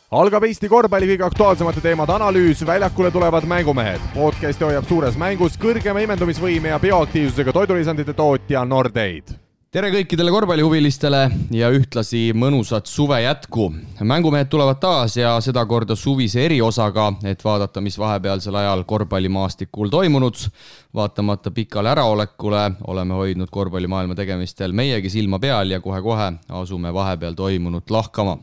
Algab Eesti korvpalli kõige aktuaalsemate teemade analüüs, väljakule tulevad mängumehed. Podcasti hoiab suures mängus kõrgema imendumisvõime ja bioaktiivsusega toidulisandite tootja Nordeid. Tere kõikidele korvpallihuvilistele ja ühtlasi mõnusat suve jätku. Mängumehed tulevad taas ja seda korda suvise eriosaga, et vaadata, mis vahepealsel ajal korvpallimaastikul toimunud. Vaatamata pikale äraolekule oleme hoidnud korvpallimaailma tegemistel meiegi silma peal ja kohe-kohe asume vahepeal toimunut lahkama.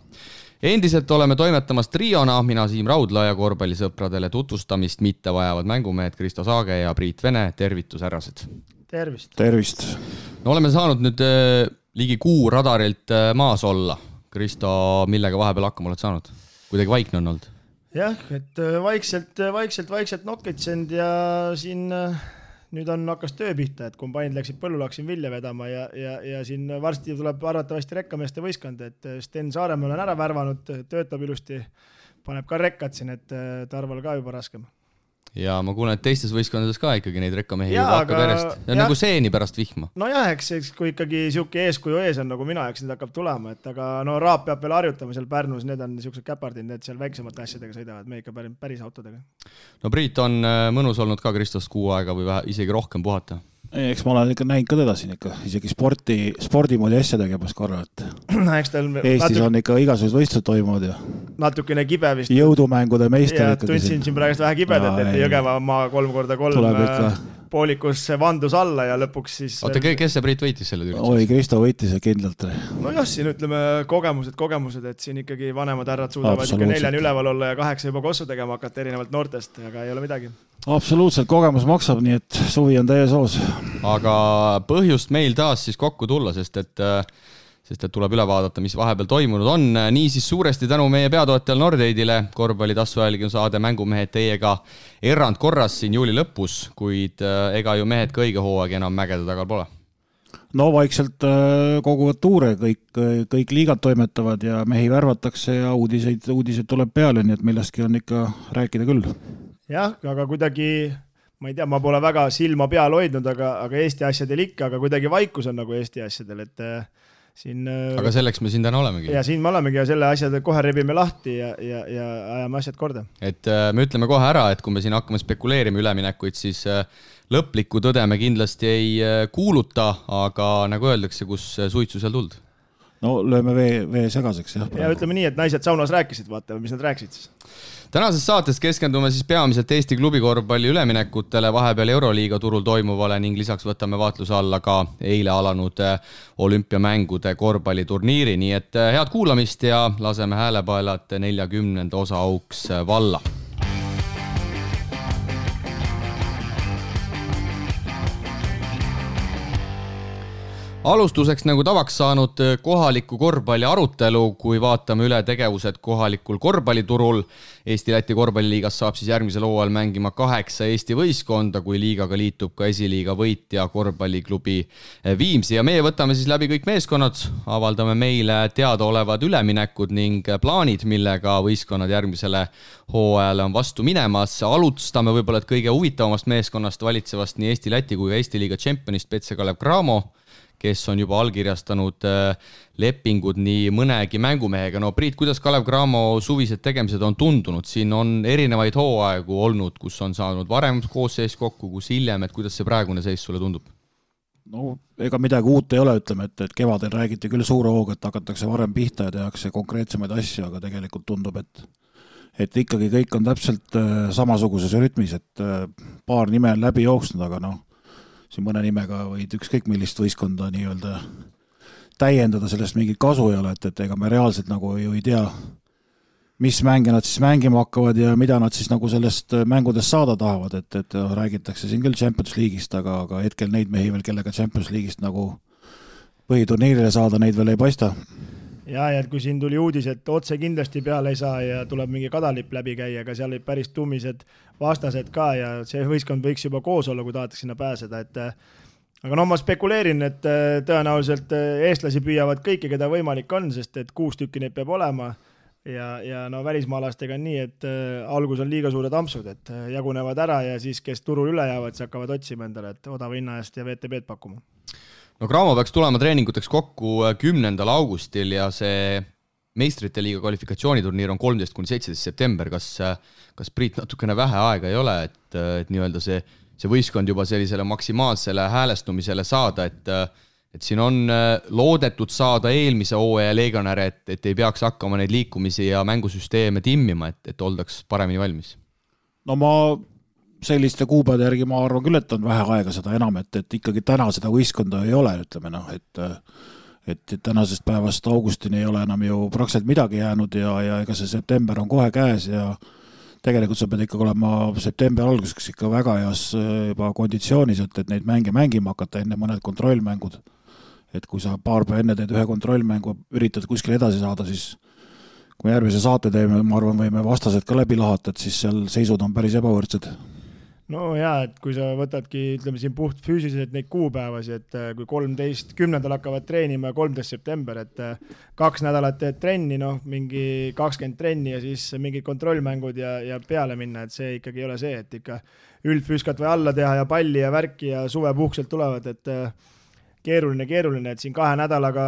Endiselt oleme toimetamas triona, mina Siim Raudla ja korvpallisõpradele tutvustamist mitte vajavad mängumehed Kristo Saage ja Priit Vene. Tervitus, härrased! Tervist! No oleme saanud nüüd ligi kuu radarilt maas olla. Kristo, millega vahepeal hakkama oled saanud? Kuidagi vaikne on olnud? Jah, et vaikselt nokkitsend ja siin nüüd on hakkas töö pihta, et kombainid läksid põllule, hakkasin vilja vedama ja siin varsti tuleb arvatavasti rekkameeste võistkond, et Sten Saaremäe olen ära värvanud, töötab ilusti, paneb ka rekkad siin, et Tarval ka juba raskem. Ja ma kuulen, et teistes võistkondades ka ikkagi neid rekkamehi juba hakkab järjest. Ja nagu seeni pärast vihma. No jah, eks kui ikkagi siuke eeskuju ees on nagu mina, eks need hakkab tulema, et aga no Raap peab veel harjutama seal Pärnus, need on niisugused käpardid, need seal väiksemate asjadega sõidavad, me ikka päris autodega. No Priit on mõnus olnud ka Kristost kuu aega või isegi rohkem puhata. Eks ma olen ikka näinud ka teda siin ikka, isegi spordimoodi asja tegemas korra, et Eestis on ikka igasugused võistlused toimuvad ja natukene kibe vist. Jõudumängude meister ja tundsin siin praegust vähe kibedat, et Jõgeva maa 3x3 poolikus vandus alla ja lõpuks siis... Oota, kes see Priit võitis selle tüüri? Oi, Kristo võitis kindlalt. No jah, siin ütleme kogemused, et siin ikkagi vanemad härrad suudavad ikka 4 üleval olla ja 8 juba kossu tegema hakata erinevalt noortest, aga ei ole midagi. Absoluutselt, kogemus maksab, nii et suvi on täies hoos. Aga põhjust meil taas siis kokku tulla, sest et tuleb üle vaadata, mis vahepeal toimunud on. Nii siis suuresti tänu meie peatootjal Nordeidile. Korvpalli tassuajälgi on saade Mängumehed teiega erandkorras siin juuli lõpus, kuid ega ju mehed ka õige hooaeg enam mägede tagal pole. No vaikselt koguvad tuure, kõik liigad toimetavad ja mehi värvatakse ja uudiseid tuleb peale, nii et millestki on ikka rääkida küll. Jah, aga kuidagi... Ma ei tea, ma pole väga silma peal hoidnud, aga Eesti asjadel ikka, aga kuidagi vaikus on nagu Eesti asjadel, et siin... Aga selleks me siin täna olemegi. Ja siin me olemegi ja selle asjade kohe rebime lahti ja ajame asjad korda. Et me ütleme kohe ära, et kui me siin hakkame spekuleerima üleminekuid, siis lõplikku tõde me kindlasti ei kuuluta, aga nagu öeldakse, kus suitsu seal tuld? No lööme vee segaseks. Ja ütleme nii, et naised saunas rääkisid, vaatame, mis nad rääkisid siis. Tänases saates keskendume siis peamiselt Eesti klubikorvpalli üleminekutele, vahepeal Euroliiga turul toimuvale ning lisaks võtame vaatluse alla ka eile alanud olümpiamängude korvpalliturniiri. Nii et head kuulamist ja laseme häälepaelad 40. osa auks valla. Alustuseks nagu tavaks saanud kohaliku korvpalli arutelu, kui vaatame üle tegevused kohalikul korvpalliturul. Eesti-Läti korvpalliliigas saab siis järgmisel hooajal mängima 8 Eesti võistkonda, kui liigaga liitub ka esiliiga võitja korvpalliklubi Viimsi. Ja meie võtame siis läbi kõik meeskonnad, avaldame meile teadaolevad üleminekud ning plaanid, millega võistkonnad järgmisele hooajale on vastu minemas. Alustame võib-olla kõige huvitavamast meeskonnast valitsevast nii Eesti-Läti kui ka Eesti-liiga tšempionist Petse Kalev Cramo, kes on juba allkirjastanud lepingud nii mõnegi mängumehega. No Priit, kuidas Kalev Cramo suvised tegemised on tundunud? Siin on erinevaid hooaegu olnud, kus on saanud varem koosseis kokku, kus hiljem, et kuidas see praegune seis sulle tundub? No ega midagi uut ei ole, ütleme, et kevadel räägiti küll suure hooga, et hakatakse varem pihta ja tehakse konkreetsemaid asju, aga tegelikult tundub, et ikkagi kõik on täpselt samasuguses rütmis, et paar nime on läbi jooksnud, aga siin mõne nimega võid ükskõik millist võistkonda nii-öelda täiendada, sellest mingit kasu ei ole, et ega me reaalselt nagu ju ei tea, mis mänge nad siis mängima hakkavad ja mida nad siis nagu sellest mängudest saada tahavad, et räägitakse siin küll Champions League'ist, aga hetkel neid mehi veel, kellega Champions League'ist nagu põhiturniirile saada, neid veel ei paista. Ja kui siin tuli uudis, et otse kindlasti peale ei saa ja tuleb mingi kadalipp läbi käia, aga seal olid päris tummised vastased ka ja see võistkond võiks juba koos olla, kui tahetakse sinna pääseda. Aga ma spekuleerin, et tõenäoliselt eestlasi püüavad kõiki, keda võimalik on, sest et 6 tükki neid peab olema ja välismaalastega on nii, et algus on liiga suured ampsud, et jagunevad ära ja siis, kes turul üle jäävad, siis hakkavad otsima endale, et odava hinna eest ja VTB-d pakkuma. No Cramo peaks tulema treeninguteks kokku 10. augustil ja see meistrite liiga kvalifikatsiooniturniir on 13-17 september, kas Priit natukene vähe aega ei ole, et nii-öelda see võistkond juba sellisele maksimaalsele häälestumisele saada, et siin on loodetud saada eelmise hooaja legionäre, et ei peaks hakkama neid liikumisi ja mängusüsteeme timmima, et oldaks paremini valmis? No ma selliste kuupäevade järgi ma arvan küll, et on vähe aega seda enam, et ikkagi täna seda võistkonda ei ole, ütleme et tänasest päevast augustini ei ole enam ju praktiliselt midagi jäänud ja ega see september on kohe käes ja tegelikult sa pead ikkagi olema septembri alguseks ikka väga heas juba konditsioonis, et neid mänge mängima hakata enne mõned kontrollmängud. Et kui sa paar päeva enne teed ühe kontrollmängu, üritad kuskil edasi saada, siis kui järgmise saate teeme, ma arvan, võime vastased ka läbi lahata, et siis seal seisud on päris ebavõrdsed. No jaa, et kui sa võtadki, ütleme siin puht füüsiliselt neid kuupäevasi, et kui 10. hakkavad treenima 13. september, et 2 nädalat teed trenni, mingi 20 trenni ja siis mingid kontrollmängud ja peale minna, et see ikkagi ei ole see, et ikka üldfüüskat või alla teha ja palli ja värki ja suvepuhkselt tulevad, et keeruline, et siin 2 nädalaga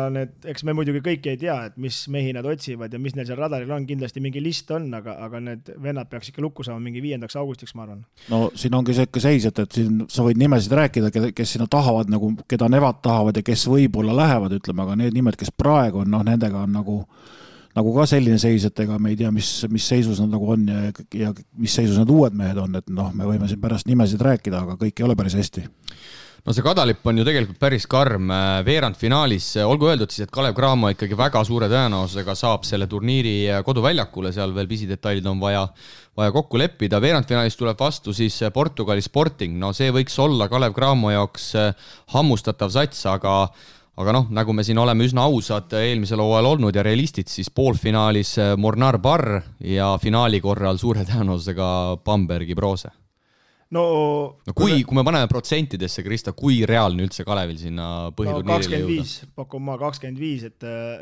eks me muidugi kõik ei tea, et mis mehi nad otsivad ja mis neil seal radaril on, kindlasti mingi list on, aga need vennad peaks ikka lukku saama mingi 5. augustiks, ma arvan. No siin ongi see ikka seis, et siin sa võid nimesid rääkida, kes sinna tahavad, nagu, keda nevad tahavad ja kes võib-olla lähevad, ütleme, aga need nimed, kes praegu on, nendega on nagu ka selline seis, et ega me ei tea, mis seisus nad nagu on ja mis seisus nad uued mehed on, et me võime siin pärast nimesid rääkida, aga kõik ei ole päris hästi. No see Kadalipp on ju tegelikult päris karm veerandfinaalis, olgu öeldud siis, et Kalev Cramo ikkagi väga suure tõenäosusega saab selle turniiri koduväljakule, seal veel pisidetailid on vaja kokku leppida. Veerandfinaalis tuleb vastu siis Portugali Sporting, no see võiks olla Kalev Cramo jaoks hammustatav sats, aga nagu me siin oleme üsna ausad eelmisel hooajal olnud ja realistid, siis poolfinaalis Mornar Barr ja finaali korral suure tõenäosusega Bambergi Brose. No kui me paneme protsentidesse, Krista, kui reaalne üldse Kalevil sinna põhiturniirile jõuda? 25, pakun ma 25,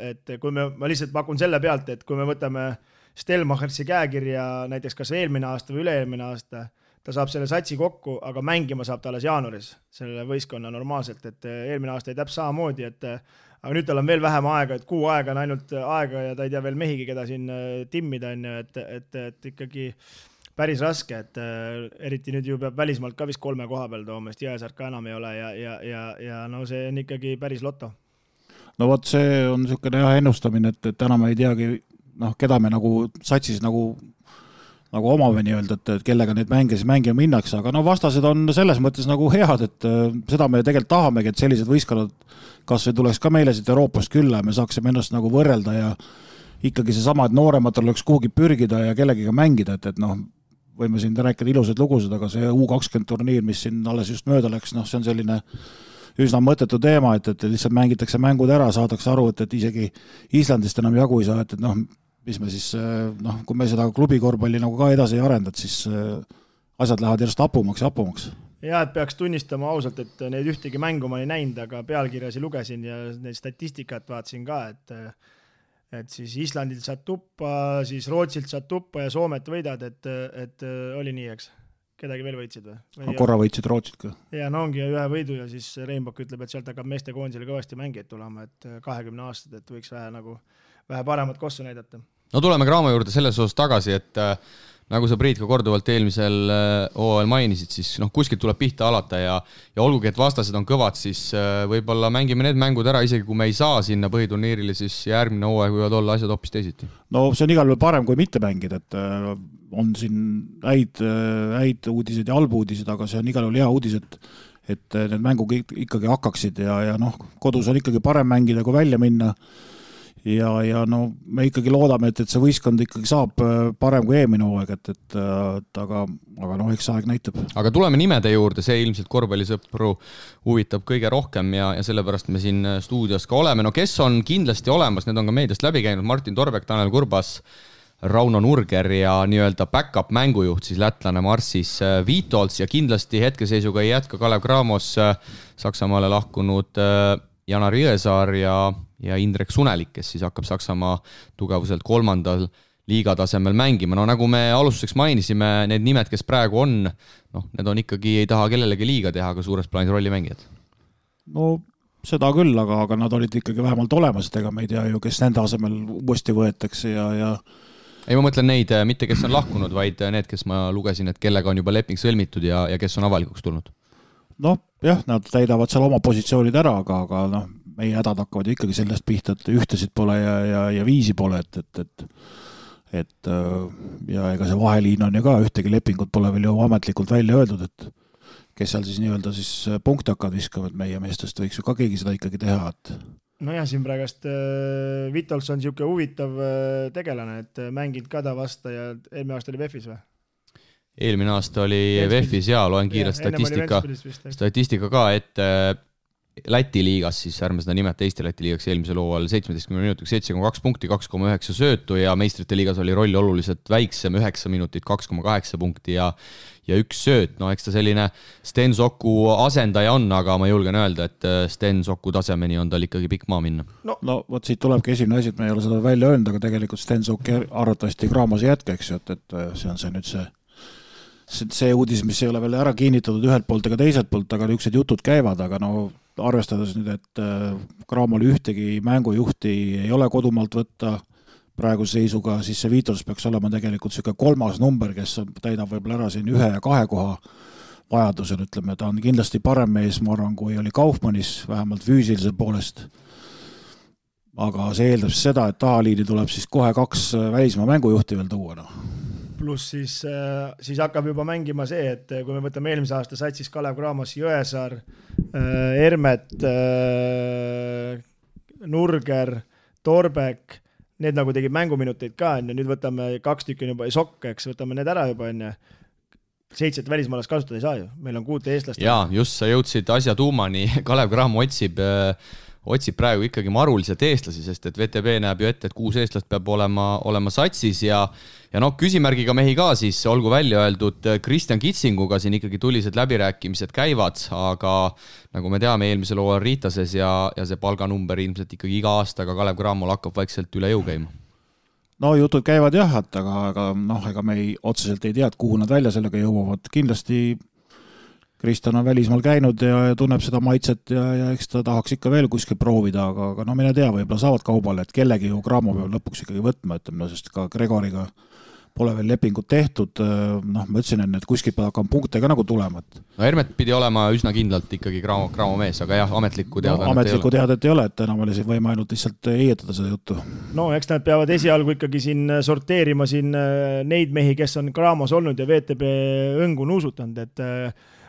et kui ma lihtsalt pakun selle pealt, et kui me võtame Stelmachersi käekirja näiteks kas eelmine aasta või üle-eelmine aasta, ta saab selle satsi kokku, aga mängima saab ta alles jaanuaris selle võistkonna normaalselt, et eelmine aasta ei täpselt samamoodi, aga nüüd tal on veel vähem aega, et 6 aega on ainult aega ja ta ei tea veel mehigi, keda siin timmida on, et ikkagi päris raske, et eriti nüüd ju peab välismaalt ka vist 3 koha peal tooma, sest Jõesaart ka enam ei ole ja no see on ikkagi päris loto. No vot, see on niisugune ennustamine, et täna me ei teagi, keda me nagu satsis nagu omame nii-öelda, et kellega neid mänge siis mängima minnakse, aga vastased on selles mõttes nagu head, et seda me tegelikult tahamegi, et sellised võistkonnad kas või tuleks ka meile siit Euroopast külla ja me saaksime ennast nagu võrrelda ja ikkagi seesama, et noorematel oleks kuhugi pürgida ja kellegiga mängida, et võime siin rääkida ilusad lugusid, aga see U20 turniir, mis siin alles just mööda läks, see on selline üsna mõttetu teema, et lihtsalt mängitakse mängud ära, saadakse aru, et isegi Islandist enam jagu ei saa, et mis me siis, kui me seda klubikorvpalli nagu ka edasi ei arendad, siis asjad lähevad järjest hapumaks. Ja, et peaks tunnistama ausalt, et neid ühtegi mängu ma ei näinud, aga pealkirjasi lugesin ja neid statistikat vaatasin ka, et siis Islandilt saad tuppa, siis Rootsilt saad tuppa ja Soomet võidad, et oli nii, eks? Kedagi veel võitsid või? Korra võitsid Rootsit ka. Ja ongi ühe võidu ja siis Reinbok ütleb, et sealt hakkab meeste koondisele kõvasti mängijaid tulema, et 20 aastat, et võiks vähe paremat kossu näidata. No tuleme Cramo juurde selles osas tagasi, et nagu sa, Priit, ka korduvalt eelmisel hooajal mainisid, siis kuskilt tuleb pihta alata ja olgugi, et vastased on kõvad, siis võib-olla mängime need mängud ära, isegi kui me ei saa sinna põhiturniirile, siis järgmine hooaeg võivad olla asjad hoopis teisiti. No see on igal juhul parem, kui mitte mängida, et on siin häid uudiseid ja halbu uudiseid, aga see on igal juhul hea uudis, et need mängud ikkagi hakkaksid ja kodus on ikkagi parem mängida, kui välja minna. Ja me ikkagi loodame, et see võistkond ikkagi saab parem kui eelmine hooaeg, aga eks aeg näitab. Aga tuleme nimede juurde, see ilmselt korvpallisõpru huvitab kõige rohkem ja sellepärast me siin stuudios ka oleme. No kes on kindlasti olemas, need on ka meediast läbi käinud, Martin Torbek, Tanel Kurbas, Rauno Nurger ja nii-öelda backup mängujuht, siis lätlane Marsis Viitolts ja kindlasti hetkeseisuga ei jätka Kalev Cramos Saksamaale lahkunud Janar Jõesaar ja Indrek Sunelik, kes siis hakkab Saksamaa tugevuselt 3. liigatasemel mängima. No nagu me alustuseks mainisime, need nimed, kes praegu on, need on ikkagi, ei taha kellelegi liiga teha, aga suures plaanis rollimängijad. No seda küll, aga nad olid ikkagi vähemalt olemas, et ega me ei tea ju, kes nende asemel uuesti võetakse ja ei, ma mõtlen neid, mitte kes on lahkunud, vaid need, kes ma lugesin, et kellega on juba leping sõlmitud ja kes on avalikuks tulnud. Noh, jah, nad täidavad seal oma positsioonid ära, aga noh, meie hädad hakkavad ikkagi sellest pihta, et ühtesid pole ja viisi pole, et ja ega see vaheliin on ju ka, ühtegi lepingut pole veel ju ametlikult välja öeldud, et kes seal siis nii-öelda siis punkti hakkavad viskama, et meie meestest võiks ju ka keegi seda ikkagi teha, et nojah, siin praegust Vitols on niisugune huvitav tegelane, et mänginud ka ta vasta ja eelmine aasta oli VEF-is või? Eelmine aasta oli VEF-is ja loen kiirelt statistika ka, et Läti liigas, siis ärme seda nimeta Eesti-Läti liigaks eelmisel hooajal 17 minutiks 7,2 punkti, 2,9 söötu ja meistrite liigas oli roll oluliselt väiksem, 9 minutit, 2,8 punkti ja üks sööt. No eks ta selline Sten Soku asendaja on, aga ma julgen öelda, et Sten Soku tasemeni on tal ikkagi pikk maa minna. No vot siit tulebki esimene asi, et me ei ole seda välja öelnud, aga tegelikult Sten Sok arvatavasti Graamose jätkeks, et see on see nüüd see uudis, mis ei ole veel ära kinnitatud ühelt poolt ega teiselt poolt, aga niisugused jutud käivad, aga no arvestades nüüd, et Graamole ühtegi mängujuhti ei ole kodumaalt võtta praeguse seisuga, siis see Vitols peaks olema tegelikult niisugune 3. number, kes täidab võib-olla ära siin 1 ja 2 koha vajadusel, ütleme, ta on kindlasti parem mees, ma arvan, kui oli Kaufmannis, vähemalt füüsilise poolest. Aga see eeldab seda, et tahaliini tuleb siis kohe 2 välismaa mängujuhti veel tuua. Pluss siis hakkab juba mängima see, et kui me võtame eelmise aasta satsis Kalev Cramos, Jõesaar, Ermet, Nurger, Torbek, need nagu tegid mänguminuteid ka, nüüd võtame 2 tükki juba Sokk, eks, võtame need ära juba, 7 välismaalast kasutada ei saa ju, meil on 6 eestlast. Jaa, just sa jõudsid asja tuumani, Kalev Cramo otsib praegu ikkagi maruliselt eestlasi, sest et VTB näeb ju ette, et 6 eestlast peab olema satsis ja küsimärgiga mehi ka siis, olgu välja öeldud, Kristjan Kitsinguga siin ikkagi tulised läbirääkimised käivad, aga nagu me teame, eelmisel hooajal Riitases ja see palganumber ilmselt ikkagi iga aastaga Kalev Cramol hakkab vaikselt üle jõu käima. No jutud käivad jah, aga ega me otseselt ei tea, kuhu nad välja sellega jõuavad. Kindlasti Kristjan on välismaal käinud ja tunneb seda maitset ja eks ta tahaks ikka veel kuskil proovida, aga mine tea, võib-olla saavad kaubale, et kellegi ju Cramo peab lõpuks ikkagi võtma, sest ka Gregoriga pole veel lepingut tehtud, ma ütlesin enne, et kuskil peab hakkama punkte ka nagu tulema. No Hermet pidi olema üsna kindlalt ikkagi Cramo mees, aga jah, ametlikku teadet ei ole, et enam oli siin võima ainult lihtsalt eietada seda juttu. No eks nad peavad esialgu ikkagi siin sorteerima siin neid mehi, kes on Cramos olnud ja VTB õngu nuusutanud, et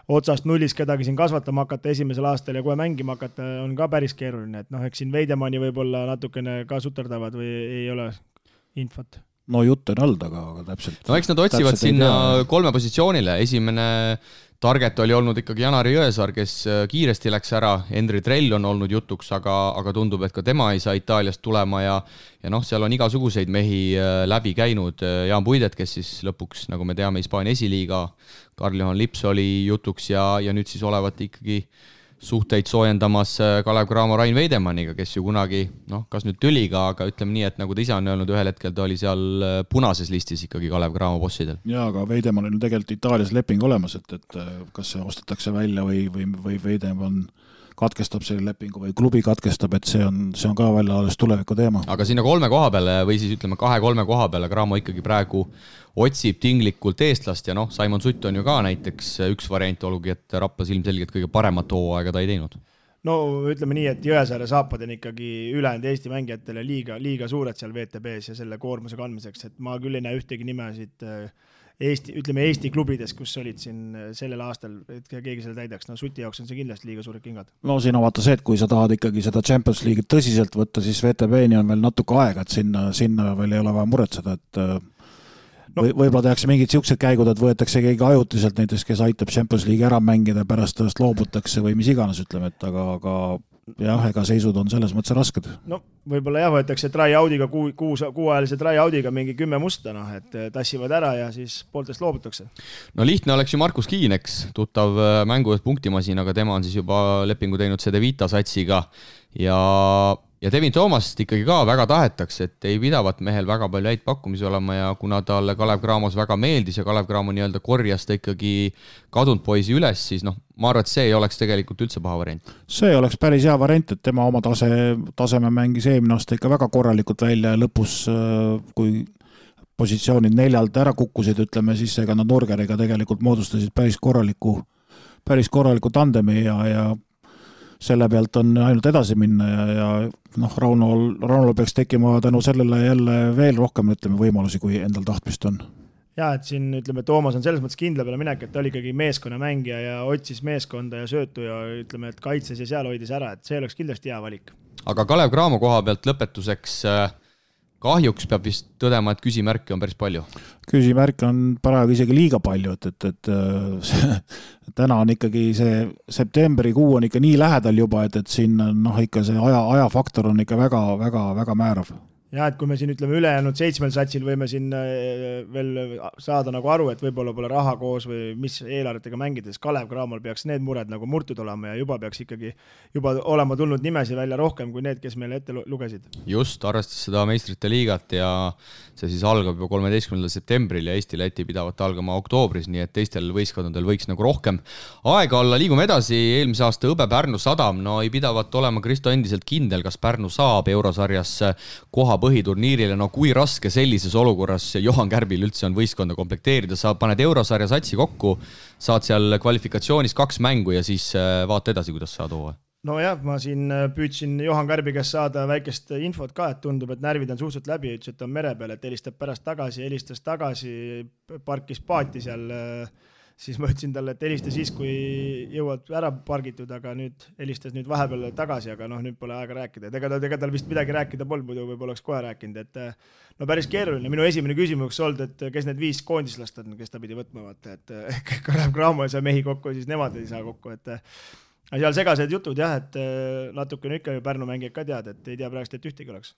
otsast nullis kedagi siin kasvatama hakata esimesel aastal ja kohe mängima hakata on ka päris keeruline, et eks siin Veidemanni võib-olla natukene ka suterdavad või ei ole infot. No jutt on olnud, aga täpselt. No eks nad otsivad sinna 3 positsioonile. Esimene target oli olnud ikkagi Janari Jõesaar, kes kiiresti läks ära. Henri Trell on olnud jutuks, aga tundub, et ka tema ei saa Itaaliast tulema ja seal on igasuguseid mehi läbi käinud. Jaan Puidet, kes siis lõpuks, nagu me teame, Hispaania esiliiga, Karl-Johan Lips oli jutuks ja nüüd siis olevat ikkagi suhteid soojendamas Kalev Cramo Rain Veidemanniga, kes ju kunagi, kas nüüd tüliga, aga ütleme nii, et nagu ta ise on öelnud, ühel hetkel ta oli seal punases listis ikkagi Kalev Cramo bossidel. Jaa, aga Veidemann on tegelikult Itaalias leping olemas, et kas see ostetakse välja või Veidemann katkestab selle lepingu või klubi katkestab, et see on ka välja alles tuleviku teema. Aga sinna 3 koha peale või siis ütleme 2-3 koha peale Cramo ikkagi praegu otsib tinglikult eestlast ja Simon Sutt on ju ka näiteks üks variant, olgugi, et Raplas ilmselgelt kõige paremat hooaega ta ei teinud. No ütleme nii, et Jõesaare saapad on ikkagi ülejäänud Eesti mängijatele liiga suured seal VTB-s ja selle koormuse kandmiseks, et ma küll ei näe ühtegi nime siit Eesti klubides, kus olid siin sellel aastal, et keegi selle täidaks. Suti jaoks on see kindlasti liiga suured kingad. No siin on vaata see, et kui sa tahad ikkagi seda Champions League tõsiselt võtta, siis VTB-ni on veel natuke aega, et sinna veel ei ole vaja muretseda, et võib-olla tehakse mingid siuksed käigud, et võetakse keegi ajutiselt näiteks, kes aitab Champions League ära mängida, pärast tõest loobutakse või mis iganes, ütleme, et aga jah, ega seisud on selles mõttes rasked. No võib-olla jah, võetakse try-out'iga, kuuajalise try-out'iga mingi 10 musta, et tassivad ära ja siis pooltest loobutakse. No lihtne oleks ju Markus Kiineks, tuttav mängujuht punktimasin, aga tema on siis juba lepingu teinud CD Vita satsiga ja ja Devin Toomast ikkagi ka väga tahetakse, et ei pidavat mehel väga palju häid pakkumisi olema ja kuna talle Kalev Cramos väga meeldis ja Kalev Cramo nii-öelda korjas ta ikkagi kadunud poisi üles, siis ma arvan, et see ei oleks tegelikult üldse paha variant. See oleks päris hea variant, et tema oma taseme mängis eelmine aasta ikka väga korralikult välja ja lõpus, kui positsioonid 4 ära kukkusid, ütleme, siis ega nad Nurgeriga tegelikult moodustasid päris korraliku tandemi ja selle pealt on ainult edasi minna ja Raunol peaks tekkima tänu sellele jälle veel rohkem, ütleme, võimalusi, kui endal tahtmist on. Ja, et siin, ütleme, Toomas on selles mõttes kindla peale minek, et ta oli ikkagi meeskonnamängija ja otsis meeskonda ja söötu ja ütleme, et kaitses ja seal hoidis ära, et see oleks kindlasti hea valik. Aga Kalev Cramo koha pealt lõpetuseks kahjuks peab vist tõdema, et küsimärke on päris palju. Küsimärke on paraegu isegi liiga palju, et täna on ikkagi see septembrikuu on ikka nii lähedal juba, et siin ikka see ajafaktor on ikka väga määrav. Ja, et kui me siin ütleme ülejäänud 7 satsil võime siin veel saada nagu aru, et võib-olla pole raha koos või mis eelarvetega mängides, Kalev Cramol peaks need mured nagu murtud olema ja juba peaks ikkagi olema tulnud nimesi välja rohkem kui need, kes meile ette lugesid. Just, arvestas seda meistrite liigat ja see siis algab juba 13. septembril ja Eesti-Läti pidavad algama oktoobris, nii et teistel võistkondadel võiks nagu rohkem aega olla. Liigume edasi, eelmise aasta Õbe Pärnu Sadam, ei pidavat olema Kristo endiselt kindel, kas Pärnu saab eurosarjas koha põhiturniirile, kui raske sellises olukorras Johan Kärbil üldse on võistkonda komplekteerida, sa paned eurosarja satsi kokku, saad seal kvalifikatsioonis 2 mängu ja siis vaata edasi, kuidas saad hooaja. Jah, ma siin püüdsin Johan Kärbi käest saada väikest infot ka, et tundub, et närvid on suhteliselt läbi, ütles, et on mere peal, et helistab pärast tagasi, helistas tagasi, parkis paati seal, siis ma ütlesin talle, et helista siis, kui jõuad ära pargitud, aga nüüd helistas vahepeal tagasi, aga nüüd pole aega rääkida. Ega tal vist midagi rääkida polnud, muidu võib oleks kohe rääkinud, et päris keeruline. Minu esimene küsimus olnud, et kes need 5 koondislast on, kes ta pidi võtma, et Kalev Cramo ei saa mehi kokku, siis nemad ei saa kokku, et seal segased jutud jah, et natuke ikka ju Pärnu mängijad ka tead, et ei tea praegust, et ühtegi oleks.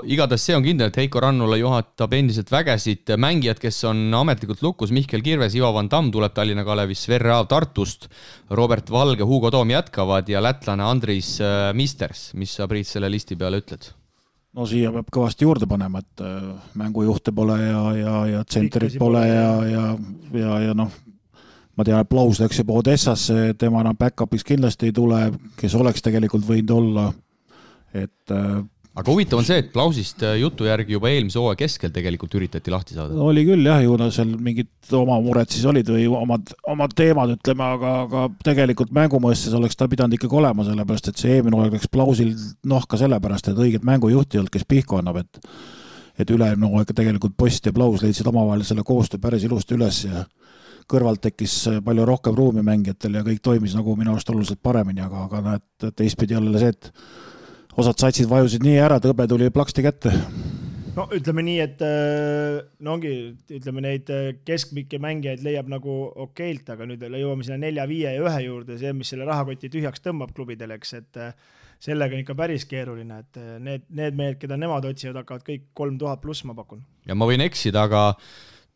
Igatahes see on kindel, et Heiko Rannula juhatab endiselt vägesid mängijad, kes on ametlikult lukus, Mihkel Kirves, Ivo Van Damm tuleb Tallinna Kalevis, Sverre Aav Tartust, Robert Valge, Hugo Toom jätkavad ja lätlane Andris Misters. Mis sa, Priit, selle listi peale ütled? Siia peab kõvasti juurde panema, et mängujuhte pole ja tsenterit pole ja ma tean, et Plaus läks juba Odessasse, tema enam back-upiks kindlasti ei tule, kes oleks tegelikult võinud olla. Aga huvitav on see, et Plausist jutu järgi juba eelmise hooaja keskel tegelikult üritati lahti saada. Oli küll jah, ju seal mingid oma mured siis olid või omad teemad, ütleme, aga tegelikult mängumõistes oleks ta pidanud ikkagi olema, sellepärast, et see eelmine hooaeg läks Plausil ka sellepärast, et õiget mängujuhti ei olnud, kes pihku annab, et üleelmine hooaeg tegelikult Post ja Plaus leidsid omavahel selle koostöö päris ilusti üles ja kõrvalt tekkis palju rohkem ruumi mängijatel ja kõik toimis nagu minu arust oluliselt paremini, aga näed, teistpidi jälle see, et osad satsid vajusid nii ära, et Õbe tuli plaksti kätte. Ütleme nii, et ütleme neid keskmikke mängijaid leiab nagu okeilt, aga nüüd jõuame sinna 4, 5 ja 1 juurde, see, mis selle rahakoti tühjaks tõmbab klubidele, et sellega on ikka päris keeruline, et need mehed, keda nemad otsivad, hakkavad kõik 3000 pluss, ma pakun. Ja ma võin eksida, aga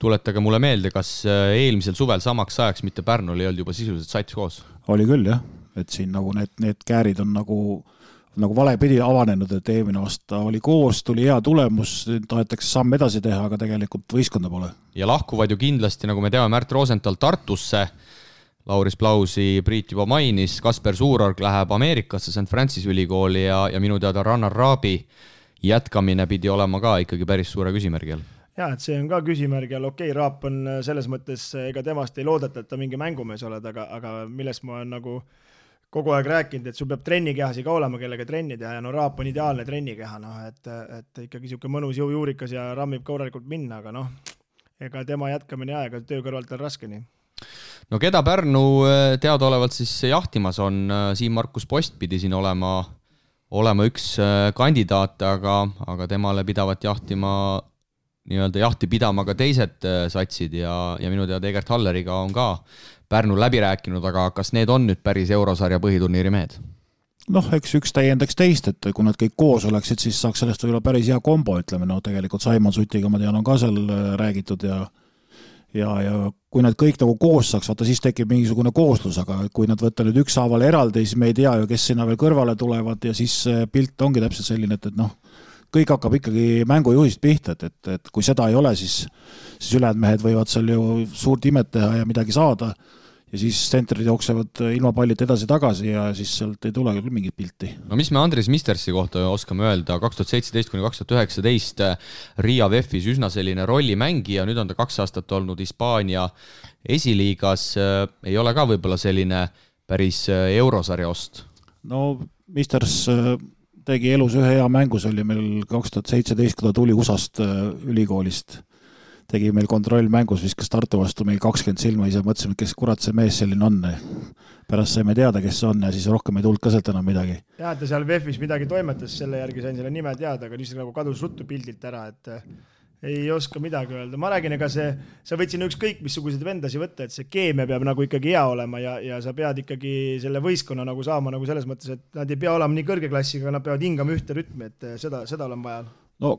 tuletage mulle meelde, kas eelmisel suvel samaks ajaks mitte Pärnul ei olnud juba sisuliselt sats koos? Oli küll jah, et siin nagu need käärid on nagu valepidi avanenud, et eelmine aasta oli koos, tuli hea tulemus, tahetakse samm edasi teha, aga tegelikult võistkonda pole. Ja lahkuvad ju kindlasti, nagu me teame, Märt Rosenthal Tartusse, Lauris Plausi Priit juba mainis, Kasper Suurorg läheb Ameerikasse St. Francis ülikooli ja minu teada Rannar Raabi jätkamine pidi olema ka ikkagi päris suure küsimärgi all. Ja, et see on ka küsimärg ja Raap on selles mõttes, ega temast ei loodeta, et ta mingi mängumees oled, aga millest ma olen nagu kogu aeg rääkinud, et sul peab trennikehasi ka olema, kellega trenni teha ja Raap on ideaalne trennikeha, et ikkagi siuke mõnus jõujuurikas ja rammib korralikult minna, aga ega tema jätkamine aega, töö kõrvalt on raske nii. Keda Pärnu teadaolevalt siis jahtimas on, Siim Markus Post pidi siin olema üks kandidaat, aga temale pidavat nii-öelda jahti pidama ka teised satsid ja minu teada Egert Halleriga on ka Pärnu läbi rääkinud, aga kas need on nüüd päris eurosarja põhiturniiri mehed? Eks üks täiendaks teist, et kui nad kõik koos oleksid, siis saaks sellest võib-olla päris hea kombo, ütleme, tegelikult Saimon Sutiga ma tean on ka seal räägitud ja kui nad kõik nagu koos saaks, vaata siis tekib mingisugune kooslus, aga kui nad võtta nüüd ükshaaval eraldi, siis me ei tea ju, kes sinna veel kõrvale tulevad ja siis pilt ongi täpselt selline, et noh, kõik hakkab ikkagi mängujuhist pihta, et kui seda ei ole, siis ülejäänud mehed võivad seal ju suurt imet teha ja midagi saada ja siis tsentrid jooksevad ilma pallita edasi-tagasi ja siis sealt ei tule küll mingit pilti. No mis me Andres Mistersi kohta oskame öelda, 2017–2019 Riia VEF-is üsna selline rollimängija, nüüd on ta 2 aastat olnud Hispaania esiliigas, ei ole ka võib-olla selline päris eurosarja ost? No Misters tegi elus ühe hea mängus, oli meil 2017, kui ta tuli USA-st ülikoolist. Tegi meil kontrollmängus, viskas Tartu vastu meil 20 silma, ise mõtlesime, kes kurat see mees selline on. Pärast saime teada, kes see on ja siis rohkem ei tulnud ka sealt enam midagi. Ja, ta seal VEF-is midagi toimetas, selle järgi sain selle nime teada, aga niisugune nagu kadus ruttu pildilt ära, et ei oska midagi öelda. Ma räägin, ega sa võid siin ükskõik missuguseid vendasi võtta, et see keemia peab nagu ikkagi hea olema ja sa pead ikkagi selle võistkonna nagu saama nagu selles mõttes, et nad ei pea olema nii kõrge klassiga, nad peavad hingama ühte rütmi, et seda olen vaja. No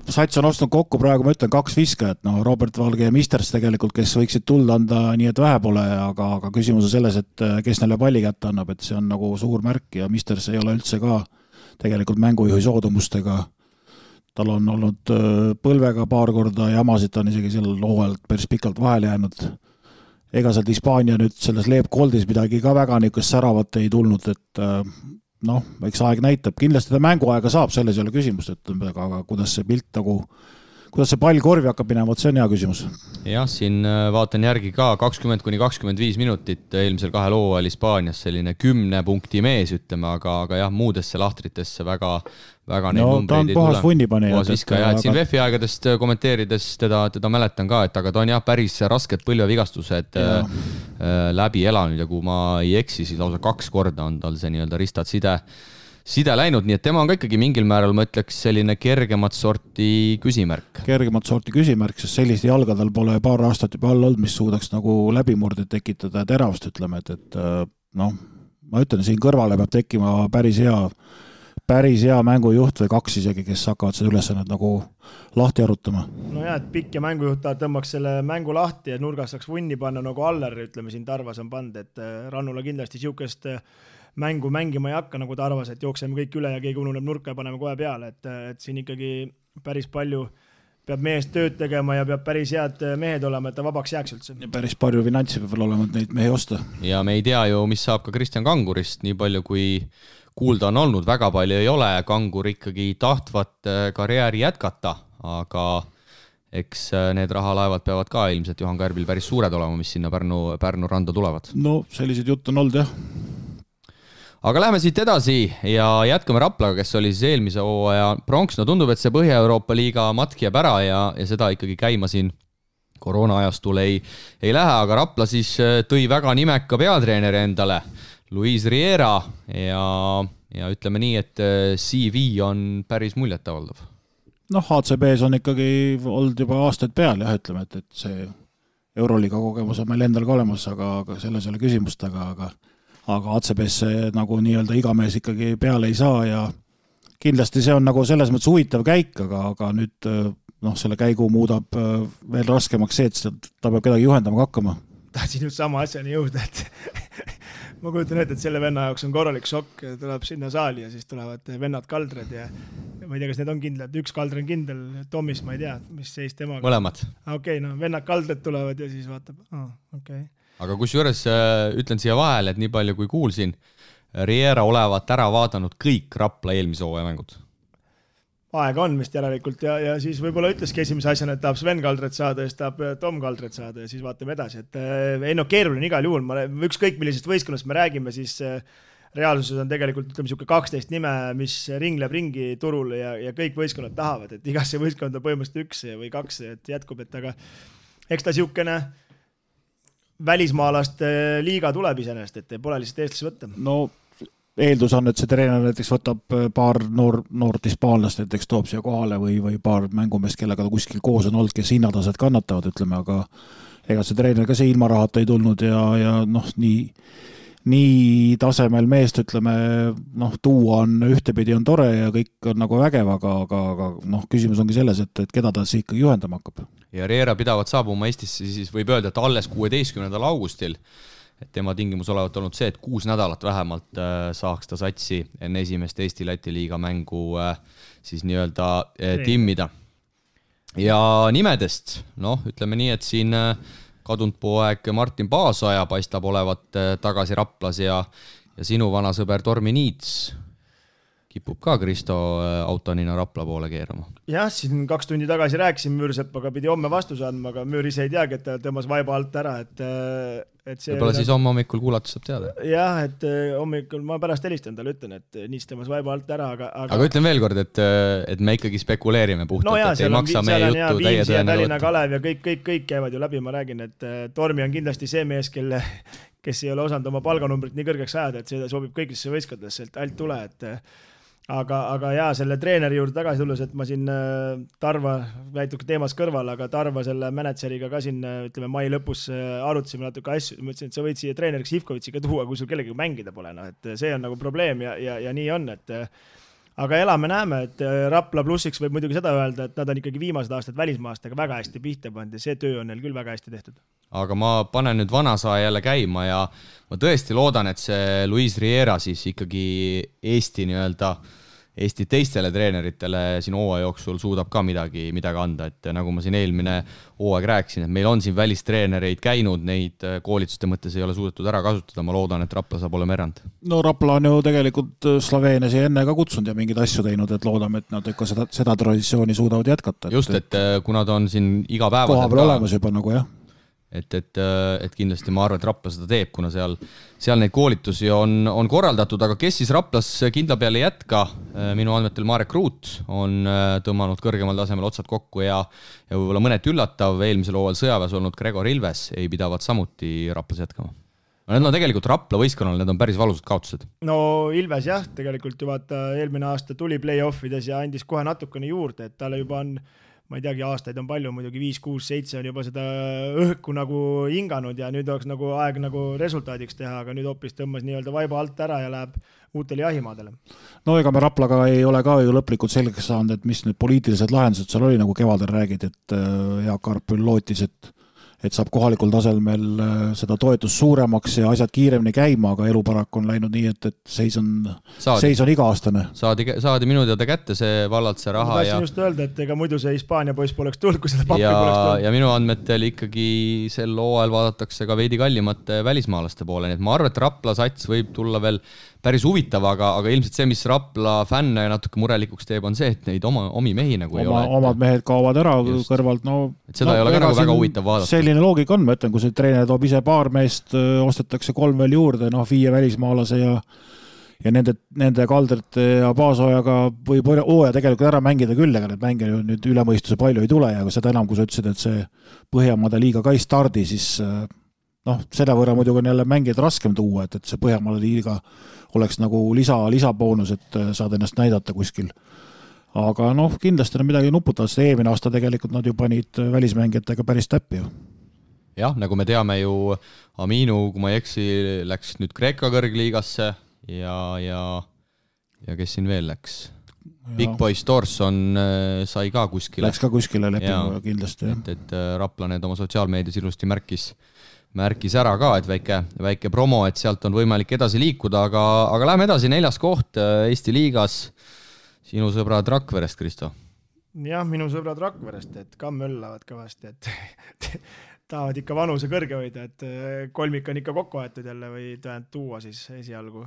Sats on ostnud kokku praegu, ma ütlen, 2 viskajat, no Robert Valge ja Misters tegelikult, kes võiksid tulda anda nii, et vähe pole, aga küsimus on selles, et kes neile palli kätte annab, et see on nagu suur märk ja Misters ei ole üldse ka tegelikult mängujuhi soodumustega. Tal on olnud põlvega paar korda jamasid, ta on isegi seal hooajalt päris pikalt vahele jäänud. Ega sealt Hispaania nüüd selles Leeb Goldis midagi ka väga niisugust säravat ei tulnud, et noh, eks aeg näitab, kindlasti ta mänguaega saab, selles ei ole küsimust, aga kuidas see pilt nagu, kuidas see pall korvi hakkab minema, see on hea küsimus. Jah, siin vaatan järgi ka 20–25 minutit eelmisel 2 hooajal Hispaanias, selline 10 punkti mees, ütleme, aga jah, muudesse lahtritesse väga neid numbreid ei tule. Puhas vunnipani. Siin VEF-i aegadest kommenteerides teda mäletan ka, et aga ta on jah päris rasked põlvevigastused läbi elanud ja kui ma ei eksi, siis lausa 2 korda on tal see nii-öelda ristad side läinud, nii et tema on ka ikkagi mingil määral, ma ütleks, selline kergemat sorti küsimärk. Kergemat sorti küsimärk, sest selliste jalgadel pole paar aastat juba all olnud, mis suudaks nagu läbimurdeid tekitada ja teravust, ütleme, et noh, ma ütlen, siin kõrvale peab tekkima päris hea mängujuht või 2 isegi, kes hakkavad seda ülesannet nagu lahti arutama. No jah, et pikk ja mängujuht tõmbaks selle mängu lahti ja nurgas saaks vunni panna nagu Aller, ütleme siin Tarvas on pand, et Rannula kindlasti siukest mängu mängima ei hakka, nagu Tarvas, et jookseme kõik üle ja keegi ununeb nurka ja paneme kohe peale, et siin ikkagi päris palju peab meest tööd tegema ja peab päris head mehed olema, et ta vabaks jääks üldse. Ja päris palju finantsi peab olema, et neid mehi osta. Ja me ei tea ju, mis saab ka Kristjan Kangurist, nii palju kui kuulda on olnud, väga palju ei ole, Kangur ikkagi tahtvat karjääri jätkata, aga eks need rahalaevad peavad ka ilmselt Johan Kärbil päris suured olema, mis sinna Pärnu randa tulevad. No sellised jutt on olnud, jah. Aga läheme siit edasi ja jätkame Raplaga, kes oli siis eelmise hooaja pronks. No tundub, et see Põhja-Euroopa liiga matk jääb ära ja seda ikkagi käima siin koroona-ajastul ei lähe, aga Rapla siis tõi väga nimeka peatreeneri endale, Luis Riera ja ütleme nii, et CV on päris muljetavaldav. Noh, ACB-s on ikkagi olnud juba aastaid peal, jah, ütleme, et see Euroliiga kogemus on meil endal ka olemas, aga selles ei ole küsimust, aga ACB-sse nagu nii-öelda iga mees ikkagi peale ei saa ja kindlasti see on nagu selles mõttes huvitav käik, aga nüüd selle käigu muudab veel raskemaks see, et ta peab kedagi juhendama hakkama. Tahtsin just sama asjani jõuda, et ma kujutan ette, et selle venna jaoks on korralik šokk, tuleb sinna saali ja siis tulevad vennad kaldred ja ma ei tea, kas need on kindlad, üks kaldre on kindel, Tomis, ma ei tea, mis seis temaga. Mõlemad. Okei, no vennad kaldred tulevad ja siis vaatab, okei. Aga kusjuures ütlen siia vahele, et nii palju kui kuulsin, Riera olevat ära vaadanud kõik Rapla eelmise hooaja mängud. Aega on vist järelikult ja siis võib-olla ütleski esimese asjana, et tahab Sven Kaldret saada ja siis tahab Tom Kaldret saada ja siis vaatame edasi. Et keeruline igal juhul, ükskõik millisest võistkonnast me räägime, siis reaalsuses on tegelikult ütleme 12 nime, mis ringleb ringi turul ja kõik võistkonnad tahavad, et igasse võistkonda põhimõtteliselt 1 või 2 et jätkub, et aga eks ta siukene välismaalast liiga tuleb iseenest, et pole lihtsalt eestlasi võtta. No eeldus on, et see treener näiteks võtab paar noort hispaanlast, näiteks toob siia kohale või paar mängumest, kellega ta kuskil koos on olnud, kes hinnatased kannatavad, ütleme, aga ega see treener ka see ilma rahata ei tulnud ja noh, nii nii tasemel meest, ütleme, tuua on ühtepidi on tore ja kõik on nagu vägev, aga küsimus ongi selles, et keda ta siis ikkagi juhendama hakkab. Ja Riera pidavat saabuma Eestisse, siis võib öelda, et alles 16. augustil, et tema tingimus olevat olnud see, et 6 nädalat vähemalt saaks ta satsi enne esimest Eesti-Läti liiga mängu siis nii-öelda timmida. Ja nimedest, ütleme nii, et siin kadunud poeg Martin Paasoja paistab olevat tagasi Raplas ja sinu vana sõber Tormi Niits kipub ka Kristo autonina Rapla poole keerama. Jah, siin 2 tundi tagasi rääkisin Müürsepaga, pidi homme vastuse andma, aga Müür ise ei teagi, et ta tõmbas vaiba alt ära, et see... Võib-olla siis homme hommikul kuulates saab teada. Jah, et hommikul ma pärast helistan talle, ütlen, et Niits tõmbas vaiba alt ära, aga ütlen veel kord, et me ikkagi spekuleerime puhtalt, et ei maksa meie juttu täie tõenäga võtta. Kalev ja kõik käivad ju läbi, ma räägin, et Tormi on kindlasti see mees, kes ei ole osanud oma palganumbrit nii kõrgeks ajada, et see sobib kõigisse võistkondadesse, et alt tule, et aga jaa, selle treeneri juurde tagasi tulles, et ma siin Tarva väituke teemas kõrval, aga Tarva selle mänedžeriga ka siin, ütleme, mai lõpus arutasime natuke asju, ma ütlesin, et sa võid siia treeneriks Ivkovitsi ka tuua, kui sul kellegi mängida pole, et see on nagu probleem ja nii on, et aga elame-näeme, et Rapla plussiks võib muidugi seda öelda, et nad on ikkagi viimased aastad välismaastega väga hästi pihta pandi ja see töö on neil küll väga hästi tehtud. Aga ma panen nüüd vanasaja jälle käima ja ma tõesti loodan, et see Luis Riera siis ikkagi Eesti teistele treeneritele siin hooaja jooksul suudab ka midagi anda, et nagu ma siin eelmine hooaeg rääkisin, et meil on siin välistreenereid käinud, neid koolituste mõttes ei ole suudetud ära kasutada, ma loodan, et Rapla saab olema erand. No Rapla on ju tegelikult Sloveeniasi enne ka kutsunud ja mingeid asju teinud, et loodame, et nad ikka seda traditsiooni suudavad jätkata. Just, et kuna ta on siin igapäevaselt koha peal olemas juba nagu jah. Et kindlasti ma arvan, et Rapla seda teeb, kuna seal neid koolitusi on korraldatud, aga kes siis Raplas kindla peale jätka? Minu andmetel Marek Ruut on tõmmanud kõrgemal tasemel otsad kokku ja võib-olla mõnet üllatav eelmisel hooajal sõjaväes olnud Gregor Ilves ei pidavat samuti Raplas jätkama. Need on tegelikult Rapla võistkonnal, need on päris valusad kaotused. No Ilves jah, tegelikult ju vaata eelmine aasta tuli play-offides ja andis kohe natukene juurde, et talle juba on ma ei teagi, aastaid on palju, muidugi 5, 6, 7 on juba seda õhku nagu hinganud ja nüüd oleks nagu aeg nagu resultaadiks teha, aga nüüd hoopis tõmmas nii-öelda vaiba alt ära ja läheb uutele jahimaadele. No ega me Raplaga ei ole ka ju lõplikult selgeks saanud, et mis need poliitilised lahendused seal oli, nagu kevadel räägid, et Jaak Arpül lootis, et saab kohalikul tasemel seda toetust suuremaks ja asjad kiiremini käima, aga elu paraku on läinud nii, et seis on iga-aastane. Saadi minu teada kätte see vallalt see raha. Ma tahtsin just öelda, et ega muidu see Hispaania poiss poleks tulnud, kui seda pappi poleks tulnud. Ja minu andmetel ikkagi sel hooajal vaadatakse ka veidi kallimate välismaalaste poole, nii et ma arvan, et Rapla sats võib tulla veel päris huvitav, aga ilmselt see, mis Rapla fänne natuke murelikuks teeb, on see, et neid omi mehi nagu ei ole. Omad mehed kaovad ära kõrvalt. Et seda ei ole ka nagu väga huvitav vaadata. Selline loogika on, ma ütlen, kui see treener toob ise paar meest, ostetakse 3 veel juurde, 5 välismaalase ja nende Kaldrite ja Paasojaga võib hooaja tegelikult ära mängida küll, aga need mänge nüüd ülemõistuse palju ei tule ja seda enam, kui sa ütlesid, et see Põhjamaade liiga ka ei stardi, siis selle võrra muidugi on jälle mängijad raskem tuua, et see Põhjamaade liiga oleks nagu lisaboonus, et saad ennast näidata kuskil. Aga kindlasti on midagi nuputavad, sest eelmine aasta tegelikult nad ju panid välismängijatega päris täppi ju. Jah, nagu me teame ju, Aminu, kui ma ei eksi, läks nüüd Kreeka kõrgliigasse ja kes siin veel läks? Big Boy Storson sai ka kuskile. Läks ka kuskile lepingu kindlasti. Et Rapla need oma sotsiaalmeedias ilusti märkis ära ka, et väike promo, et sealt on võimalik edasi liikuda, aga lähme edasi, 4. koht Eesti liigas. Sinu sõbrad Rakverest, Kristo? Jah, minu sõbrad Rakverest, et ka möllavad kõvasti, et tahavad ikka vanuse kõrge hoida, et kolmik on ikka kokku aetud jälle või tuua siis esialgu.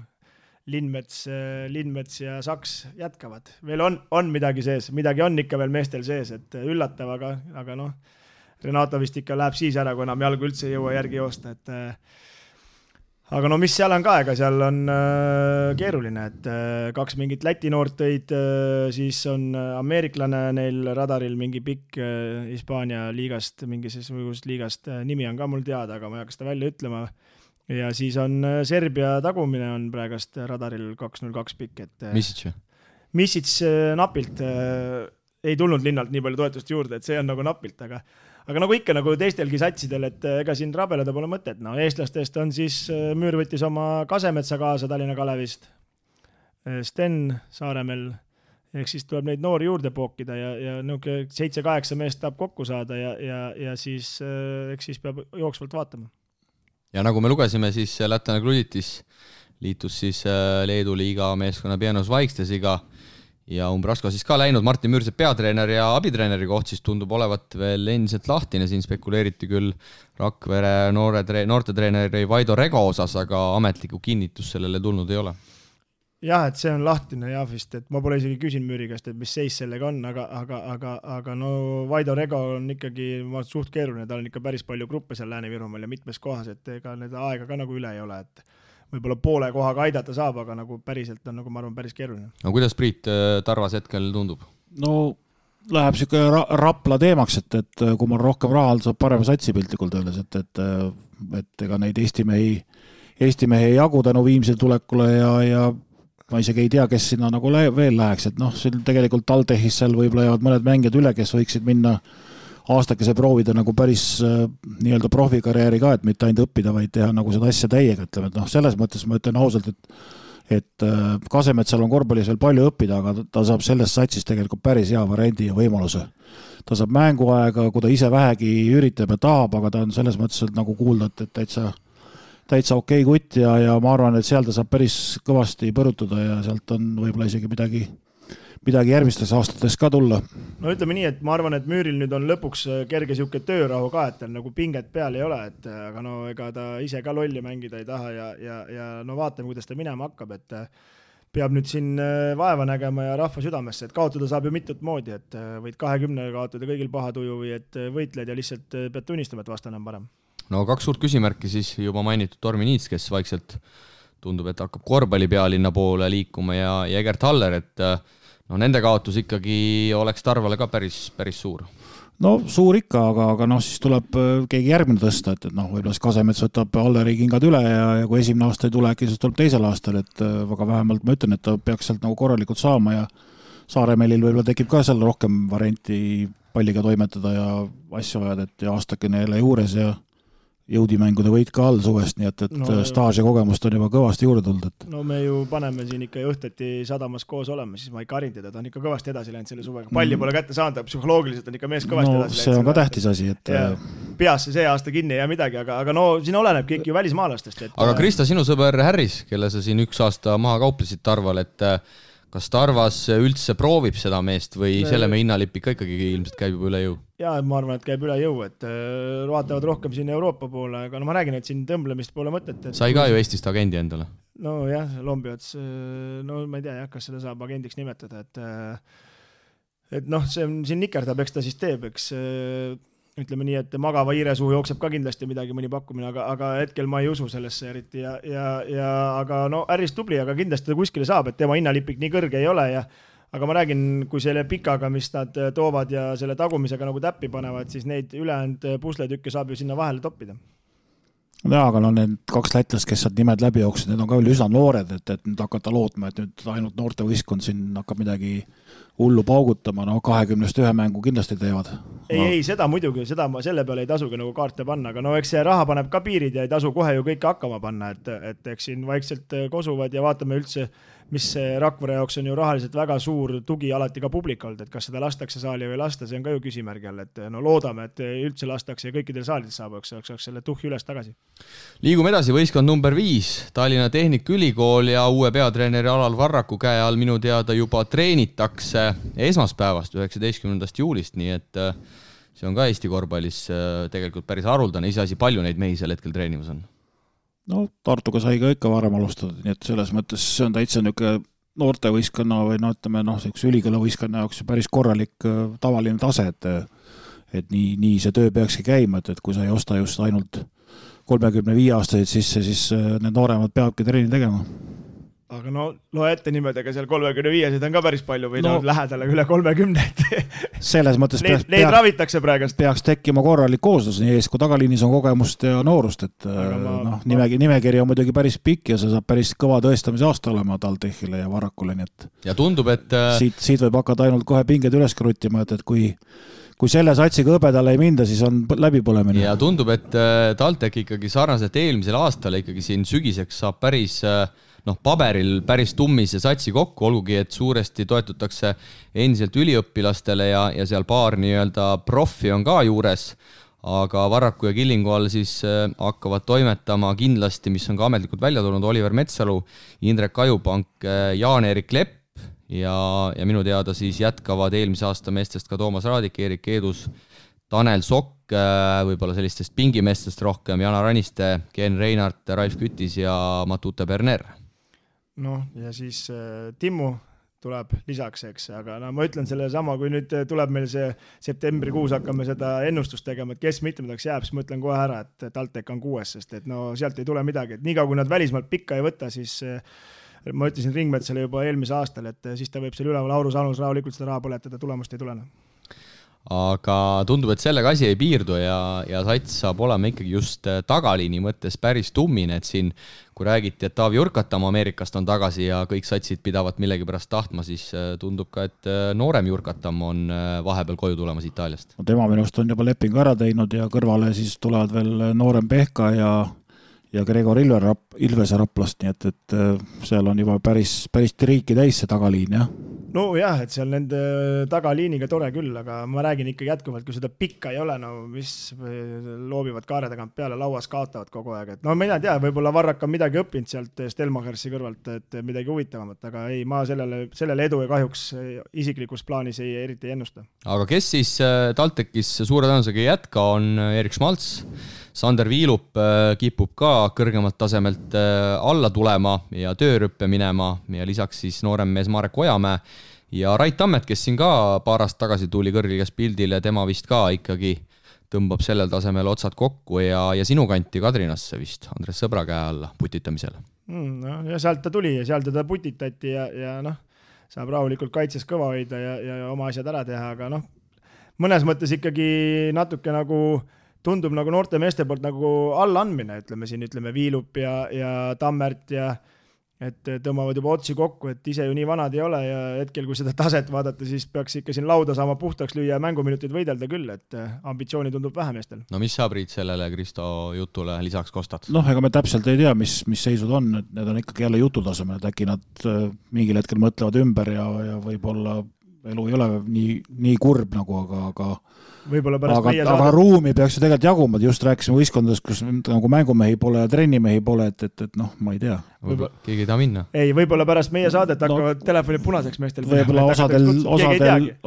Lindmets ja Saks jätkavad. Veel on midagi sees, midagi on ikka veel meestel sees, et üllatav, aga Renato vist ikka läheb siis ära, kui enam jalgu üldse ei jõua järgi joosta, aga mis seal on ka, ega seal on keeruline, et 2 mingit Läti noort tõid, siis on ameeriklane neil radaril mingi pikk Hispaania liigast, mingisugust liigast, nimi on ka mul teada, aga ma ei hakka seda välja ütlema. Ja siis on Serbia tagumine on praegast radaril 202 pikk, et Misic napilt ei tulnud linnalt nii palju toetust juurde, et see on nagu napilt, aga nagu ikka nagu teistelgi satsidel, et ega siin rabeleda pole mõtet. No, eestlastest on siis Müür võttis oma Kasemetsa kaasa Tallinna Kalevist, Sten Saaremel, ehk siis tuleb neid noori juurde pookida ja 7-8 meest tahab kokku saada ja siis, eks siis peab jooksvalt vaatama. Ja nagu me lugesime, siis lätlane Kluditis liitus siis Leedu liiga meeskonna Pienos Vaikstesiga ja Umbrasko siis ka läinud. Martin Müürsepp peatreener ja abitreeneri koht siis tundub olevat veel endiselt lahtine. Siin spekuleeriti küll Rakvere noortetreeneri Vaido Rego osas, aga ametlikku kinnitus sellele tulnud ei ole. Jah, et see on lahtine jah vist, et ma pole isegi küsin Müüri käest, et mis seis sellega on, aga no Vaido Rego on ikkagi suht keeruline, tal on ikka päris palju gruppe seal Lääne-Virumaal ja mitmes kohas, et ega need aega ka nagu üle ei ole, et võib-olla poole kohaga aidata saab, aga nagu päriselt on nagu ma arvan päris keeruline. No kuidas Priit Tarvas hetkel tundub? No läheb siuke Rapla teemaks, et kui mul rohkem raha saab parema satsi piltlikult öeldes, et ega neid Eesti mehi ei jagu tänu Viimsi tulekule ja ma isegi ei tea, kes sinna nagu veel läheks, et noh, siin tegelikult Taldehis seal võib-olla jäävad mõned mängijad üle, kes võiksid minna aastakese proovida nagu päris nii-öelda profikarjääri ka, et mitte ainult õppida, vaid teha nagu seda asja täiega, ütleme, et noh, selles mõttes ma ütlen ausalt, et Kasemetsal on korvpallis veel palju õppida, aga ta saab sellest satsist tegelikult päris hea variandi ja võimaluse. Ta saab mänguaega, kui ta ise vähegi üritab ja tahab, aga ta on selles mõttes nagu kuulda, et täitsa okei kutt ja ma arvan, et seal ta saab päris kõvasti põrutada ja sealt on võib-olla isegi midagi järgmistes aastates ka tulla. No ütleme nii, et ma arvan, et Müüril nüüd on lõpuks kerge siuke töörahu ka, et nagu pinget peal ei ole, et aga no ega ta ise ka lolli mängida ei taha ja no vaatame, kuidas ta minema hakkab, et peab nüüd siin vaeva nägema ja rahva südamesse, et kaotada saab ju mitut moodi, et võid 20 kaotada kõigil paha tuju või et võitled ja lihtsalt pead tunnistama, et vastane on parem. No 2 suurt küsimärki siis juba mainitud Tormi Niits, kes vaikselt tundub, et hakkab korvpalli pealinna poole liikuma ja Egert Haller, et no nende kaotus ikkagi oleks Tarvale ka päris suur. No suur ikka, aga noh, siis tuleb keegi järgmine tõsta, et noh, võib-olla Kasemets võtab Halleri kingad üle ja kui esimene aasta ei tule, äkki siis tuleb teisel aastal, et väga vähemalt ma ütlen, et ta peaks sealt nagu korralikult saama ja Saaremelil võib-olla tekib ka seal rohkem varianti palliga toimetada ja asju ajad, et aastakene jälle juures ja jõudimängude võit ka all suvest, nii et staaž ja kogemust on juba kõvasti juurde tulnud. Et... No me ju paneme siin ikka õhtati sadamas koos olema, siis ma ikka harin teda, ta on ikka kõvasti edasi läinud selle suvega. Palli pole kätte saanud, psühholoogiliselt on ikka mees kõvasti edasi läinud. See on ka tähtis asi, et... Peasse see aasta kinni ja midagi, aga no siin oleneb kõik ju välismaalastest. Et... Aga Krista, sinu sõber Harris, kelle sa siin 1 aasta maha kauplesid Tarval, et kas Tarvas üldse proovib seda meest või selle me hinnalipp ikka ikkagi ilmselt käib juba üle jõu? Jaa, ma arvan, et käib üle jõu, et vaatavad rohkem siin Euroopa poole, aga no ma räägin, et siin tõmblemist pole mõtet. Et... Sai ka ju Eestist agendi endale? No jah, Lombiots, no ma ei tea, kas seda saab agendiks nimetada, et noh, see siin nikerdab, eks ta siis teeb, eks ütleme nii, et magava hiire suhu jookseb ka kindlasti midagi mõni pakkumine, aga hetkel ma ei usu sellesse eriti aga no äris tubli, aga kindlasti ta kuskile saab, et tema hinnalipik nii kõrge ei ole aga ma räägin, kui selle pikaga, mis nad toovad ja selle tagumisega nagu täppi panevad, siis neid ülejäänud pusletükke saab ju sinna vahele toppida. Jaa, aga no need 2 lätlast, kes saad nimed läbi jooksid, need on ka veel üsna noored, et nüüd hakata lootma, et nüüd ainult noorte võistkond siin hakkab midagi hullu paugutama, no 20-st 1 mängu kindlasti teevad. Ei, seda muidugi, selle peale ei tasugi nagu kaarte panna, aga no eks see raha paneb ka piirid ja ei tasu kohe ju kõike hakkama panna, et eks siin vaikselt kosuvad ja vaatame üldse, mis Rakvere jaoks on ju rahaliselt väga suur tugi alati ka publikult, et kas seda lastakse saali või lasta, see on ka ju küsimärgi all, et no loodame, et üldse lastakse ja kõikidel saalides saab, eks selle tuhhi üles tagasi. Liigume edasi, võistkond number 5, Tallinna Tehnikaülikool ja uue peatreeneri Alal Varraku käe all minu teada juba treenitakse esmaspäevast 19. juulist, nii et see on ka Eesti korvpallis tegelikult päris haruldane, iseasi palju neid mehi sel hetkel treenimas on. No Tartuga sai ka ikka varem alustada, nii et selles mõttes see on täitsa niisugune noortevõistkonna või no ütleme, ülikoolivõistkonna jaoks päris korralik tavaline tase, et nii see töö peakski käima, et kui sa ei osta just ainult 35 aastaseid sisse, siis need nooremad peavadki treeni tegema. aga no loe ette nimedega seal 35-sed on ka päris palju või no lähedale üle 30. Selles mõttes neid ravitakse praegast. Peaks tekkima korralik kooslus, nii ees kui tagaliinis on kogemust ja noorust, et nimekiri on muidugi päris pikk ja see saab päris kõva tõestamise aasta olema TalTechile ja Varrakule, nii et ja tundub, et siit võib hakata ainult kohe pinged üles kruttima, et kui selle satsiga hõbedale ei minda, siis on läbipõlemine. Ja tundub, et TalTech ikkagi sarnaselt eelmisel aastal ikkagi siin sügiseks saab päris paberil päris tummise satsi kokku, olgugi, et suuresti toetutakse endiselt üliõpilastele ja seal paar nii-öelda profi on ka juures, aga Varraku ja Killingu all siis hakkavad toimetama kindlasti, mis on ka ametlikult välja tulnud, Oliver Metsalu, Indrek Ajupank, Jaan-Erik Lepp ja minu teada siis jätkavad eelmise aasta meestest ka Toomas Raadik, Erik Eedus, Tanel Sokk, võib-olla sellistest pingimeestest rohkem, Jana Raniste, Ken Reinart, Ralf Kütis ja Matute Berner. Ja siis Timmu tuleb lisaks, eks, aga ma ütlen selle sama, kui nüüd tuleb meil see septembrikuus hakkame seda ennustust tegema, et kes mitmendaks jääb, siis ma ütlen kohe ära, et TalTech on 6, sest et sealt ei tule midagi, et niikaua kui nad välismaalt pikka ei võta, siis ma ütlesin Ringmetsale juba eelmise aastal, et siis ta võib seal üleval Aurus Anus rahulikult seda raha põletada, tulemust ei tulena. Aga tundub, et sellega asi ei piirdu ja sats saab olema ikkagi just tagaliini mõttes päris tummine, et siin kui räägiti, et Taavi Jurkatam Ameerikast on tagasi ja kõik satsid pidavat millegi pärast tahtma, siis tundub ka, et noorem Jurkatam on vahepeal koju tulemas Itaaliast. Tema minust on juba lepingu ära teinud ja kõrvale siis tulevad veel noorem Pehka ja Gregor Ilvese Raplast, nii et seal on juba päris triiki täis see tagaliin, jah. Jah, et seal nende tagaliiniga tore küll, aga ma räägin ikka jätkuvalt, kui seda pikka ei ole, mis loobivad kaare tagant peale, lauas kaotavad kogu aeg. Et mina ei tea, võib-olla Varrak on midagi õppinud sealt Stelmachersi kõrvalt, et midagi huvitavamat, aga ei, ma sellele edu ja kahjuks isiklikus plaanis eriti ei ennusta. Aga kes siis TalTechis suure tõenäosusega ei jätka, on Erik Schmalz. Sander Viilup kipub ka kõrgemalt tasemelt alla tulema ja töörüppe minema ja lisaks siis noorem mees Marek Ojamäe ja Rait Tammet, kes siin ka paar aastat tagasi tuli kõrgligas pildile, tema vist ka ikkagi tõmbab sellel tasemel otsad kokku ja sinu kanti Kadrinasse vist Andres Sõbra käe alla putitamisele. Ja sealt ta tuli ja seal teda putitati ja saab rahulikult kaitses kõva hoida ja oma asjad ära teha, aga mõnes mõttes ikkagi natuke tundub noorte meeste poolt allaandmine, ütleme Viilup ja Tammert ja et tõmbavad juba otsi kokku, et ise ju nii vanad ei ole ja hetkel, kui seda taset vaadata, siis peaks ikka siin lauda saama puhtaks lüüa ja mänguminutid võidelda küll, et ambitsiooni tundub vähe meestel. Mis saab Riit sellele Kristo jutule lisaks kostad? Ega me täpselt ei tea, mis seisud on, et need on ikkagi jälle jututasemel, et äkki nad mingil hetkel mõtlevad ümber ja võib-olla elu ei ole nii kurb aga aga ruumi peaks ju tegelikult jaguma, just rääkisime võistkondades, kus mängumehi pole ja trennimehi pole, et ma ei tea. Keegi ei taha minna. Ei, võib-olla pärast meie saadet hakkavad telefonid punaseks meestel. Võib-olla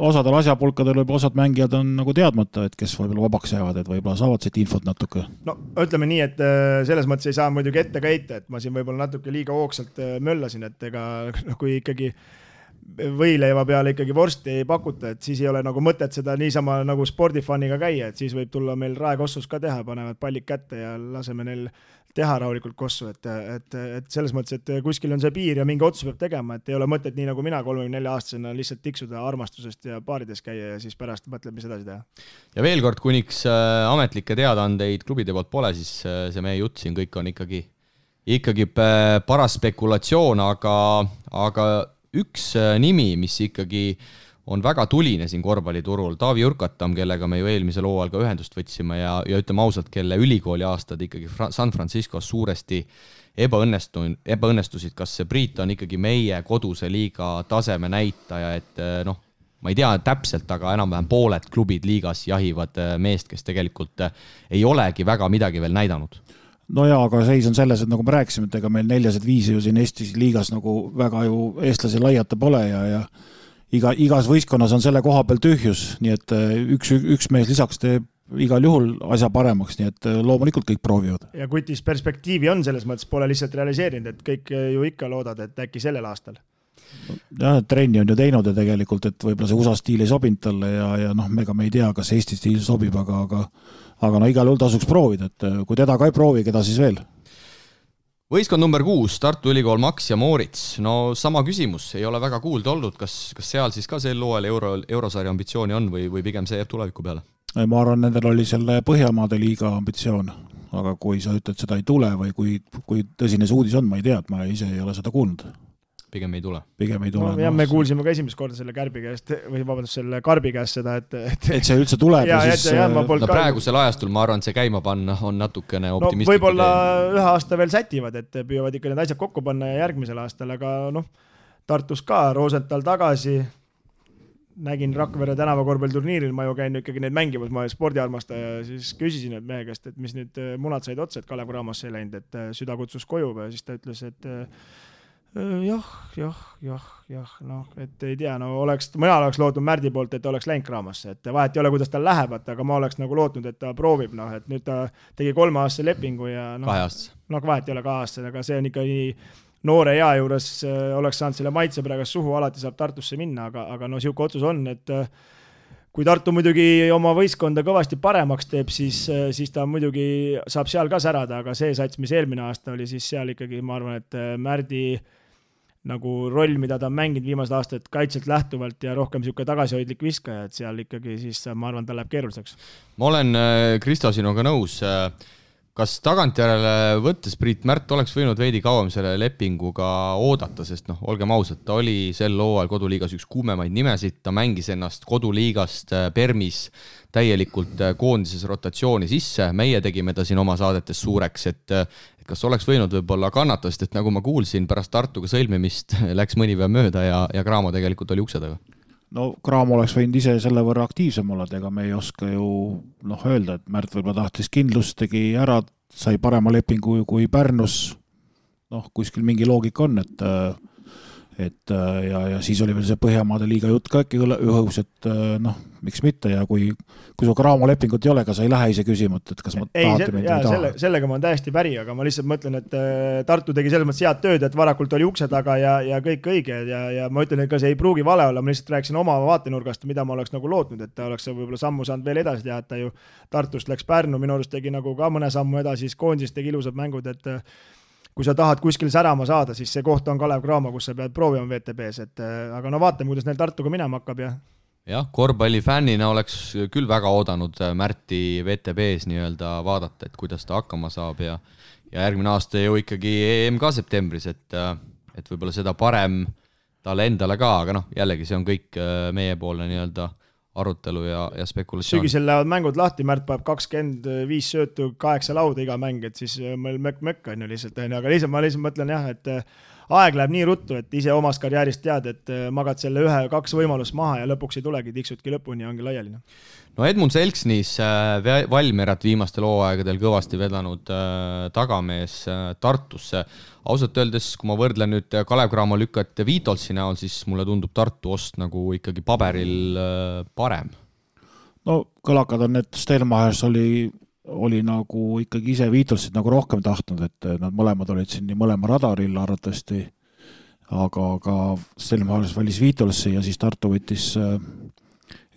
osadel asjapulkadel võib osad mängijad on teadmata, et kes võib-olla vabaks jäävad, et võib-olla saavad siit infot natuke. Ütleme nii, et selles mõttes ei saa muidugi ette ka heita, et ma siin võib-olla natuke liiga hoogsalt möllasin, et kui ikkagi võileiva peale ikkagi vorsti ei pakuta, et siis ei ole mõtet seda niisama spordifaniga käia, et siis võib tulla meil raekossus ka teha, panevad pallid kätte ja laseme neil teha rahulikult kossu, et selles mõttes, et kuskil on see piir ja mingi otsus peab tegema, et ei ole mõtet nii nagu mina 34-aastasena lihtsalt tiksuda armastusest ja baarides käia ja siis pärast mõtleb, mis edasi teha. Ja veel kord, kuniks ametlikke teadaandeid klubide poolt pole, siis see meie jutt siin kõik on ikkagi paras spekulatsioon, aga üks nimi, mis ikkagi on väga tuline siin korvpalliturul, Taavi Jurkatam, kellega me ju eelmisel hooajal ka ühendust võtsime ja ütleme ausalt, kelle ülikooli aastad ikkagi San Franciscos suuresti ebaõnnestusid, kas see Priit on ikkagi meie koduse liiga taseme näitaja, et ma ei tea täpselt, aga enam-vähem pooled klubid liigas jahivad meest, kes tegelikult ei olegi väga midagi veel näidanud. Aga seis on selles, et nagu me rääkisime, et ega meil 4-5 ju siin Eestis liigas väga ju eestlasi laiata pole ja igas võistkonnas on selle koha peal tühjus, nii et üks mees lisaks teeb igal juhul asja paremaks, nii et loomulikult kõik proovivad. Ja kutis perspektiivi on selles mõttes, pole lihtsalt realiseerinud, et kõik ju ikka loodad, et äkki sellel aastal. Jah, trenni on ju teinud ja tegelikult, et võib-olla see USA stiil ei sobinud talle ja ega me ei tea, kas Eesti stiil sobib, aga igal juhul tasuks proovida, et kui teda ka ei proovi, keda siis veel? Võistkond number 6, Tartu Ülikool Max ja Moorits. No sama küsimus, ei ole väga kuulda olnud, kas seal siis ka sel loel eurosarja ambitsiooni on või pigem see jääb tuleviku peale? Ma arvan, nendel oli selle Põhjamaade liiga ambitsioon, aga kui sa ütled, seda ei tule või kui tõsine see uudis on, ma ei tea, et ma ise ei ole seda kuulnud. Pigem ei tule. No, jah, me kuulsime ka esimest korda selle Kärbi käest või vabandust, selle Karbi käest seda, et see üldse tuleb ja siis... praegusel ajastul ma arvan, see käima panna on natukene optimistlik. Võib-olla ühe aasta veel sätivad, et püüavad ikka need asjad kokku panna ja järgmisel aastal, aga Tartus ka, Rosenthal tagasi, nägin Rakvere tänavakorvpalliturniiril, ma ju käin ikkagi neid mängimas, ma olen spordiarmastaja ja siis küsisin et mehe käest, et mis nüüd munad said otsa, et Kalev Cramosse ei läinud, et süda kutsus koju ja siis ta ütles, et et ei tea, mina oleks lootnud Märdi poolt, et oleks läinud Cramosse, et vahet ei ole, kuidas tal läheb, aga ma oleks nagu lootnud, et ta proovib, et nüüd ta tegi 3-aastase lepingu ja vahet ei ole 2 aastase, aga see on ikka nii noore ea juures oleks saanud selle maitse praegu suhu, alati saab Tartusse minna, aga siuke otsus on, et kui Tartu muidugi oma võistkonda kõvasti paremaks teeb, siis ta muidugi saab seal ka särada, aga see sats, mis eelmine aasta oli, siis seal ikkagi, ma arvan, et Märdi nagu roll, mida ta on mänginud viimased aastad kaitselt lähtuvalt ja rohkem siuke tagasihoidlik viskaja, et seal ikkagi siis ma arvan, ta läheb keeruliseks. Ma olen Kristo sinuga nõus. Kas tagantjärele võttes Priit Märt oleks võinud veidi kauem selle lepinguga oodata, sest olgem ausad, ta oli sel hooajal koduliigas üks kuumemaid nimesid, ta mängis ennast koduliigast Permis täielikult koondises rotatsiooni sisse, meie tegime ta siin oma saadetes suureks, et kas oleks võinud võib-olla kannata, sest et nagu ma kuulsin, pärast Tartuga sõlmimist läks mõni päev mööda ja Cramo tegelikult oli ukse taga. No Cramo oleks võinud ise selle võrra aktiivsem olla, ega me ei oska ju öelda, et Märt võib-olla tahtis kindlust, tegi ära, sai parema lepingu kui Pärnus, kuskil mingi loogika on, et ja siis oli veel see Põhjamaade liiga jutt ka äkki õhus, et miks mitte ja kui sul Cramo lepingut ei ole, ka sa ei lähe ise küsima, et kas ma tahate mind või taha. Sellega ma olen täiesti päri, aga ma lihtsalt mõtlen, et Tartu tegi selles mõttes head tööd, et varakult oli ukse taga ja kõik õige ja ma ütlen, et ka see ei pruugi vale olla, ma lihtsalt rääkisin oma vaatenurgast, mida ma oleks nagu lootnud, et ta oleks võib-olla sammu saanud veel edasi teha, et ta ju Tartust läks Pärnu, minu arust tegi nagu ka mõne sammu edasi, siis koondis tegi ilusad mängud, et kui sa tahad kuskil särama saada, siis see koht on Kalev Cramo, kus sa pead proovima VTB-s, aga vaatame, kuidas neil Tartuga minema hakkab ja korvpallifännina oleks küll väga oodanud Märti VTB-s nii-öelda vaadata, et kuidas ta hakkama saab ja järgmine aasta ju ikkagi EM ka septembris, et võib-olla seda parem talle endale ka, aga jällegi see on kõik meiepoolne nii-öelda arutelu ja spekulatsioon. Sügisel lähevad mängud lahti, Märt paneb 25 söötu, 8 lauda iga mäng, et siis meil mökk on ju lihtsalt, aga ma lihtsalt mõtlen jah, et aeg läheb nii ruttu, et ise omast karjäärist tead, et magad selle 1-2 võimalust maha ja lõpuks ei tulegi, tiksudki lõpuni ja ongi laiali. No Edmund Selksnis Valmierat viimastel hooaegadel kõvasti vedanud tagamees Tartusse. Ausalt öeldes, kui ma võrdlen nüüd Kalev Cramo lükkat Viitolsi näol, siis mulle tundub Tartu ost nagu ikkagi paberil parem. No kõlakad on, et Stelmachers oli nagu ikkagi ise Viitolsid nagu rohkem tahtnud, et nad mõlemad olid siin nii mõlema radaril arvatavasti, aga Stelmachers valis Viitolsi ja siis Tartu võttis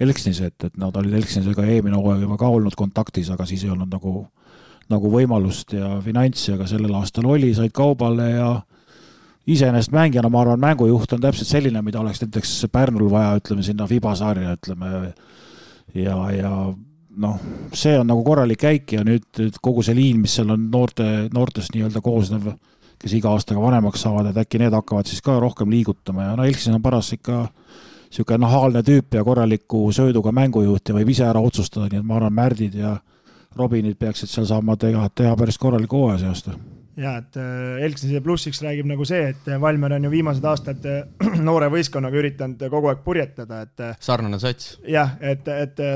Elksnise, et nad olid Elksnisega eelmine hooaeg juba ka olnud kontaktis, aga siis ei olnud nagu võimalust ja finantsi, aga sellel aastal oli, said kaubale ja iseenesest mängijana, ma arvan, mängujuht on täpselt selline, mida oleks näiteks Pärnul vaja, ütleme sinna Fiba-sarja, ütleme ja see on nagu korralik käik ja nüüd kogu see liin, mis seal on noortest nii-öelda koosnev, kes iga aastaga vanemaks saavad, et äkki need hakkavad siis ka rohkem liigutama ja Elksin on paras ikka siuke nahaalne tüüp ja korraliku sööduga mängujuht ja võib ise ära otsustada, nii et ma arvan, Märdid ja Robinid peaksid seal saama teha päris korraliku hooaja see aasta. Ja, et Elksnise plussiks räägib nagu see, et Valmier on ju viimased aastad noore võistkonnaga üritanud kogu aeg purjetada, et sarnane sats. Jah, et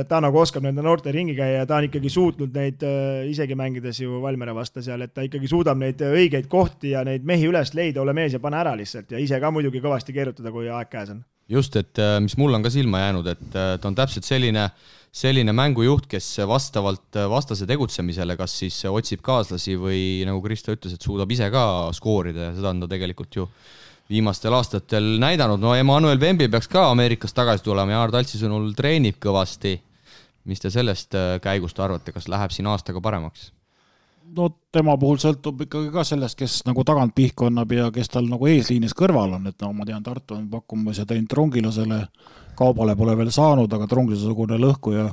ta nagu oskab nende noorte ringi käia ja ta on ikkagi suutnud neid isegi mängides ju Valmiere vasta seal, et ta ikkagi suudab neid õigeid kohti ja neid mehi üles leida, ole mees ja pane ära lihtsalt ja ise ka muidugi kõvasti keerutada, kui aeg käes on. Just, et mis mul on ka silma jäänud, et ta on täpselt selline mängujuht, kes vastavalt vastase tegutsemisele, kas siis otsib kaaslasi või nagu Kristo ütles, et suudab ise ka skoorida ja seda on ta tegelikult ju viimastel aastatel näidanud. No Emmanuel Vembi peaks ka Ameerikast tagasi tulema ja Aar Taltsi sõnul treenib kõvasti. Mis te sellest käigust arvate, kas läheb siin aastaga paremaks? no tema puhul sõltub ikkagi ka sellest, kes nagu tagant pihku annab ja kes tal nagu eesliinis kõrval on, et no ma tean, Tartu on pakkumas ja teinud Trungilasele, Kaubale pole veel saanud, aga Trungilase-sugune lõhkuja,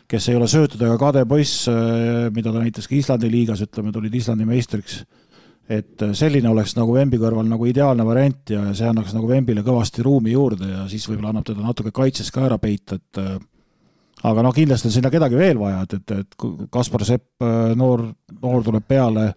kes ei ole söötud ega kade poiss, mida ta näitas ka Islandi liigas, ütleme, tulid Islandi meistriks, et selline oleks nagu Vembi kõrval nagu ideaalne variant ja see annaks nagu Vembile kõvasti ruumi juurde ja siis võib-olla annab teda natuke kaitses ka ära peita, et aga no kindlasti on sinna kedagi veel vaja, et Kaspar Sepp noor tuleb peale,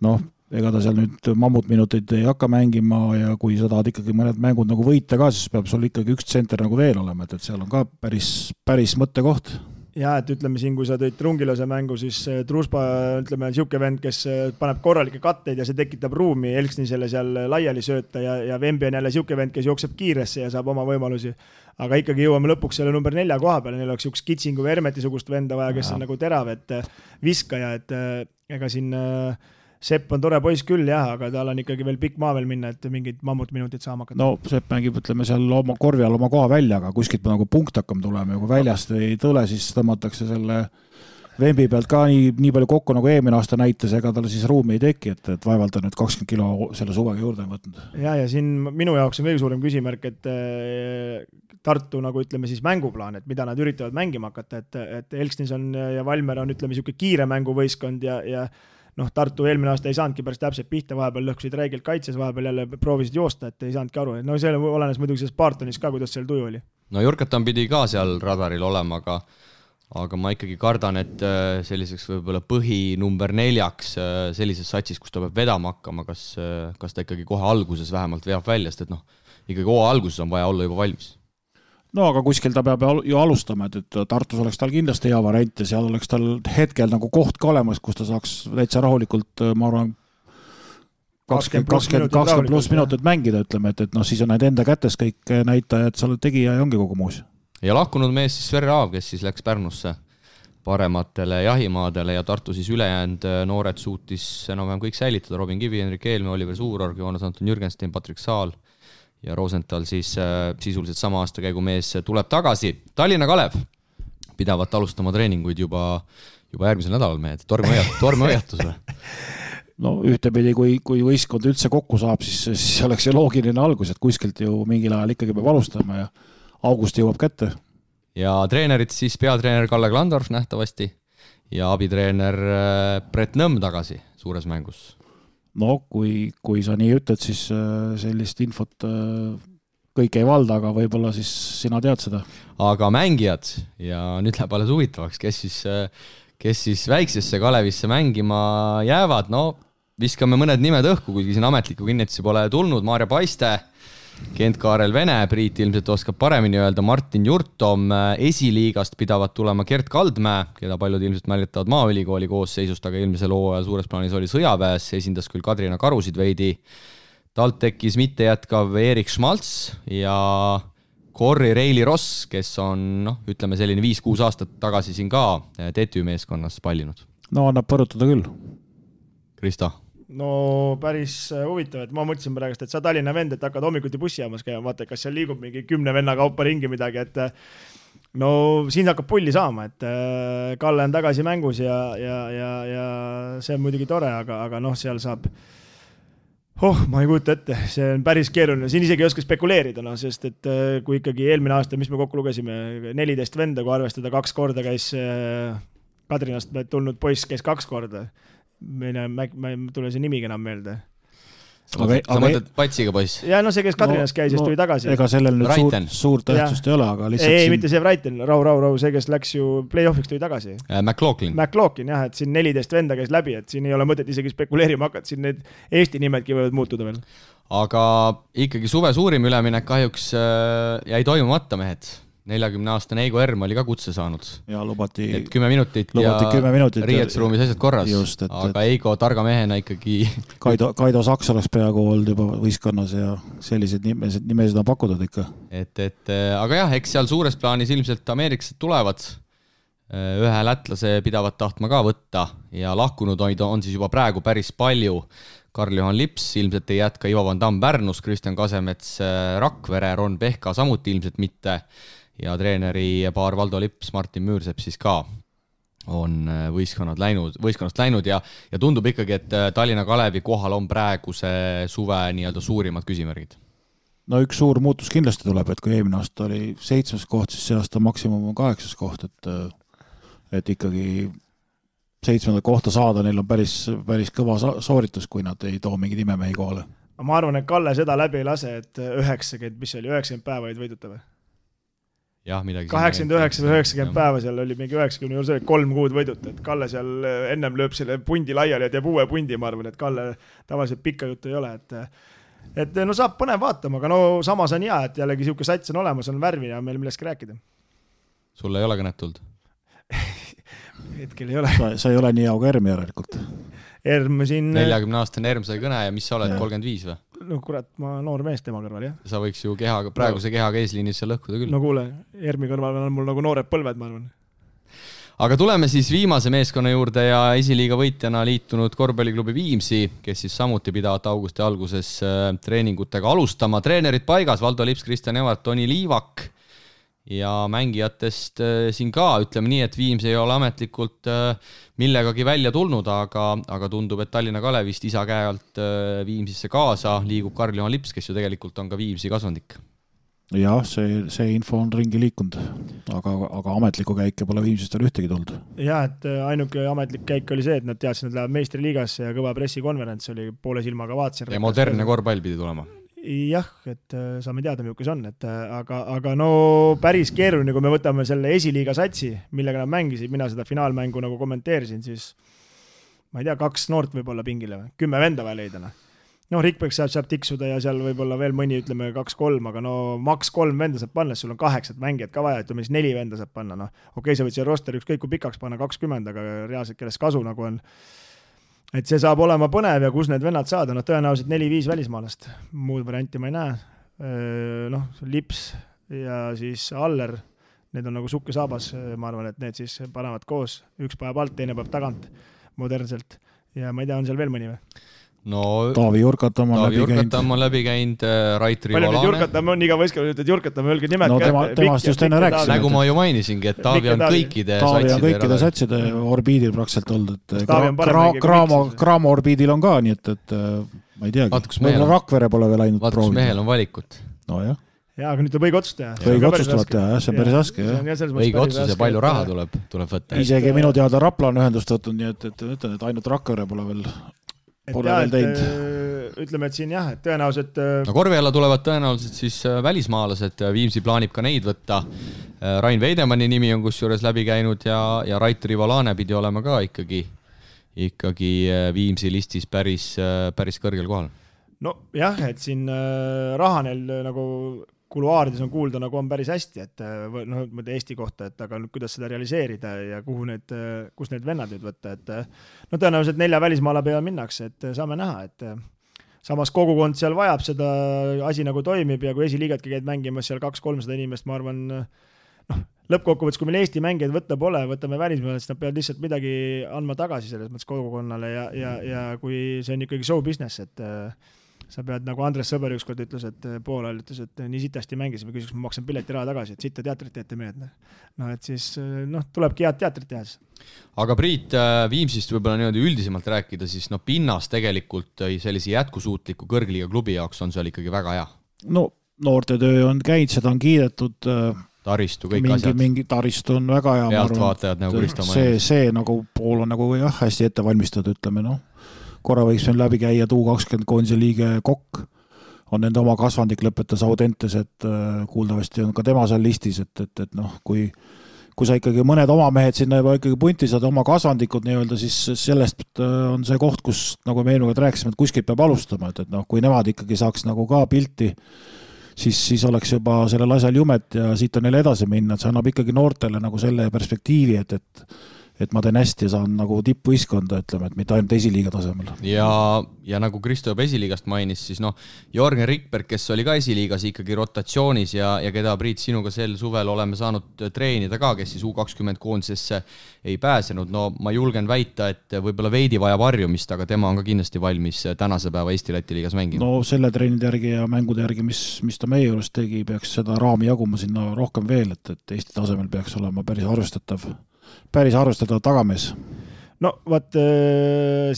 noh, ega ta seal nüüd mammutminuteid ei hakka mängima ja kui sa tahad ikkagi mõned mängud nagu võita ka, siis peab sul ikkagi üks tsenter nagu veel olema, et seal on ka päris mõttekoht. Ja, et ütleme siin, kui sa tõid Trungilase mängu, siis Truspa, ütleme, siuke vend, kes paneb korralikke katteid ja see tekitab ruumi Elksnisele seal laiali sööta ja Vembi on jälle siuke vend, kes jookseb kiiresse ja saab oma võimalusi. Aga ikkagi jõuame lõpuks selle number 4 koha peale, neil oleks üks Kitsingu või Hermeti-sugust venda vaja, kes on nagu terav, et viskaja, et ega siin Sepp on tore poiss küll, jah, aga tal on ikkagi veel pikk maa veel minna, et mingid mammutminutid saama hakata. No Sepp mängib, ütleme, seal oma korvi all oma koha välja, aga kuskilt nagu punkt hakkam tulema ja kui väljast ei tule, siis tõmmatakse selle Vembi pealt ka nii palju kokku, nagu eelmine aasta näitas, ega tal siis ruumi ei teki, et vaevalt on nüüd 20 kilo selle suvega juurde võtnud. Ja siin minu jaoks on kõige suurem küsimärk, et Tartu, nagu ütleme siis mänguplaan, et mida nad üritavad mängima hakata, et Elksnis on ja Valmer on, ütleme, siuke kiire mänguvõistkond ja noh, Tartu eelmine aasta ei saanudki päris täpselt pihta, vahepeal lõhkusid räigelt kaitses, vahepeal jälle proovisid joosta, et ei saanudki aru. No see olenes muidugi selles Bartonis ka, kuidas seal tuju oli. No Jurkatan pidi ka seal radaril olema, aga ma ikkagi kardan, et selliseks võib-olla põhi number 4 sellises satsis, kus ta peab vedama hakkama, kas ta ikkagi kohe alguses vähemalt veab välja, sest et noh, ikkagi hooaja alguses on vaja olla juba valmis. No aga kuskil ta peab ju alustama, et Tartus oleks tal kindlasti hea variant ja seal oleks tal hetkel nagu koht ka olemas, kus ta saaks täitsa rahulikult, ma arvan, 20 pluss minutit mängida, ütleme, et noh, siis on need enda kätes kõik näitajad, sa oled tegija ja ongi kogu muus. Ja lahkunud mees siis Sverre Aav, kes siis läks Pärnusse parematele jahimaadele ja Tartu siis ülejäänud noored suutis enam-vähem kõik säilitada, Robin Kivi, Henrik Eelme, Oliver Suurorg, Joonas Anton Jürgenstein, Patrik Saal ja Rosenthal siis sisuliselt sama aasta käigu mees tuleb tagasi. Tallinna Kalev pidavat alustama treeninguid juba järgmisel nädalal mehed. Torme hoiatusele. No ühtepidi, kui võistkond üldse kokku saab, siis oleks see loogiline algus, et kuskilt ju mingil ajal ikkagi peab alustama ja august jõuab kätte. Ja treenerid siis peatreener Kalle Klandorf nähtavasti ja abitreener Brett Nõmm tagasi suures mängus. No kui sa nii ütled, siis sellist infot kõik ei valda, aga võib-olla siis sina tead seda. Aga mängijad ja nüüd läheb alles huvitavaks, kes siis väiksesse Kalevisse mängima jäävad, no viskame mõned nimed õhku, kuigi siin ametliku kinnitusi pole tulnud, Maarja Paiste, Kent-Kaarel Vene, Priit ilmselt oskab paremini öelda, Martin Jurtom, esiliigast pidavat tulema Gert Kaldmäe, keda paljud ilmselt mäletavad Maaülikooli koosseisust, aga eelmisel hooajal suures plaanis oli sõjaväes, esindas küll Kadrina Karusid veidi. Talt tekkis mitte jätkav Erik Schmalz ja Corri Reili Ross, kes on, ütleme selline 5-6 aastat tagasi siin ka TTÜ meeskonnas pallinud. No annab põrutada küll. Krista? No päris huvitav, et ma mõtlesin praegu, et sa Tallinna vend, et hakkad hommikuti bussijaamas käima, vaata, kas seal liigub mingi 10 venna kaupa ringi midagi, et no siin hakkab pulli saama, et Kalle on tagasi mängus ja see on muidugi tore, aga noh, seal saab ma ei kujuta ette, see on päris keeruline, siin isegi ei oska spekuleerida, sest et kui ikkagi eelmine aasta, mis me kokku lugesime, 14 venda, kui arvestada 2 korda käis Kadrinast tulnud poiss, käis 2 korda, ma ei tule see nimigi enam meelde. Sa mõtled Patsiga poiss? Ja no see, kes Kadrinas käis, siis tuli tagasi. Ega sellel nüüd suurt tähtsust ei ole, aga lihtsalt ei, mitte see Raiten, Rau, see, kes läks ju play-offiks tuli tagasi. McLaughlin, jah, et siin 14 venda käis läbi, et siin ei ole mõtet isegi spekuleerima hakata, siin need Eesti nimedki võivad muutuda veel. Aga ikkagi suve suurim üleminek kahjuks jäi toimumata mehed. 40-aastane Eigo Erm oli ka kutse saanud. Ja lubati 10 minutit ja riietusruumis asjad korras. Just, aga Eigo targa mehena ikkagi... Kaido Saks oleks peaaegu olnud juba võistkonnas ja sellised nimesid on pakutud ikka. Aga jah, eks seal suures plaanis ilmselt ameeriklased tulevad. Ühe lätlase pidavat tahtma ka võtta ja lahkunud on siis juba praegu päris palju. Karl-Johan Lips ilmselt ei jätka, Ivo Van Damm Pärnus, Kristjan Kasemets Rakvere, Ron Pehka samuti ilmselt mitte. Ja treeneri paar Valdo Lips, Martin Müürsepp siis ka. on võistkonnast läinud ja tundub ikkagi, et Tallinna Kalevi kohal on praeguse suve nii-öelda suurimad küsimärgid. No üks suur muutus kindlasti tuleb, et kui eelmine aasta oli 7. koht, siis see aasta maksimum on 8. koht, et ikkagi 7. kohta saada, neil on päris kõva sooritus, kui nad ei too mingeid imemehi kohale. Ma arvan, et Kalle seda läbi ei lase, et 90 päeva olid võiduta või? Jah, midagi 89 või 90 päeva seal oli mingi 90 juures 3 kuud võiduta, et Kalle seal ennem lööb selle pundi laiali ja teeb uue pundi, ma arvan, et Kalle tavaliselt pikka juttu ei ole, et no saab põnev vaatama, aga no samas on hea, et jällegi siuke sats on olemas, on värvi ja meil millestki rääkida. Sul ei ole kõnet tulnud? Hetkel ei ole. Sa ei ole nii auga Erm järelikult. Erm siin... 40-aastane Erm sai kõne ja mis sa oled, 35 või? No kurat, ma noor mees tema kõrval, jah. Sa võiks ju praeguse kehaga eesliinis seal lõhkuda küll. No kuule, Ermi kõrval on mul nagu noored põlved, ma arvan. Aga tuleme siis viimase meeskonna juurde ja esiliiga võitjana liitunud korvpalliklubi Viimsi, kes siis samuti pidavat augusti alguses treeningutega alustama. Treenerid paigas, Valdo Lips, Kristjan Evart, Toni Liivak ja mängijatest siin ka, ütleme nii, et Viims ei ole ametlikult millegagi välja tulnud, aga tundub, et Tallinna Kalevist isa käe alt Viimsisse kaasa liigub Karl-Juhan Lips, kes ju tegelikult on ka Viimsi kasvandik. Jah, see info on ringi liikunud, aga ametlikku käike pole Viimsist veel ühtegi tulnud. Jah, et ainuke ametlik käik oli see, et nad teadsid, et läheb meistriliigasse ja kõva pressikonverents oli poole silmaga vaatasin. Ja modernne korvpall pidi tulema. Jah, et saame teada, milles on, aga no päris keeruline, kui me võtame selle esiliiga satsi, millega nad mängisid, mina seda finaalmängu nagu kommenteerisin, siis ma ei tea, 2 noort võib-olla pingile või, 10 venda vaja leidana. No Rikberg saab tiksuda ja seal võib-olla veel mõni, ütleme 2-3, aga no maks 3 venda saab panna, sul on 8 mängijat ka vaja, ütleme siis 4 venda saab panna, no okei, sa võid see roster ükskõik kui pikaks panna 20, aga reaalselt kellest kasu nagu on. Et see saab olema põnev ja kus need vennad saada, no tõenäoliselt 4-5 välismaalast, muud varianti ma ei näe. Noh, Lips ja siis Aller, need on nagu sukke saabas, ma arvan, et need siis panevad koos, üks päev alt, teine päev tagant modernselt ja ma ei tea, on seal veel mõni või? No, Taavi Jurkatam on läbi käinud, Raitri Valane. Palju nüüd Jurkatam on, iga võistkonna ütled Jurkatam, öelge nimed. No temast just enne rääkisin. Nagu ma ju mainisingi, et Taavi on kõikide satside orbiidil praktselt olnud. Kraamo orbiidil on ka, nii et ma ei teagi. Võib-olla Rakvere pole veel ainult proovid. Vaata, kus mehel on valikut. No jah. Jaa, aga nüüd tuleb õige otsus teha. Õige otsus tuleb teha, jah, see on päris raske. Õige otsus ja palju raha tuleb võtta. Isegi minu teada Rapla on ühendust võtnud, nii et ainult Rakvere pole veel teinud. Ütleme, et siin jah, et tõenäoliselt... No korvi alla tulevad tõenäoliselt siis välismaalased, Viimsi plaanib ka neid võtta. Rain Veidemanni nimi on kusjuures läbi käinud ja Raitri Valane pidi olema ka ikkagi Viimsi listis päris kõrgel kohal. No jah, et siin raha neil nagu kuluaarides on kuulda, nagu on päris hästi, et no, Eesti kohta, et aga kuidas seda realiseerida ja kus need vennad nüüd võtta, et no tõenäoliselt 4 välismaala peale minnakse, et saame näha, et samas kogukond seal vajab seda, asi nagu toimib ja kui esiliigatki käid mängimas seal 200-300 inimest, ma arvan, lõppkokkuvõttes, kui meil Eesti mängijaid võtta pole, võtame välismaale, siis nad peavad lihtsalt midagi andma tagasi selles mõttes kogukonnale ja kui see on ikkagi show business, et sa pead, nagu Andres Sõber ükskord ütles, et poolel ütles, et nii sitasti mängisime, küsiks, ma maksan pileti raha tagasi, et sitta teatrit teete mehed. No et siis, tulebki head teatrit teha. Aga Priit, Viimsist võib-olla niimoodi üldisemalt rääkida, siis pinnas tegelikult sellise jätkusuutliku kõrgliiga klubi jaoks on seal ikkagi väga hea. No noortetöö on käinud, seda on kiidetud. Taristu, kõik asjad. Mingi taristu on väga hea. Pealtvaatajad nagu Kristo mainis. See nagu pool on nagu jah, hästi ette valmistatud, ütleme, korra võiks meil läbi käia U20 koondise liige Kokk, on nende oma kasvandik lõpetas Audentes, et kuuldavasti on ka tema seal listis, et kui sa ikkagi mõned oma mehed sinna juba ikkagi punti saad oma kasvandikud nii-öelda, siis sellest on see koht, kus nagu me eelmine rääkisime, et kuskilt peab alustama, et kui nemad ikkagi saaks nagu ka pilti, siis oleks juba sellel asjal jumet ja siit on neile edasi minna, et see annab ikkagi noortele nagu selle perspektiivi, et ma teen hästi ja saan nagu tippvõistkonda, ütleme, et mitte ainult esiliiga tasemel. Ja nagu Kristo juba esiliigast mainis, siis Jorgen Rikberg, kes oli ka esiliigas ikkagi rotatsioonis ja keda Priit sinuga sel suvel oleme saanud treenida ka, kes siis U20 koondisesse ei pääsenud. No ma julgen väita, et võib-olla veidi vajab harjumist, aga tema on ka kindlasti valmis tänase päeva Eesti-Läti liigas mängima. No selle treenide järgi ja mängude järgi, mis ta meie juures tegi, peaks seda raami jaguma sinna rohkem veel, et Eesti tasemel peaks olema päris arvestatav päris arvestada tagamees. No vaat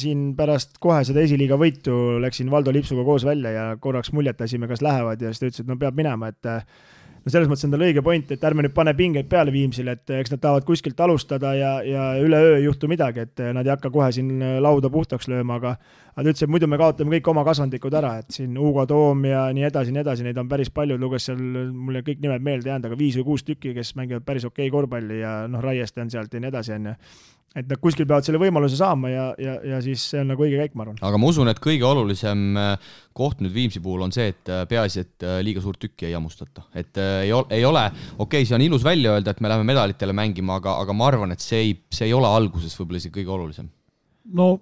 siin pärast kohe seda esiliiga võitu läksin Valdo Lipsuga koos välja ja korraks muljetasime, kas lähevad ja siis ta ütles, et no peab minema, et no selles mõttes on tal õige point, et ärme nüüd pane pingeid peale Viimsile, et eks nad tahavad kuskilt alustada ja üleöö ei juhtu midagi, et nad ei hakka kohe siin lauda puhtaks lööma, aga ta ütles, et muidu me kaotame kõik oma kasvandikud ära, et siin Hugo Toom ja nii edasi, neid on päris palju, luges seal, mulle kõik nimed meelde jäänud, aga 5 või 6 tükki, kes mängivad päris okei korvpalli ja noh, Raieste on sealt ja nii edasi, et nad kuskil peavad selle võimaluse saama ja siis see on nagu õige käik, ma arvan. Aga ma usun, et kõige olulisem koht nüüd Viimsi puhul on see, et peaasi, et liiga suurt tükki ei hammustata. Et ei ole, okei, see on ilus välja öelda, et me läheme medalitele mängima, aga ma arvan, et see ei ole alguses võib-olla isegi kõige olulisem. No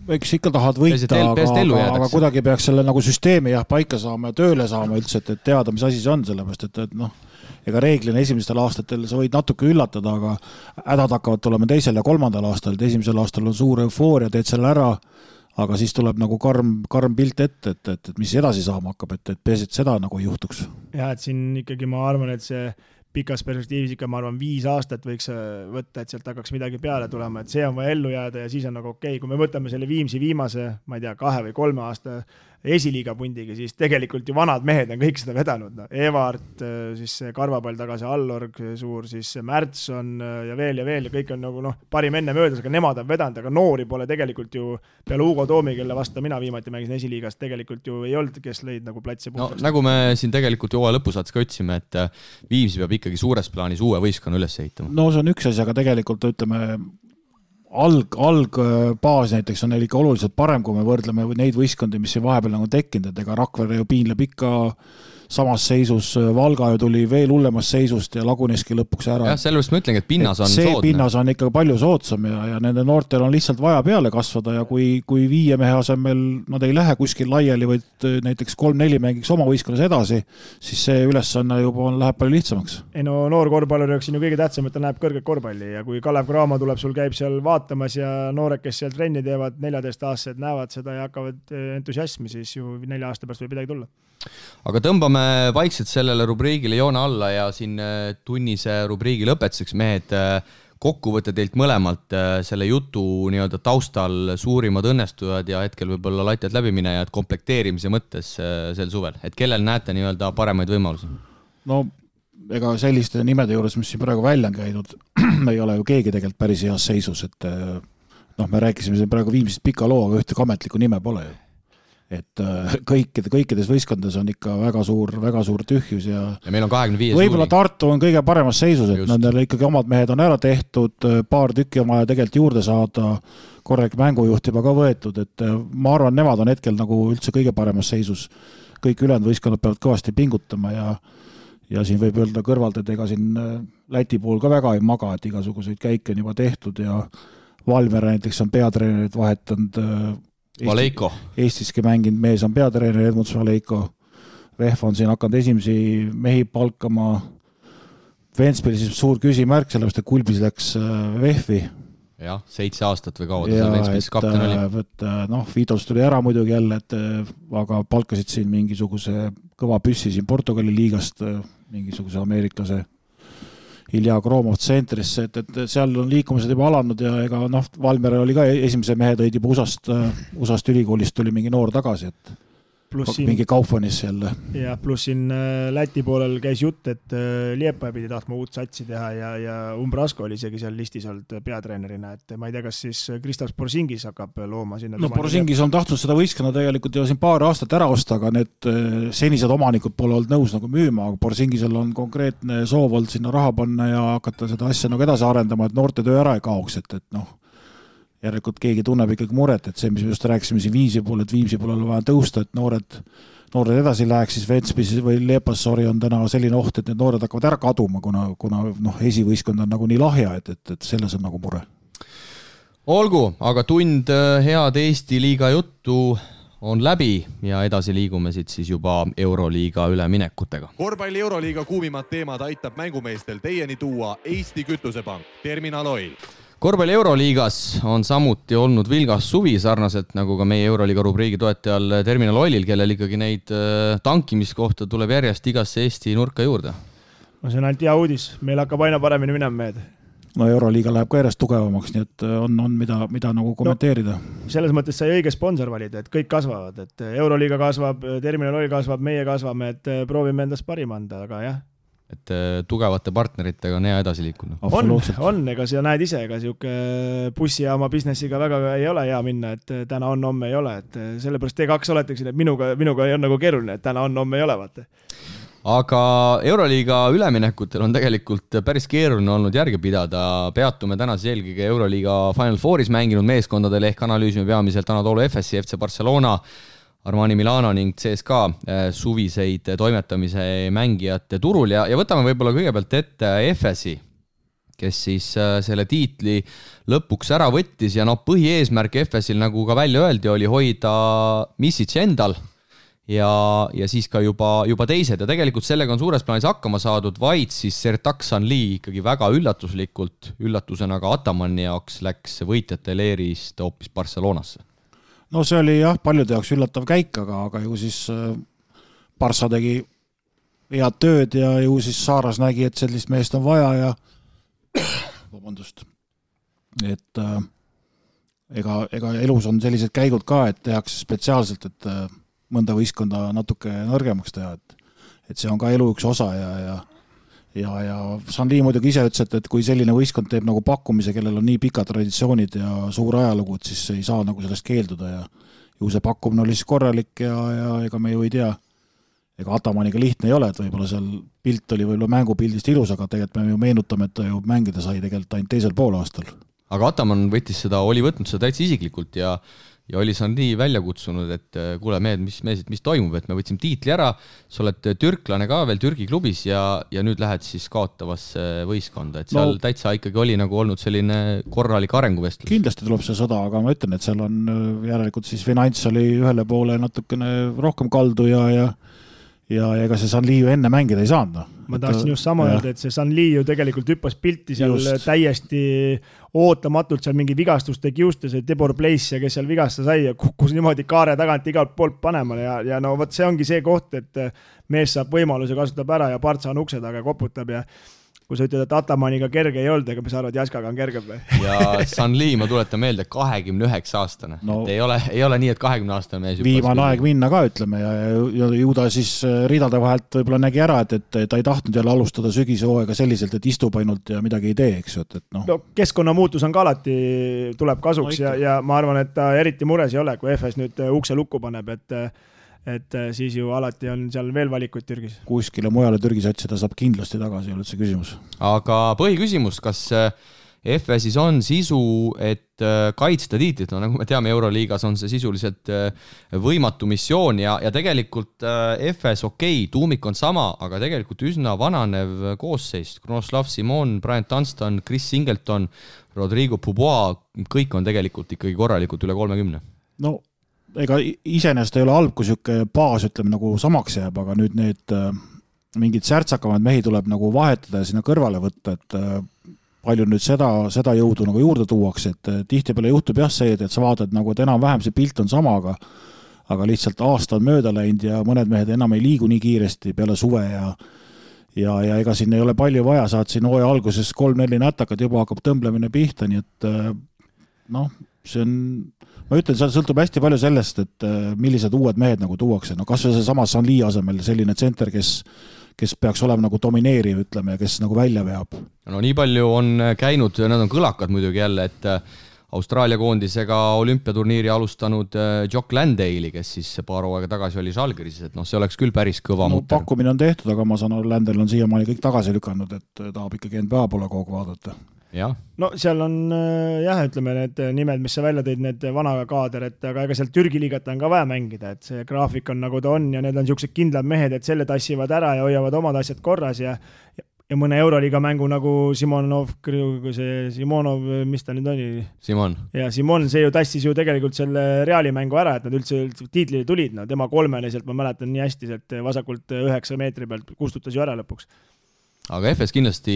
eks ikka tahad võita, aga kuidagi peaks selle nagu süsteemi paika saama ja tööle saama üldse, et teada, mis asi see on, sellepärast, et noh, ega reeglina esimestel aastatel sa võid natuke üllatada, aga hädad hakkavad tulema 2. ja 3. aastal, et esimesel aastal on suur eufooria, teed selle ära, aga siis tuleb nagu karm pilt ette, et mis edasi saama hakkab, et peaasi, et seda nagu ei juhtuks. Ja, et siin ikkagi ma arvan, et see pikas perspektiivis ikka, ma arvan, 5 aastat võiks võtta, et sealt hakkaks midagi peale tulema, et see on vaja ellu jääda ja siis on nagu okei. Kui me võtame selle Viimsi viimase, ma ei tea, 2 või 3 aasta esiliiga pundiga, siis tegelikult ju vanad mehed on kõik seda vedanud. No. Evart, siis Karvapall tagasi, Allorg suur, siis Märtson ja veel ja kõik on nagu parim enne möödas, aga nemad on vedanud, aga noori pole tegelikult ju peale Hugo Toomi, kelle vastu mina viimati mängisin esiliigast, tegelikult ju ei olnud, kes lõid nagu platsi puhtaks. No, nagu me siin tegelikult ju lõpusaats ka otsime, et Viimsi peab ikkagi suures plaanis uue võistkonna üles ehitama. No see on üks asi, aga tegelikult ütleme algbaas näiteks on neil ikka oluliselt parem, kui me võrdleme neid võistkondi, mis siin vahepeal nagu tekkinud, et ega Rakvere ju piinleb ikka samas seisus, Valga ju tuli veel hullemas seisust ja laguneski lõpuks ära. Jah, sellepärast ma ütlengi, et pinnas on soodne. See pinnas on ikka palju soodsam ja nende noortel on lihtsalt vaja peale kasvada ja kui 5 mehe asemel nad ei lähe kuskil laiali, vaid näiteks 3-4 mängiks oma võistkonnas edasi, siis see ülesanne juba läheb palju lihtsamaks. Ei no noor korvpallur on ju kõige tähtsam, et ta näeb kõrget korvpalli ja kui Kalev Cramo tuleb, sul käib seal vaatamas ja noored, kes seal trenni teevad, 14-aastased näevad seda ja hakkavad entusiasmi, siis ju 4 aasta pärast võib midagi tulla. Aga tõmbame vaikselt sellele rubriigile joone alla ja siin tunnise rubriigi lõpetuseks mehed kokkuvõtte teilt mõlemalt selle jutu nii-öelda taustal suurimad õnnestujad ja hetkel võib-olla latjad läbiminejad komplekteerimise mõttes sel suvel, et kellel näete nii-öelda paremaid võimalusi? No ega selliste nimede juures, mis siin praegu välja on käidud, ei ole ju keegi tegelikult päris heas seisus, et me rääkisime siin praegu Viimsist pika loo, aga ühte ametlikku nime pole ju. Et kõikides võistkondades on ikka väga suur tühjus ja meil on 25 võib-olla Tartu on kõige paremas seisus, et nendel ikkagi omad mehed on ära tehtud, paar tükki on vaja tegelikult juurde saada, korralik mängujuht juba ka võetud, et ma arvan, nemad on hetkel nagu üldse kõige paremas seisus. Kõik ülejäänud võistkonnad peavad kõvasti pingutama ja siin võib öelda kõrvalt, et ega siin Läti pool ka väga ei maga, et igasuguseid käike on juba tehtud ja Valmiera näiteks on peatreenerit vahetanud Valeiko. Eestiski mänginud mees on peatreener Edmunds Valeiko. Vehv on siin hakanud esimesi mehi palkama. Ventspilis suur küsimärk, sellepärast, et Kulbis läks Vehvi. Jah, 7 aastat või kaua ta seal Ventspilis kapten oli. Vitos tuli ära muidugi jälle, aga palkasid siin mingisuguse kõva püssi siin Portugali liigast, mingisuguse ameeriklase Ilja Kromov tsentrisse, et seal on liikumised juba alanud ja ega Valmiera oli ka esimese mehe tõid juba USA-st ülikoolist tuli mingi noor tagasi, et mingi Kaufmanis jälle. Ja pluss siin Läti poolel käis jutt, et Liepaja pidi tahtma uut satsi teha ja Umbrasko oli isegi seal listis olnud peatreenerina, et ma ei tea, kas siis Kristaps Porzingis hakkab looma sinna. No Porzingis on tahtnud seda võistkonna tegelikult ju siin paar aastat ära osta, aga need senised omanikud pole olnud nõus nagu müüma, aga Porzingisel on konkreetne soov olnud sinna raha panna ja hakata seda asja nagu edasi arendama, et noorte töö ära ei kaoks, et järelikult keegi tunneb ikkagi muret, et see, mis me just rääkisime siin Viimsi pool, et Viimsi pool on vaja tõusta, et noored edasi läheks, siis Ventspils või Leepassori on täna selline oht, et need noored hakkavad ära kaduma, kuna esivõistkond on nagu nii lahja, et selles on nagu mure. Olgu, aga tund head Eesti liiga juttu on läbi ja edasi liigume siit siis juba Euroliiga üleminekutega. Korvpalli Euroliiga kuumimad teemad aitab mängumeestel teieni tuua Eesti Kütusepank, Terminal Oil. Korvpalli Euroliigas on samuti olnud vilgas suvi sarnaselt nagu ka meie Euroliiga rubriigi toetajal Terminal Oilil, kellel ikkagi neid tankimiskohta tuleb järjest igasse Eesti nurka juurde. No see on ainult hea uudis, meil hakkab aina paremini minema mehed. no Euroliiga läheb ka järjest tugevamaks, nii et on mida nagu kommenteerida. Selles mõttes sai õige sponsor valida, et kõik kasvavad, et Euroliiga kasvab, Terminal Oil kasvab, meie kasvame, et proovime endast parim anda, aga jah. Et tugevate partneritega on hea edasi liikunud. On, ega sa näed ise, ega siuke bussijaama businessiga väga ei ole hea minna, et täna on, homme ei ole, et sellepärast T2 oleteksin, et minuga ei on nagu keeruline, et täna on, homme ei ole, vaata. Aga Euroliiga üleminekutel on tegelikult päris keeruline olnud järge pidada. Peatume tänas eelkõige Euroliiga Final Fouris mänginud meeskondadel ehk analüüsime peamiselt Anadolu Efesi, FC Barcelona, Armani Milano ning CSKA suviseid toimetamise mängijate turul ja võtame võib-olla kõigepealt ette Efesi, kes siis selle tiitli lõpuks ära võttis ja põhieesmärk Efesil, nagu ka välja öeldi, oli hoida Misic endal ja siis ka juba teised ja tegelikult sellega on suures plaanis hakkama saadud, vaid siis Sertak Sanli ikkagi väga üllatusena ka Atamani jaoks läks võitjate leerist hoopis Barcelonasse. No see oli jah, paljude jaoks üllatav käik, aga ju siis Barca tegi head tööd ja ju siis Saaras nägi, et sellist meest on vaja ja vabandust, et ega elus on sellised käigud ka, et tehakse spetsiaalselt, et mõnda võistkonda natuke nõrgemaks teha, et see on ka elu üks osa ja Sanli muidugi ise ütles, et kui selline võistkond teeb nagu pakkumise, kellel on nii pikad traditsioonid ja suur ajalugud, siis ei saa nagu sellest keelduda ja ju see pakkumine oli siis korralik ja ega me ju ei tea, ega Atamaniga lihtne ei ole, et võib-olla seal pilt oli võib-olla mängupildist ilus, aga tegelikult me ju meenutame, et ta ju mängida sai tegelikult ainult teisel poolaastal. Aga Ataman oli võtnud seda täitsa isiklikult ja oli Sanli välja kutsunud, et kuule mehed, mis toimub, et me võtsime tiitli ära, sa oled türklane ka veel Türgi klubis ja nüüd lähed siis kaotavasse võistkonda, et seal täitsa ikkagi oli nagu olnud selline korralik arenguvestlus. Kindlasti tuleb see sõda, aga ma ütlen, et seal on järelikult siis finants oli ühele poole natukene rohkem kaldu ja ega see Sanli ju enne mängida ei saanud. Ma tahtsin just sama öelda, et see Sanli ju tegelikult hüppas pilti seal täiesti ootamatult seal mingi vigastuste kiuste, see Debor Place, kes seal vigasta sai ja kukkus niimoodi kaare tagant igalt poolt panema ja no vot see ongi see koht, et mees saab võimaluse, kasutab ära ja Partsa on ukse taga koputab ja kui sa ütled, et Atamaniga kerge ei olnud, ega me saavad Jaskaga on kergem või? Ja Sanli, ma tuletan meelde, 29 aastane. No, ei ole nii, et 20 aastane mees. Viimane aeg minna ka, ütleme, ja ju ta siis ridade vahelt võib-olla nägi ära, et ta ei tahtnud jälle alustada sügishooaega selliselt, et istub ainult ja midagi ei tee, eks ju. No, keskkonnamuutus on ka alati, tuleb kasuks ja ma arvan, et ta eriti mures ei ole, kui FS nüüd ukse lukku paneb, et siis ju alati on seal veel valikuid Türgis. Kuskile mujale Türgis otsida saab kindlasti tagasi, ei ole see küsimus. Aga põhiküsimus, kas FS-is on sisu, et kaitsta tiitlit, no nagu me teame, Euroliigas on see sisuliselt võimatu missioon ja tegelikult FS tuumik on sama, aga tegelikult üsna vananev koosseis. Kronoslav Simon, Brian Dunston, Chris Singleton, Rodrigo Pubois, kõik on tegelikult ikkagi korralikult üle 30. No ega iseenesest ei ole halb, kui siuke baas ütleme nagu samaks jääb, aga nüüd need mingid särtsakamad mehi tuleb nagu vahetada ja sinna kõrvale võtta, et palju nüüd seda jõudu nagu juurde tuuakse, et tihtipeale juhtub jah see, et sa vaatad nagu, et enam-vähem see pilt on sama, aga lihtsalt aasta on mööda läinud ja mõned mehed enam ei liigu nii kiiresti peale suve ja ega siin ei ole palju vaja, saad siin hooaja alguses 3-4 nätakad, juba hakkab tõmblemine pihta, nii et see on ma ütlen, see sõltub hästi palju sellest, et millised uued mehed nagu tuuakse. No kas või see sama Sanli asemel selline tsenter, kes peaks olema nagu domineeriv, ütleme, ja kes nagu välja veab. No nii palju on käinud, nad on kõlakad muidugi jälle, et Austraalia koondisega olümpiaturniiri alustanud Jock Landale'i, kes siis paar hooaega tagasi oli Žalgiris, et see oleks küll päris kõva mutter. Pakkumine on tehtud, aga ma saan aru, Landale on siiamaani kõik tagasi lükanud, et tahab ikkagi NBA poole kogu vaadata. Ja. No seal on ütleme need nimed, mis sa välja tõid, need vana kaader, et aga ega seal Türgi liigat on ka vaja mängida, et see graafik on nagu ta on ja need on siuksed kindlad mehed, et selle tassivad ära ja hoiavad omad asjad korras ja mõne Euroliiga mängu nagu Simonov, mis ta nüüd oli? Simon. Ja Simon, see ju tassis ju tegelikult selle Reali mängu ära, et nad üldse tiitlile tulid, tema kolmeliselt, ma mäletan nii hästi, et vasakult 9 meetri pealt kustutas ju ära lõpuks. Aga FS kindlasti,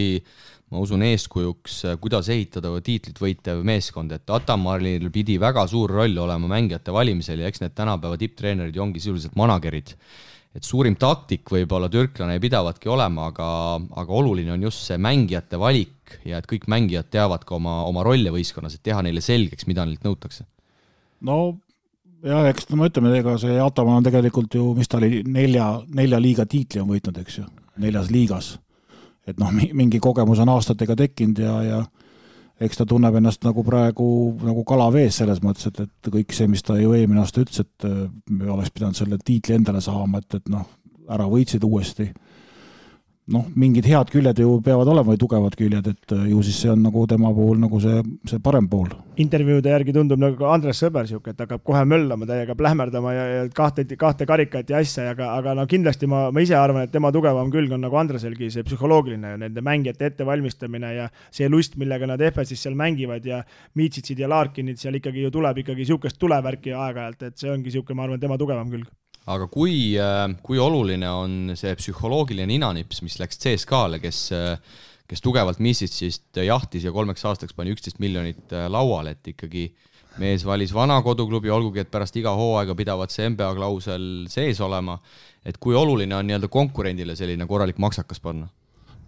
ma usun, eeskujuks, kuidas ehitada tiitlit võitev meeskond, et Atamaril pidi väga suur roll olema mängijate valimisel ja eks need tänapäeva tipptreenerid ju ongi sisuliselt managerid. et suurim taktik võib-olla türklane ei pidavatki olema, aga oluline on just see mängijate valik ja et kõik mängijad teavad ka oma rolle võistkonnas, et teha neile selgeks, mida neilt nõutakse. No ja eks ma ütleme, ega see Ataman on tegelikult ju, mis ta oli, nelja liiga tiitli on võitnud, eks ju, 4 liigas. Et noh, mingi kogemus on aastatega tekkinud ja eks ta tunneb ennast nagu praegu nagu kala vees selles mõttes, et kõik see, mis ta ju eelmine aasta ütles, et me oleks pidanud selle tiitli endale saama, et noh, ära võitsid uuesti. Noh, mingid head küljed ju peavad olema või tugevad küljed, et ju siis see on nagu tema puhul nagu see parem pool. Intervjuude järgi tundub nagu Andres Sõber siuke, et hakkab kohe möllama, täiega plähmerdama ja kahte karikat ja asja, aga no kindlasti ma ise arvan, et tema tugevam külg on nagu Andreselgi see psühholoogiline ja nende mängijate ettevalmistamine ja see lust, millega nad FS-is seal mängivad ja Miitsitsid ja Larkinid seal ikkagi ju tuleb ikkagi siukest tulevärki aeg-ajalt, et see ongi siuke, ma arvan, tema tugevam külg. Aga kui oluline on see psühholoogiline ninanips, mis läks CSKA-le, kes tugevalt Misitsist jahtis ja 3 aastaks pani 11 miljonit lauale, et ikkagi mees valis vana koduklubi, olgugi et pärast iga hooaega pidavad see NBA klausel sees olema, et kui oluline on nii-öelda konkurendile selline korralik maksakas panna?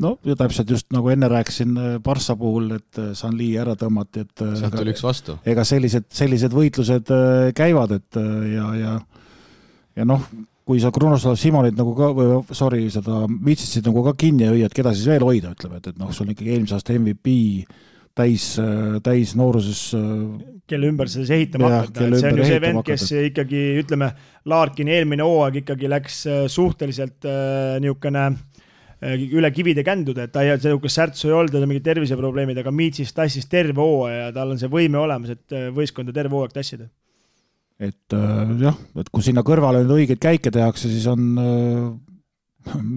No ja täpselt just nagu enne rääkisin Barssa puhul, et Sanli ära tõmmati, et sealt tuli üks vastu. Ega sellised võitlused käivad, et ja noh, kui sa Krunoslav Simonit nagu ka, seda Mitsitsid nagu ka kinni ja hüüad, keda siis veel hoida, ütleme, et noh, sul on ikkagi eelmise aasta MVP täis nooruses. Kelle ümber see ehitama hakkad. See on ju see vend, kes ikkagi, ütleme, Larkin eelmine hooaeg ikkagi läks suhteliselt niisugune üle kivide känduda, et ta ei ole särtsu ei olnud, mingid terviseprobleemid, aga Mitsis tassis terve hooaja ja tal on see võime olemas, et võistkonda terve hooaeg tassida. Et jah, et kui sinna kõrvale nüüd õigeid käike tehakse, siis on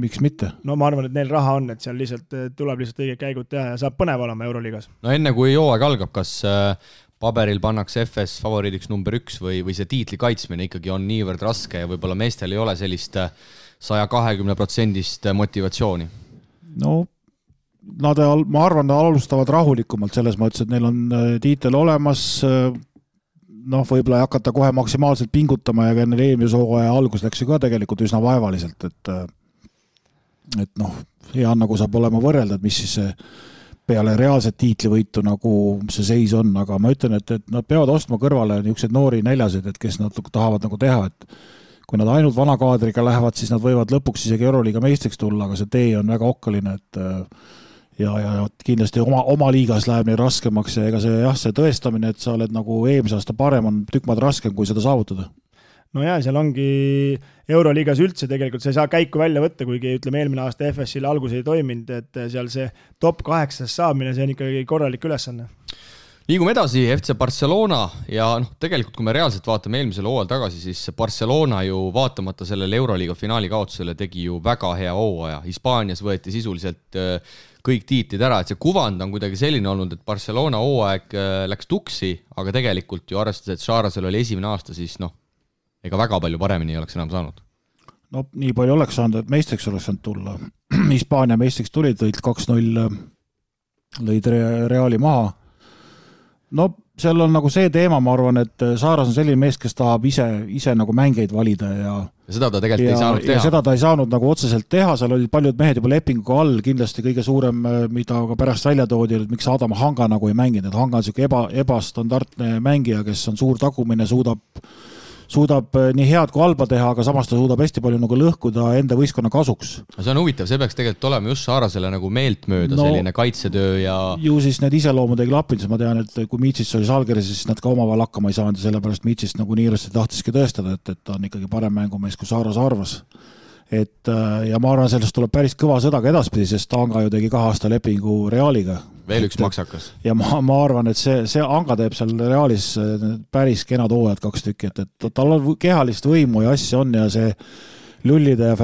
miks mitte? No ma arvan, et neil raha on, et seal tuleb lihtsalt õiged käigud teha ja saab põnev olema Euroliigas. No enne kui hooaeg algab, kas paberil pannakse FS favoriidiks number 1 või see tiitli kaitsmine ikkagi on niivõrd raske ja võib-olla meestel ei ole sellist 120% motivatsiooni? No ma arvan, nad alustavad rahulikumalt selles mõttes, et neil on tiitel olemas, noh, võib-olla ei hakata kohe maksimaalselt pingutama ja neil eelmise hooaja algus läks ju ka tegelikult üsna vaevaliselt, et noh, hea nagu saab olema võrrelda, et mis siis see peale reaalset tiitlivõitu nagu see seis on, aga ma ütlen, et nad peavad ostma kõrvale niisugused noori näljasid, et kes nad tahavad nagu teha, et kui nad ainult vana kaadriga lähevad, siis nad võivad lõpuks isegi Euroliiga meistriks tulla, aga see tee on väga okkaline, et ja kindlasti oma liigas läheb neil raskemaks ja ega see tõestamine, et sa oled nagu eelmise aasta parem, on tükk maad raskem, kui seda saavutada. No jaa, seal ongi Euroliigas üldse tegelikult, sa ei saa käiku välja võtta, kuigi ütleme eelmine aasta FS-il algus ei toiminud, et seal see top 8 saamine, see on ikkagi korralik ülesanne. Liigume edasi, FC Barcelona ja tegelikult kui me reaalselt vaatame eelmisel hooajal tagasi, siis Barcelona ju vaatamata sellele Euroliiga finaali kaotusele tegi ju väga hea hooaja. Hispaanias võeti sisuliselt kõik tiitlid ära, et see kuvand on kuidagi selline olnud, et Barcelona hooaeg läks tuksi, aga tegelikult ju arvestades, et Šarasel oli esimene aasta, siis ega väga palju paremini ei oleks enam saanud. No nii palju oleks saanud, et meistriks oleks saanud tulla. Hispaania meistriks tulid, lõid 2-0, lõid Reali maha. No seal on nagu see teema, ma arvan, et Saaras on selline mees, kes tahab ise nagu mängeid valida ja seda ta tegelikult ei saanud teha. Ja seda ta ei saanud nagu otseselt teha, seal olid paljud mehed juba lepinguga all, kindlasti kõige suurem, mida ka pärast välja toodi, et miks Adam Hanga nagu ei mänginud, et Hanga on selline ebastandardne mängija, kes on suur tagumine, suudab nii head kui halba teha, aga samas ta suudab hästi palju nagu lõhkuda enda võistkonna kasuks. See on huvitav, see peaks tegelikult olema just Saarasele nagu meeltmööda selline kaitsetöö ja ju siis need iseloomud ei klappinud, siis ma tean, et kui Miitsis oli Žalgiris, siis nad ka omavahel hakkama ei saanud ja sellepärast Miitsis nagu niirasti tahtiski tõestada, et ta on ikkagi parem mängumees, kui Saaras arvas. Ja ma arvan, sellest tuleb päris kõva sõda ka edaspidi, sest Anga ju tegi 2 aasta lepingu Realiga. Veel üks maksakas. Ja ma arvan, et see Anga teeb seal Realis päris kenad hooajad 2 tükki, et tal on kehalist võimu ja asja on ja see Lullide ja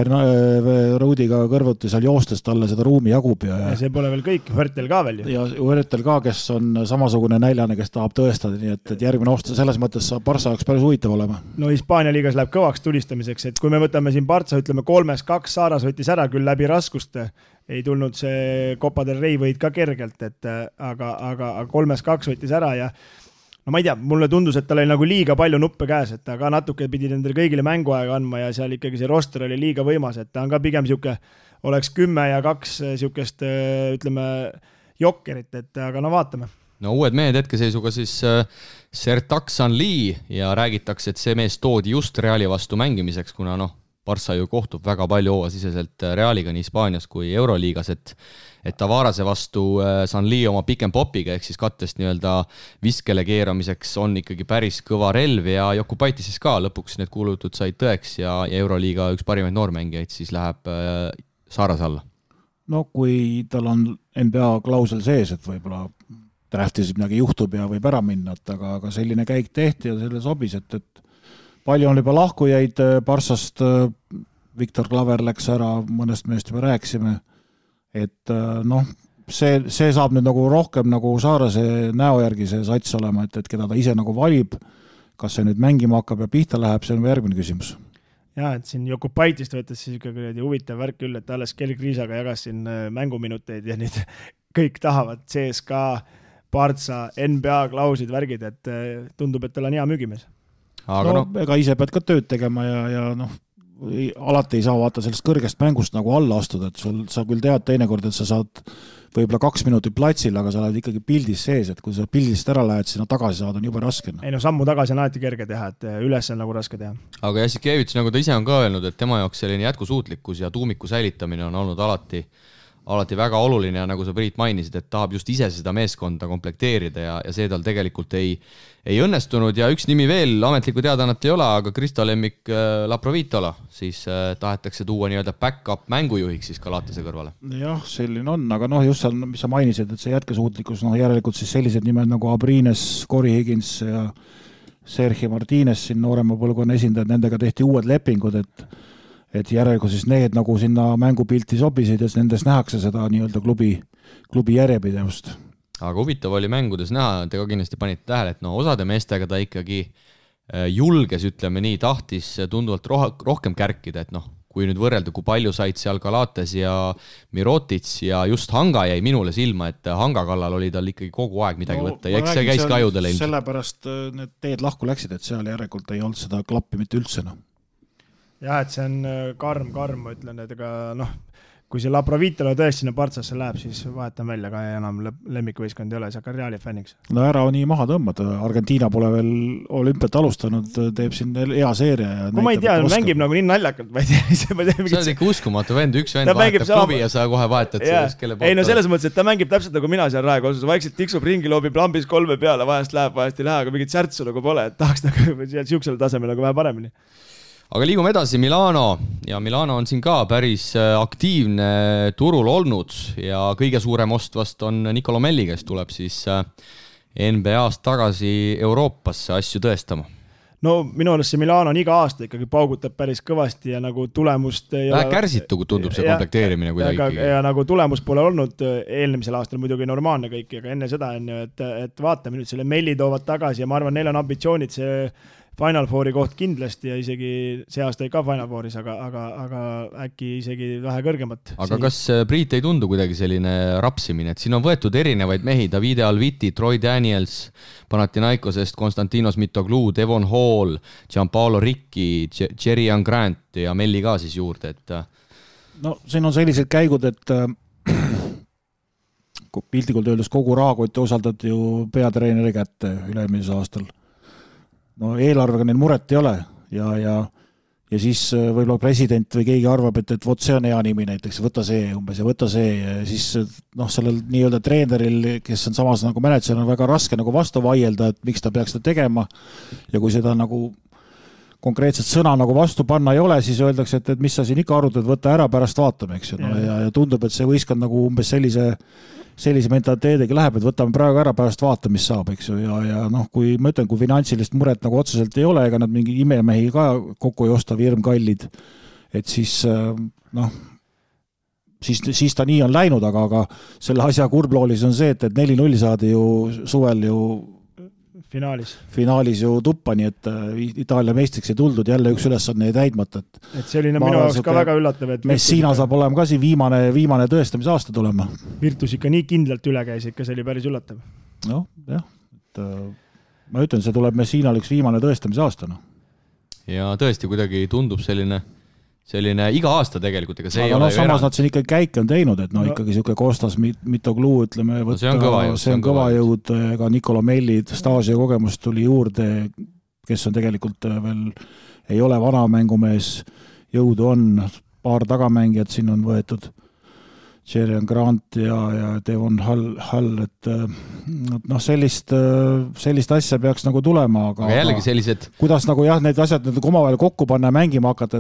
Ruudiga kõrvuti seal joostes talle seda ruumi jagub. Ja see pole veel kõik, Hörtel ka veel ju. Ja Hörtel ka, kes on samasugune näljane, kes tahab tõestada, nii et järgmine aasta selles mõttes saab Barca jaoks päris huvitav olema. No Hispaania liigas läheb kõvaks tulistamiseks, et kui me võtame siin Barca, ütleme 3-2, Saaras võttis ära küll läbi raskuste, ei tulnud see Copa del Rey võid ka kergelt, aga 3-2 võttis ära ja no ma ei tea, mulle tundus, et tal oli nagu liiga palju nuppe käes, et ta ka natuke pidi nendele kõigile mänguaega andma ja seal ikkagi see roster oli liiga võimas, et ta on ka pigem siuke, oleks 10 ja 2 siukest, ütleme, jokkerit, et aga no vaatame. No uued mehed hetkeseisuga siis Sertak Sanli ja räägitakse, et see mees toodi just Reali vastu mängimiseks, kuna Barça ju kohtub väga palju hooasiseselt Realiga nii Hispaanias kui Euroliigas, et Tavarase vastu Sanli oma pikem popiga ehk siis kattest nii-öelda viskele keeramiseks on ikkagi päris kõva relv ja Jokupaitises ka lõpuks need kuulutud said tõeks ja Euroliiga üks parimaid noormängijaid siis läheb Saaras alla. No kui tal on NBA klausel sees, et võib-olla draftis midagi juhtub ja võib ära minna, aga selline käik tehti ja selle sobis, et palju on juba lahkujaid Barssast, Viktor Klaver läks ära, mõnest meest juba rääkisime, et see saab nüüd nagu rohkem nagu Saarase näo järgi see sats olema, et keda ta ise nagu valib, kas see nüüd mängima hakkab ja pihta läheb, see on järgmine küsimus. Ja, et siin Jokupaitist võttes siis ikkagi huvitav värk küll, et alles Kelly Kriisaga jagas siin mänguminuteid ja nüüd kõik tahavad CSKA, Barca, NBA klausid värgid, et tundub, et tal on hea müügimees. Aga ega ise pead ka tööd tegema ja alati ei saa vaata sellest kõrgest mängust nagu alla astuda, et sa küll tead teinekord, et sa saad võib-olla 2 minutit platsil, aga sa oled ikkagi pildis sees, et kui sa pildist ära lähed, sinna tagasi saada on juba raske. Ei sammu tagasi on alati kerge teha, et üles on nagu raske teha. Aga Jassikevits, nagu ta ise on ka öelnud, et tema jaoks selline jätkusuutlikkus ja tuumiku säilitamine on olnud alati väga oluline ja nagu sa Priit mainisid, et tahab just ise seda meeskonda komplekteerida ja see tal tegelikult ei õnnestunud ja üks nimi veel, ametlikku teadaannat ei ole, aga Kristo lemmik Laprovitola, siis tahetakse tuua nii-öelda back-up mängujuhiks siis Galatase kõrvale. Jah, selline on, aga just seal, mis sa mainisid, et see jätkusuutlikkus, järelikult siis sellised nimed nagu Abrines, Corey Higgins ja Sergio Martínez, siin noorema põlvkonna esindajad, nendega tehti uued lepingud, et järelikult siis need nagu sinna mängupilti sobisid ja nendes nähakse seda nii-öelda klubi järjepidevust. Aga huvitav oli mängudes näha, te ka kindlasti panite tähele, et osade meestega ta ikkagi julges, ütleme nii, tahtis tunduvalt rohkem kärkida, et kui nüüd võrrelda, kui palju said seal Galates ja Mirotits ja just Hanga jäi minule silma, et Hanga kallal oli tal ikkagi kogu aeg midagi võtta ja eks see käis ka ajudele ilmselt. Sellepärast need teed lahku läksid, et seal järelikult ei olnud seda klappi mitte üldse. Jah, et see on karm, ma ütlen, et ega kui see Laprovitola tõesti sinna Partsasse läheb, siis vahetan välja ka enam lemmikvõiskond ei ole, see hakkab Reali fänniks. No ära on nii maha tõmmata, Argentiina pole veel olümpiat alustanud, teeb siin hea seeria. Ja ma ei tea, mängib nagu nii naljakalt, ma ei tea. See on ikka uskumatu vend, üks vend vahetab klubi ja sa kohe vahetad sellest, kelle poolt. Ei selles mõttes, et ta mängib täpselt nagu mina seal Rae Kolsus, vaikselt tiksub ringi, loobib lambis 3 peale, vahest läheb, vahest ei lähe, aga mingit särtsu nagu pole, et tahaks nagu siuksel tasemel nagu vähe paremini. Aga liigume edasi Milano ja Milano on siin ka päris aktiivne turul olnud ja kõige suurem ost vast on Nicolo Melli, kes tuleb siis NBA-st tagasi Euroopasse asju tõestama. No minu arust see Milano on iga aasta ikkagi paugutab päris kõvasti ja nagu tulemust vähe kärsitu, kui tundub see komplekteerimine kuidagi. Ja nagu tulemus pole olnud eelnemisel aastal muidugi normaalne kõik, aga enne seda on ju, et vaatame nüüd selle Melli toovad tagasi ja ma arvan, neil on ambitsioonid see Final Fouri koht kindlasti ja isegi see aasta ei ka Final Fouris, aga äkki isegi vähe kõrgemat. Aga kas Priit ei tundu kuidagi selline rapsimine, et siin on võetud erinevaid mehi, Davide Alviti, Troy Daniels, Panathinaikosest, Konstantinos Mitoglou, Devon Hall, Gianpaolo Ricci, Jerian Grant ja Melli ka siis juurde, et no siin on sellised käigud, et piltikult öeldes kogu rahakotti osaldati ju peatreeneri kätte üle-eelmisel aastal. No eelarvega neil muret ei ole ja siis võib-olla president või keegi arvab, et vot see on hea nimi näiteks, võta see umbes ja võta see ja siis sellel nii-öelda treeneril, kes on samas nagu manager, on väga raske nagu vastu vaielda, et miks ta peaks seda tegema ja kui seda nagu konkreetset sõna nagu vastu panna ei ole, siis öeldakse, et mis sa siin ikka arutad, võta ära, pärast vaatame, eks ju. Ja tundub, et see võistkond nagu umbes sellise mentaliteediga läheb, et võtame praegu ära, pärast vaata, mis saab, eks ju, ja kui ma ütlen, kui finantsilist muret nagu otseselt ei ole, ega nad mingi imemehi ka kokku ei osta virmkallid, et siis ta nii on läinud, aga selle asja kurbloolis on see, et 4-0 saadi ju suvel ju finaalis ju tuppa, nii et Itaalia meistriks ei tuldud, jälle üks ülesanne ei täidmata. Et see oli minu jaoks ka väga üllatav. Messina saab olema ka siin viimane tõestamise aasta tulema. Virtus ikka nii kindlalt üle käis, ikka see oli päris üllatav. Noh, jah. ma ütlen, see tuleb Messinal üks viimane tõestamise aasta. No. Ja tõesti kuidagi tundub selline iga aasta tegelikult, ega see aga ei ole samas nad siin ikkagi käike on teinud, et ikkagi siuke Kostas Mitoglou, ütleme, see on kõva jõud, ka Nikola Mellid, Stasio kogemus tuli juurde, kes on tegelikult veel, ei ole vana mängumees, jõudu on, paar tagamängijat siin on võetud, Jerian Grant ja Devon Hall, et sellist asja peaks nagu tulema, aga jällegi sellised kuidas nagu need asjad omavahel kokku panna ja mängima hakata,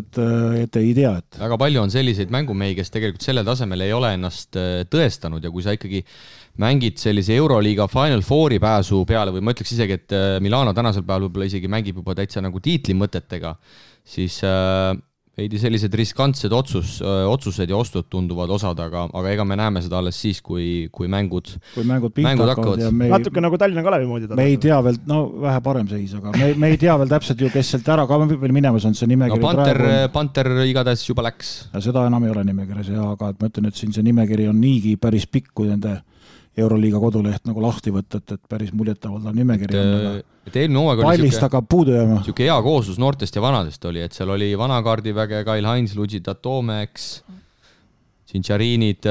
et ei tea, et väga palju on selliseid mängumehi, kes tegelikult sellel tasemel ei ole ennast tõestanud ja kui sa ikkagi mängid sellise Euroliiga Final Fouri pääsu peale või ma ütleks isegi, et Milano tänasel päeval võib-olla isegi mängib juba täitsa nagu tiitlimõtetega, siis veidi sellised riskantsed otsused ja ostud tunduvad osad, aga ega me näeme seda alles siis, kui mängud hakkavad. Natuke nagu Tallinna Kalevi moodi. Me ei tea veel, vähe parem seis, aga me ei tea veel täpselt ju, kes sealt ära ka veel minemas on see nimekiri. Panter igatahes juba läks. Ja seda enam ei ole nimekirjas, aga et ma ütlen, et siin see nimekiri on niigi päris pikk, kui nende Euroliiga koduleht nagu lahti võtta, et päris muljetavaldav nimekiri on. Eelmine hooaeg oli siuke hea kooslus noortest ja vanadest oli, et seal oli vanakaardiväge, Kyle Hines, Luigi Toomeks, Cincharinid,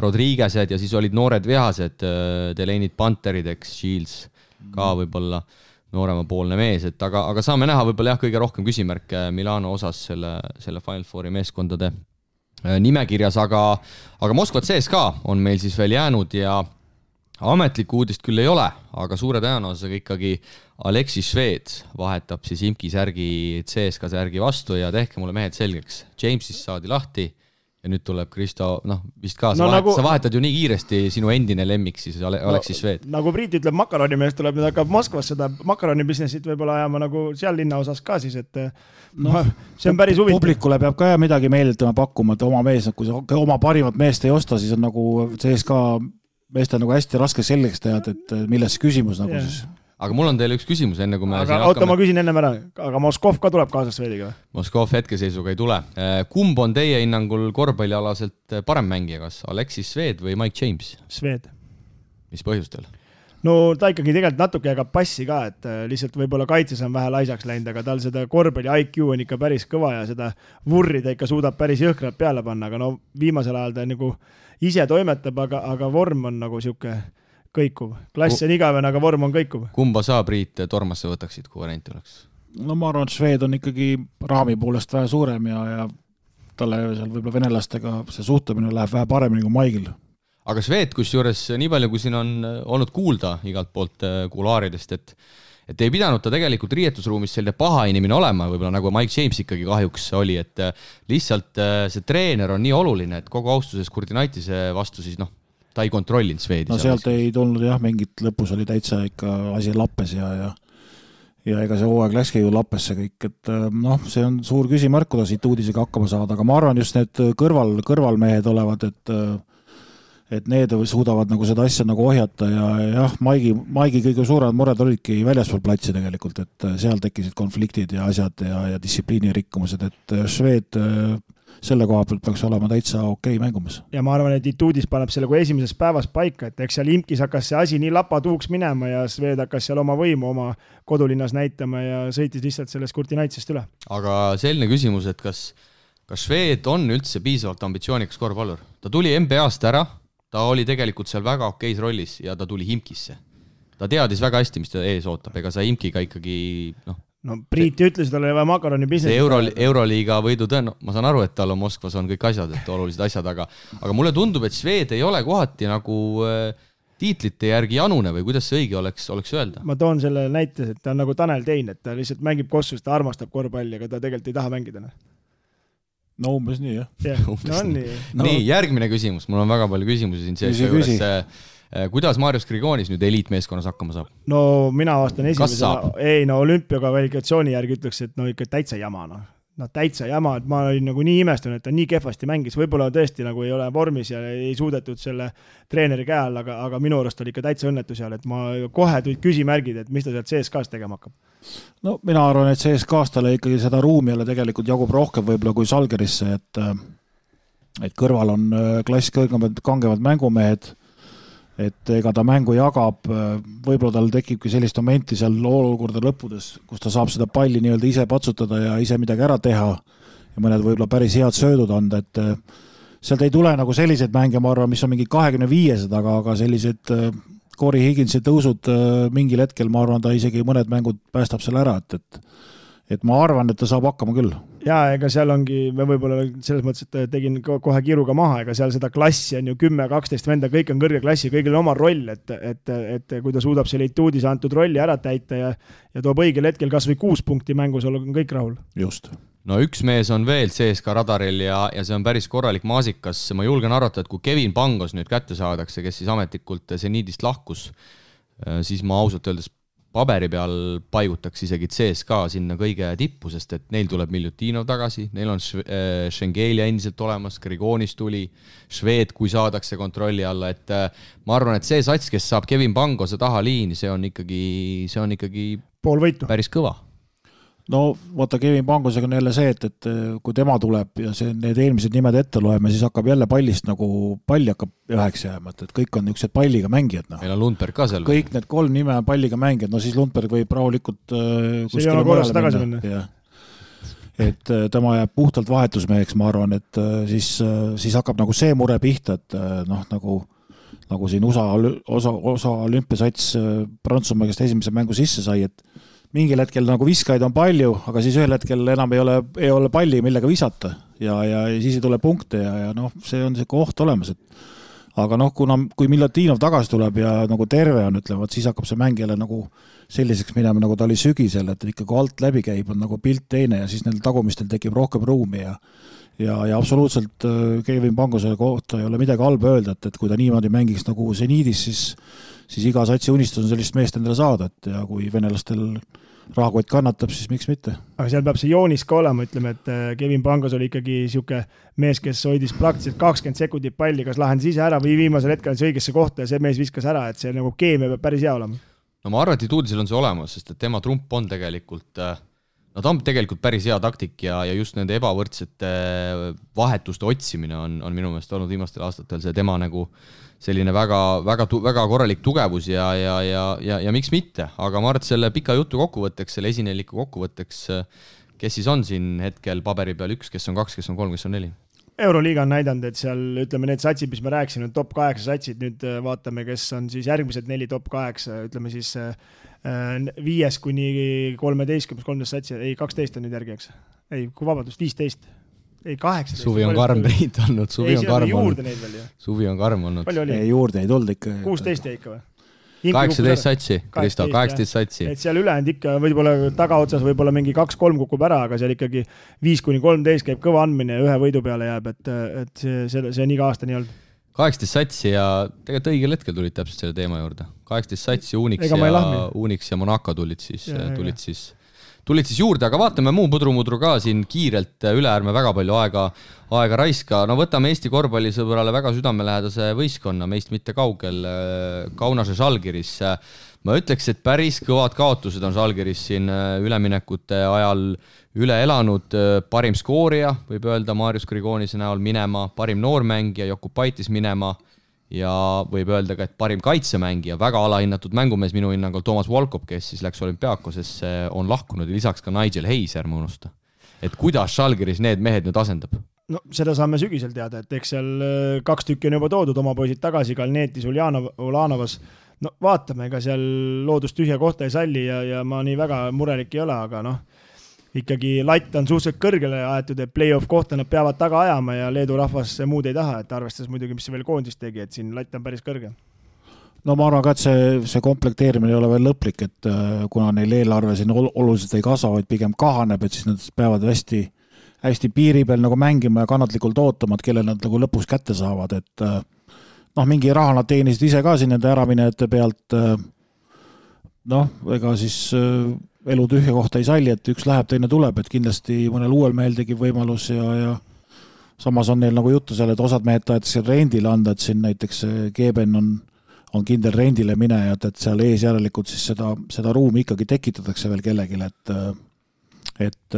Rodriguezed ja siis olid noored vihased, Delaney'd, Panterid, Shields ka võib-olla nooremapoolne mees, et aga saame näha võib-olla kõige rohkem küsimärke Milano osas selle Final Fouri meeskondade nimekirjas, aga Moskva CSKA on meil siis veel jäänud ja ametlikku uudist küll ei ole, aga suure tõenäosusega ikkagi Alexis Šved vahetab siis Imki särgi CSKA särgi vastu ja tehke mulle mehed selgeks. Jamesist saadi lahti ja nüüd tuleb Kristo, vist ka, sa vahetad ju nii kiiresti sinu endine lemmik siis Alexis Šved. Nagu Priit ütleb, makaronimees tuleb, nüüd hakkab Moskvas seda makaronibusinessit võib-olla ajama nagu seal linna osas ka siis, et see on päris huvitav. Publikule peab ka midagi meelditama pakkuma, et oma mees, kui sa oma parimat meest ei osta, siis on nagu CSKA meestel nagu hästi raske selgeks teha, et milles küsimus nagu siis. Aga mul on teile üks küsimus enne, kui me oota, ma küsin ennem ära, aga Moskov ka tuleb kaasas Švediga? Moskov hetkeseisuga ei tule. Kumb on teie hinnangul korvpallialaselt parem mängija, kas Alexis Šved või Mike James? Šved. Mis põhjustel? No ta ikkagi tegelikult natuke jagab passi ka, et lihtsalt võib-olla kaitses on vähe laisaks läinud, aga tal seda korvpalli IQ on ikka päris kõva ja seda vurri ta ikka suudab päris jõhkralt peale panna, aga viimasel ajal ta nagu ise toimetab, aga vorm on nagu siuke kõikuv. Klass on igavene, aga vorm on kõikuv. Kumba sa, Priit, Tormasse võtaksid, kui variant oleks? No ma arvan, et Šved on ikkagi raami poolest vähe suurem ja talle seal võib-olla venelastega see suhtumine läheb vähe paremini kui Maigil. Aga Šved, kusjuures nii palju, kui siin on olnud kuulda igalt poolt kulaaridest, et ei pidanud ta tegelikult riietusruumis selline paha inimene olema, võib-olla nagu Mike James ikkagi kahjuks oli, et lihtsalt see treener on nii oluline, et kogu austuses Kurtinaitise vastu siis ta ei kontrollinud Švedi. No sealt ei tulnud mingit lõpus oli täitsa ikka asi lappes ja ega see hooaeg läkski ju lappesse kõik, et see on suur küsimärk, kuidas siit uudisega hakkama saada, aga ma arvan just need kõrvalmehed olevad, et need suudavad nagu seda asja nagu ohjata ja jah, Maigi kõige suuremad mured olidki väljaspool platsi tegelikult, et seal tekkisid konfliktid ja asjad ja distsipliini rikkumused, et Šved selle koha pealt peaks olema täitsa okei mängumas. Ja ma arvan, et Ituudis paneb selle kui esimeses päevas paika, et eks seal Imkis hakkas see asi nii lapatuuks minema ja Šved hakkas seal oma võimu oma kodulinnas näitama ja sõitis lihtsalt sellest Kurtinaitsest üle. Aga selline küsimus, et kas Šved on üldse piisavalt ambitsioonikas korvpallur? Ta tuli NBA-st ära, ta oli tegelikult seal väga okeis rollis ja ta tuli Imkisse. Ta teadis väga hästi, mis ta ees ootab, ega sa Imkiga ikkagi Priit ütles, et tal oli vaja makaroni business. See Euroliiga võidu ma saan aru, et tal on Moskvas on kõik asjad, et olulised asjad, aga mulle tundub, et Šved ei ole kohati nagu tiitlite järgi janune või kuidas see õige oleks öelda? Ma toon selle näite, et ta on nagu Tanel Tein, et ta lihtsalt mängib Kossus, ta armastab korvpalli, aga ta tegelikult ei taha mängida. No umbes nii, jah. Nii, järgmine küsimus. Mul on väga palju küsimusi siin sees juures. Kuidas Marius Grigonis nüüd eliitmeeskonnas hakkama saab? No mina vastan esimesena. Olümpia kvalifikatsiooni järgi ütleks, et ikka täitsa jama. Täitsa jama, et ma olin nagu nii imestanud, et ta nii kehvasti mängis. Võib-olla tõesti nagu ei ole vormis ja ei suudetud selle treeneri käe all, aga minu arust oli ikka täitsa õnnetu seal, et ma kohe tulid küsimärgid, et mis ta sealt CSKA-s tegema hakkab. No mina arvan, et CSKA-s talle ikkagi seda ruumi jälle tegelikult jagub rohkem võib-olla kui Salgerisse, et kõrval on klass kõrgemad kangevad mängumehed, et ega ta mängu jagab, võib-olla tal tekibki sellist momenti seal olukorda lõppudes, kus ta saab seda palli nii-öelda ise patsutada ja ise midagi ära teha ja mõned võib-olla päris head söödud anda, et sealt ei tule nagu selliseid mänge, ma arvan, mis on mingi 25, aga sellised Corey Higginsi tõusud mingil hetkel, ma arvan, ta isegi mõned mängud päästab selle ära, et ma arvan, et ta saab hakkama küll. Jaa, ega seal ongi, me võib-olla selles mõttes, et tegin kohe kiiruga maha, ega seal seda klassi on ju 10-12 venda, kõik on kõrge klassi, kõigil on oma roll, et kui ta suudab selle Ituudis antud rolli ära täita ja toob õigel hetkel kas või 6 punkti mängus, on kõik rahul. Just. No üks mees on veel CSKA radaril ja see on päris korralik maasikas. Ma julgen arvata, et kui Kevin Pangos nüüd kätte saadakse, kes siis ametlikult Zenidist lahkus, siis ma ausalt öeldes paberi peal paigutaks isegi CSKA sinna kõige tippu, sest et neil tuleb Miljutinov tagasi, neil on Schengelia endiselt olemas, Grigonis tuli, Šved, kui saadakse kontrolli alla, et ma arvan, et see sats, kes saab Kevin Pangose taha liini, see on ikkagi pool võitu. Päris kõva. No vaata, Kevin Pangosega on jälle see, et kui tema tuleb ja need eelmised nimed ette loeme, siis hakkab jälle pallist nagu palli hakkab üheks jääma, et kõik on niisugused palliga mängijad. No. Meil on Lundberg ka seal. Kõik need 3 nime on palliga mängijad, no siis Lundberg võib rahulikult see ei ole korras tagasi minna. Ja. Et tema jääb puhtalt vahetusmeheks, ma arvan, et siis hakkab nagu see mure pihta, et noh, nagu siin USA olümpiasats Prantsusmaa, kes esimese mängu sisse sai, et mingil hetkel nagu viskaid on palju, aga siis ühel hetkel enam ei ole palli, millega visata ja siis ei tule punkte ja noh, see on see koht olemas. Aga noh, kui Miljutinov tagasi tuleb ja nagu terve on, ütlevad, siis hakkab see mäng jälle nagu selliseks minema, nagu ta oli sügisel, et ikka kui alt läbi käib, on nagu pilt teine ja siis neil tagumistel tekib rohkem ruumi ja absoluutselt Kevin Pangose kohta ei ole midagi halba öelda, et kui ta niimoodi mängiks nagu Zenidis, siis iga satsi unistus on sellist meest endale saada, et ja kui venelastel rahakott kannatab, siis miks mitte. Aga seal peab see joonis ka olema, ütleme, et Kevin Pangos oli ikkagi siuke mees, kes hoidis praktiliselt 20 sekundit palli, kas lahendas ise ära või viimasel hetkel see õigesse kohta ja see mees viskas ära, et see nagu keemia peab päris hea olema. No ma arvan, et Ituudisel on see olemas, sest et tema trump on tegelikult, no ta on tegelikult päris hea taktik ja just nende ebavõrdsete vahetuste otsimine on minu meelest olnud viimastel aastatel see tema nagu selline väga korralik tugevus ja miks mitte, aga ma arvan, et selle pika jutu kokkuvõtteks, selle esineliku kokkuvõtteks, kes siis on siin hetkel paberi peal 1, kes on 2, kes on 3, kes on 4? Euroliiga on näidanud, et seal ütleme need satsid, mis me rääkisime, top 8 satsid, nüüd vaatame, kes on siis järgmised 4 top 8, ütleme siis 5 kuni 13 satsi, ei 12 on nüüd järgi, eks? Ei, kui vabandust, 15. Ei, 18. Suvi on karm neid olnud, Suvi on karm olnud. Palju oli? Ei, juurde ei tulnud ikka. 16 jäi ikka või? 18 satsi, Kristo, 18 satsi. Et seal ülejäänud ikka võib-olla tagaotsas võib-olla mingi 2-3 kukub ära, aga seal ikkagi 5-13 käib kõva andmine ja 1 võidu peale jääb, et see on iga aasta nii olnud. 18 satsi ja tegelikult õigel hetkel tulid täpselt selle teema juurde. 18 satsi, Unix ja Monaco tulid siis juurde, aga vaatame muu pudru ka siin kiirelt üle, ärme väga palju aega raiska. No võtame Eesti korvpallisõbrale väga südamelähedase võistkonna, meist mitte kaugel, Kaunase Žalgiris. Ma ütleks, et päris kõvad kaotused on Žalgiris siin üleminekute ajal üle elanud. Parim skoorija, võib öelda, Marius Grigonise näol minema, parim noormängija, Jokubaitis minema ja võib öelda ka, et parim kaitsemängija, väga alahinnatud mängumees minu hinnangul Toomas Volkov, kes siis läks Olümpiakosesse, on lahkunud ja lisaks ka Nigel Hayes, ärme unusta. Et kuidas Žalgiris need mehed nüüd asendab? No seda saame sügisel teada, et eks seal 2 tükki on juba toodud, oma poisid tagasi, Kalneetis, Ulanovas. No vaatame, ega seal loodust tühja kohta ei salli ja ma nii väga murelik ei ole, aga noh, ikkagi latt on suhteliselt kõrgele aetud, et play-off kohta nad peavad taga ajama ja Leedu rahvas muud ei taha, et arvestades muidugi, mis see veel koondist tegi, et siin latt on päris kõrge. No ma arvan ka, et see komplekteerimine ei ole veel lõplik, et kuna neil eelarve siin oluliselt ei kasva, vaid pigem kahaneb, et siis nad peavad hästi piiri peal nagu mängima ja kannatlikult ootama, et kelle nad nagu lõpuks kätte saavad, et noh, mingi raha nad teenisid ise ka siin nende äraminejate pealt, noh, ega siis elu tühja kohta ei salli, et üks läheb, teine tuleb, et kindlasti mõnel uuel mehel tekib võimalus ja samas on neil nagu juttu seal, et osad mehed tahetakse rendile anda, et siin näiteks Geben on kindel rendile minejad, et seal ees järelikult siis seda ruumi ikkagi tekitatakse veel kellegile, et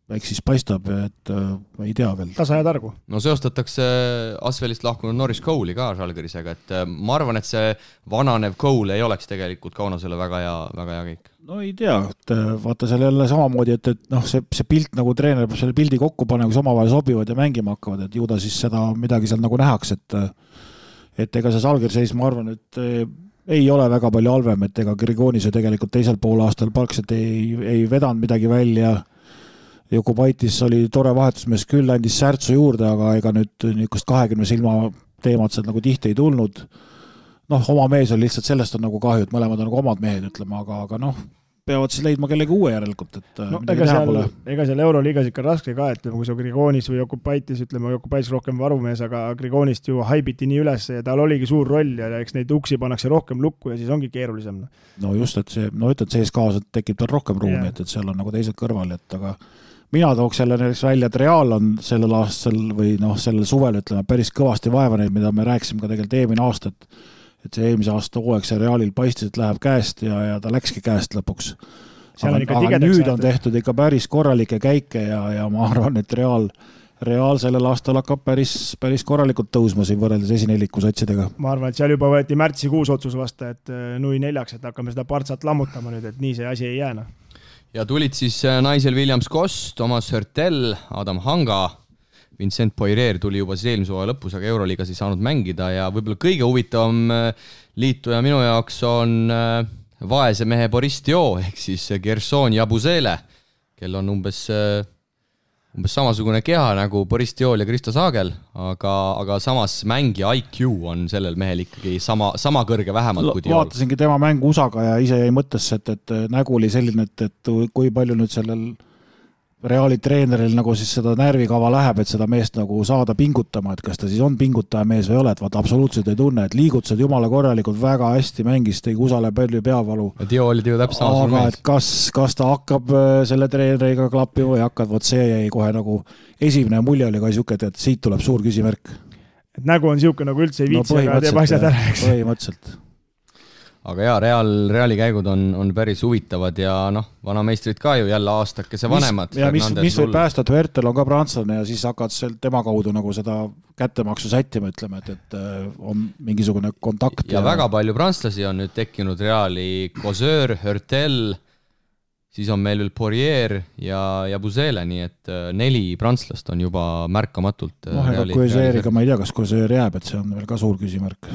eks siis paistab, et ei tea veel. Tasa ja targu. No seostatakse Asvelist lahkunud Norris Cole'i ka Žalgirisega, et ma arvan, et see vananev Cole ei oleks tegelikult Kaunasele väga hea kõik. No ei tea, et vaata seal jälle samamoodi, et noh, see pilt nagu treener peab selle pildi kokku panema, kus omavahel sobivad ja mängima hakkavad, et ju ta siis seda midagi seal nagu nähaks, et ega see Žalgiris, ma arvan, et ei ole väga palju halvem, et ega Grigonis ju tegelikult teisel poolaastal palkselt ei vedanud midagi välja. Jokubaitis oli tore vahetusmees küll, andis särtsu juurde, aga ega nüüd niisugust 20 silma teemad sealt nagu tihti ei tulnud. Noh, oma mees on lihtsalt, sellest on nagu kahju, et mõlemad on nagu omad mehed, ütleme, aga noh, peavad siis leidma kellegi uue järelikult, et no, ega seal Euroliigas ikka raske ka, et kui sa Grigonis või Jokubaitis, ütleme, Jokubaitis rohkem varumees, aga Grigonist ju haibiti nii üles ja tal oligi suur roll ja eks neid uksi pannakse rohkem lukku ja siis ongi keerulisem. No just, et see, no ütled, CSKA tekib tal rohkem ruumi, et seal on nagu teised kõrval, et aga mina tooks jälle näiteks välja, et Real on sellel aastal või noh, sellel suvel, ütleme, päris kõvasti vaeva neid, mida me rääkisime ka tegelikult eelmine aasta, et see eelmise aasta hooaeg see Realil paistis, et läheb käest ja ta läkski käest lõpuks. Aga nüüd on tehtud ikka päris korralikke käike ja ma arvan, et Real sellel aastal hakkab päris korralikult tõusma siin võrreldes esineliku satsidega. Ma arvan, et seal juba võeti märtsikuus otsus vasta, et nui 4, et hakkame seda partsat lammutama nüüd, et nii see asi ei jääna. Ja tulid siis naisel Williams Koss, Thomas Hörtel, Adam Hanga, Vincent Poirier tuli juba siis eelmise hooaja lõpus, aga Euroliigas ei saanud mängida ja võib-olla kõige huvitavam liituja minu jaoks on vaese mehe Boris Dio ehk siis Gerson Jabusele, kel on umbes samasugune keha nagu Boris Diol ja Kristo Saagel, aga samas mängija IQ on sellel mehel ikkagi sama kõrge vähemalt kui Diol. Vaatasingi tema mängu USA-ga ja ise jäi mõttesse, et nägu oli selline, et kui palju nüüd sellel Reali treeneril nagu siis seda närvikava läheb, et seda meest nagu saada pingutama, et kas ta siis on pingutaja mees või ole, et vaata absoluutselt ei tunne, et liigutused jumala korralikult väga hästi mängis, tegi Usale palju peavalu. Dio oli ju täpselt samasugune mees. Aga kas ta hakkab selle treeneriga klappima või hakkab, vot see jäi kohe nagu esimene mulje oli ka siuke, et siit tuleb suur küsimärk. Et nägu on siuke nagu üldse ei viitsi, aga teeb asjad ära. Põhimõtteliselt. Aga jaa, Reali käigud on päris huvitavad ja noh, vanameistrid ka ju jälle aastakese vanemad. Mis võib päästa, et Hörtel on ka prantslane ja siis hakkad tema kaudu nagu seda kättemaksu sättima, ütleme, et on mingisugune kontakt. Ja väga palju prantslasi on nüüd tekkinud Reali, Koseur, Hörtel, siis on meil veel Poirier ja Busele, nii et 4 prantslast on juba märkamatult. Koseeriga ma ei tea, kas Koseur jääb, et see on veel ka suur küsimärk.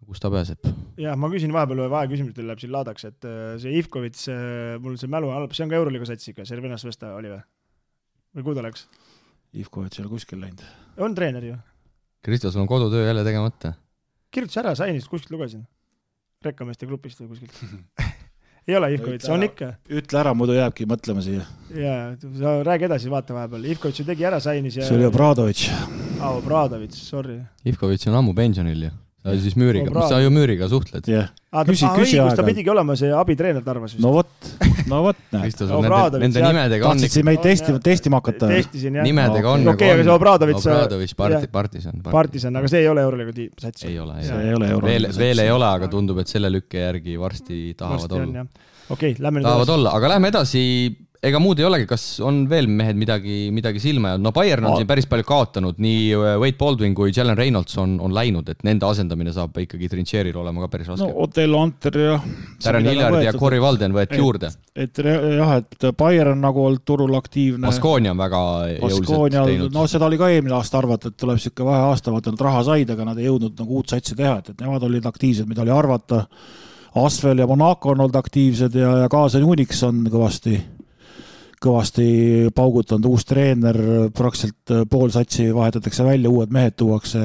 Kus ta pääseb? Jah, ma küsin vahepeal küsimustel läheb siin laadaks, et see Ivkovits, mul see mälu halb, see on ka Euroliiga satsiga, Servinas Vesta oli või kuhu ta läks? Ivkovits ei ole kuskil läinud. On treener ju. Kristo, sul on kodutöö jälle tegemata. Kirjutas ära, sainist kuskilt lugesin. Rekkameeste grupist või kuskilt. Ei ole Ivkovits, on ikka. Ütle ära, muidu jääbki mõtlema siia. Jaa, sa räägi edasi, vaata vahepeal. Ivkovits ju tegi ära sainis ja... See oli Obradovitš. Obradovitš, sorry. Ivkovits on ammu pensionil ju. Siis müüriga, sa ju müüriga suhtled. Küsi ta pidigi olema see abitreener tarvas vist. No vot, näe. Nende nimedega on... Tahtsid meid testima hakata? Testisin, jah. Nimedega on Okei, aga see Obradovits... Partisan, aga see ei ole Euroliiga sats. Ei ole. Veel ei ole, aga tundub, et selle lükke järgi varsti tahavad olla. Okei, lähme nüüd tahavad olla, aga lähme edasi... Ega muud ei olegi, kas on veel mehed midagi silma jäänud? No Bayern on siin päris palju kaotanud, nii Wade Baldwin kui Jalen Reynolds on läinud, et nende asendamine saab ikkagi Trincheri'l olema ka päris raske. No Otello Anter ja... Darren Hillard ja Corey Walden võeti juurde. Et Bayern on nagu olnud turul aktiivne. Baskonia on väga jõuliselt teinud. No seda oli ka eelmine aasta arvata, et tuleb siuke vahe aasta, vaata nad raha said, aga nad ei jõudnud nagu uut satsi teha, et nemad olid aktiivsed, mida oli arvata. Asvel ja Monaco on olnud aktiivsed ja Kaasen Unix on kõvasti paugutanud, uus treener, praktiliselt pool satsi vahetatakse välja, uued mehed tuuakse,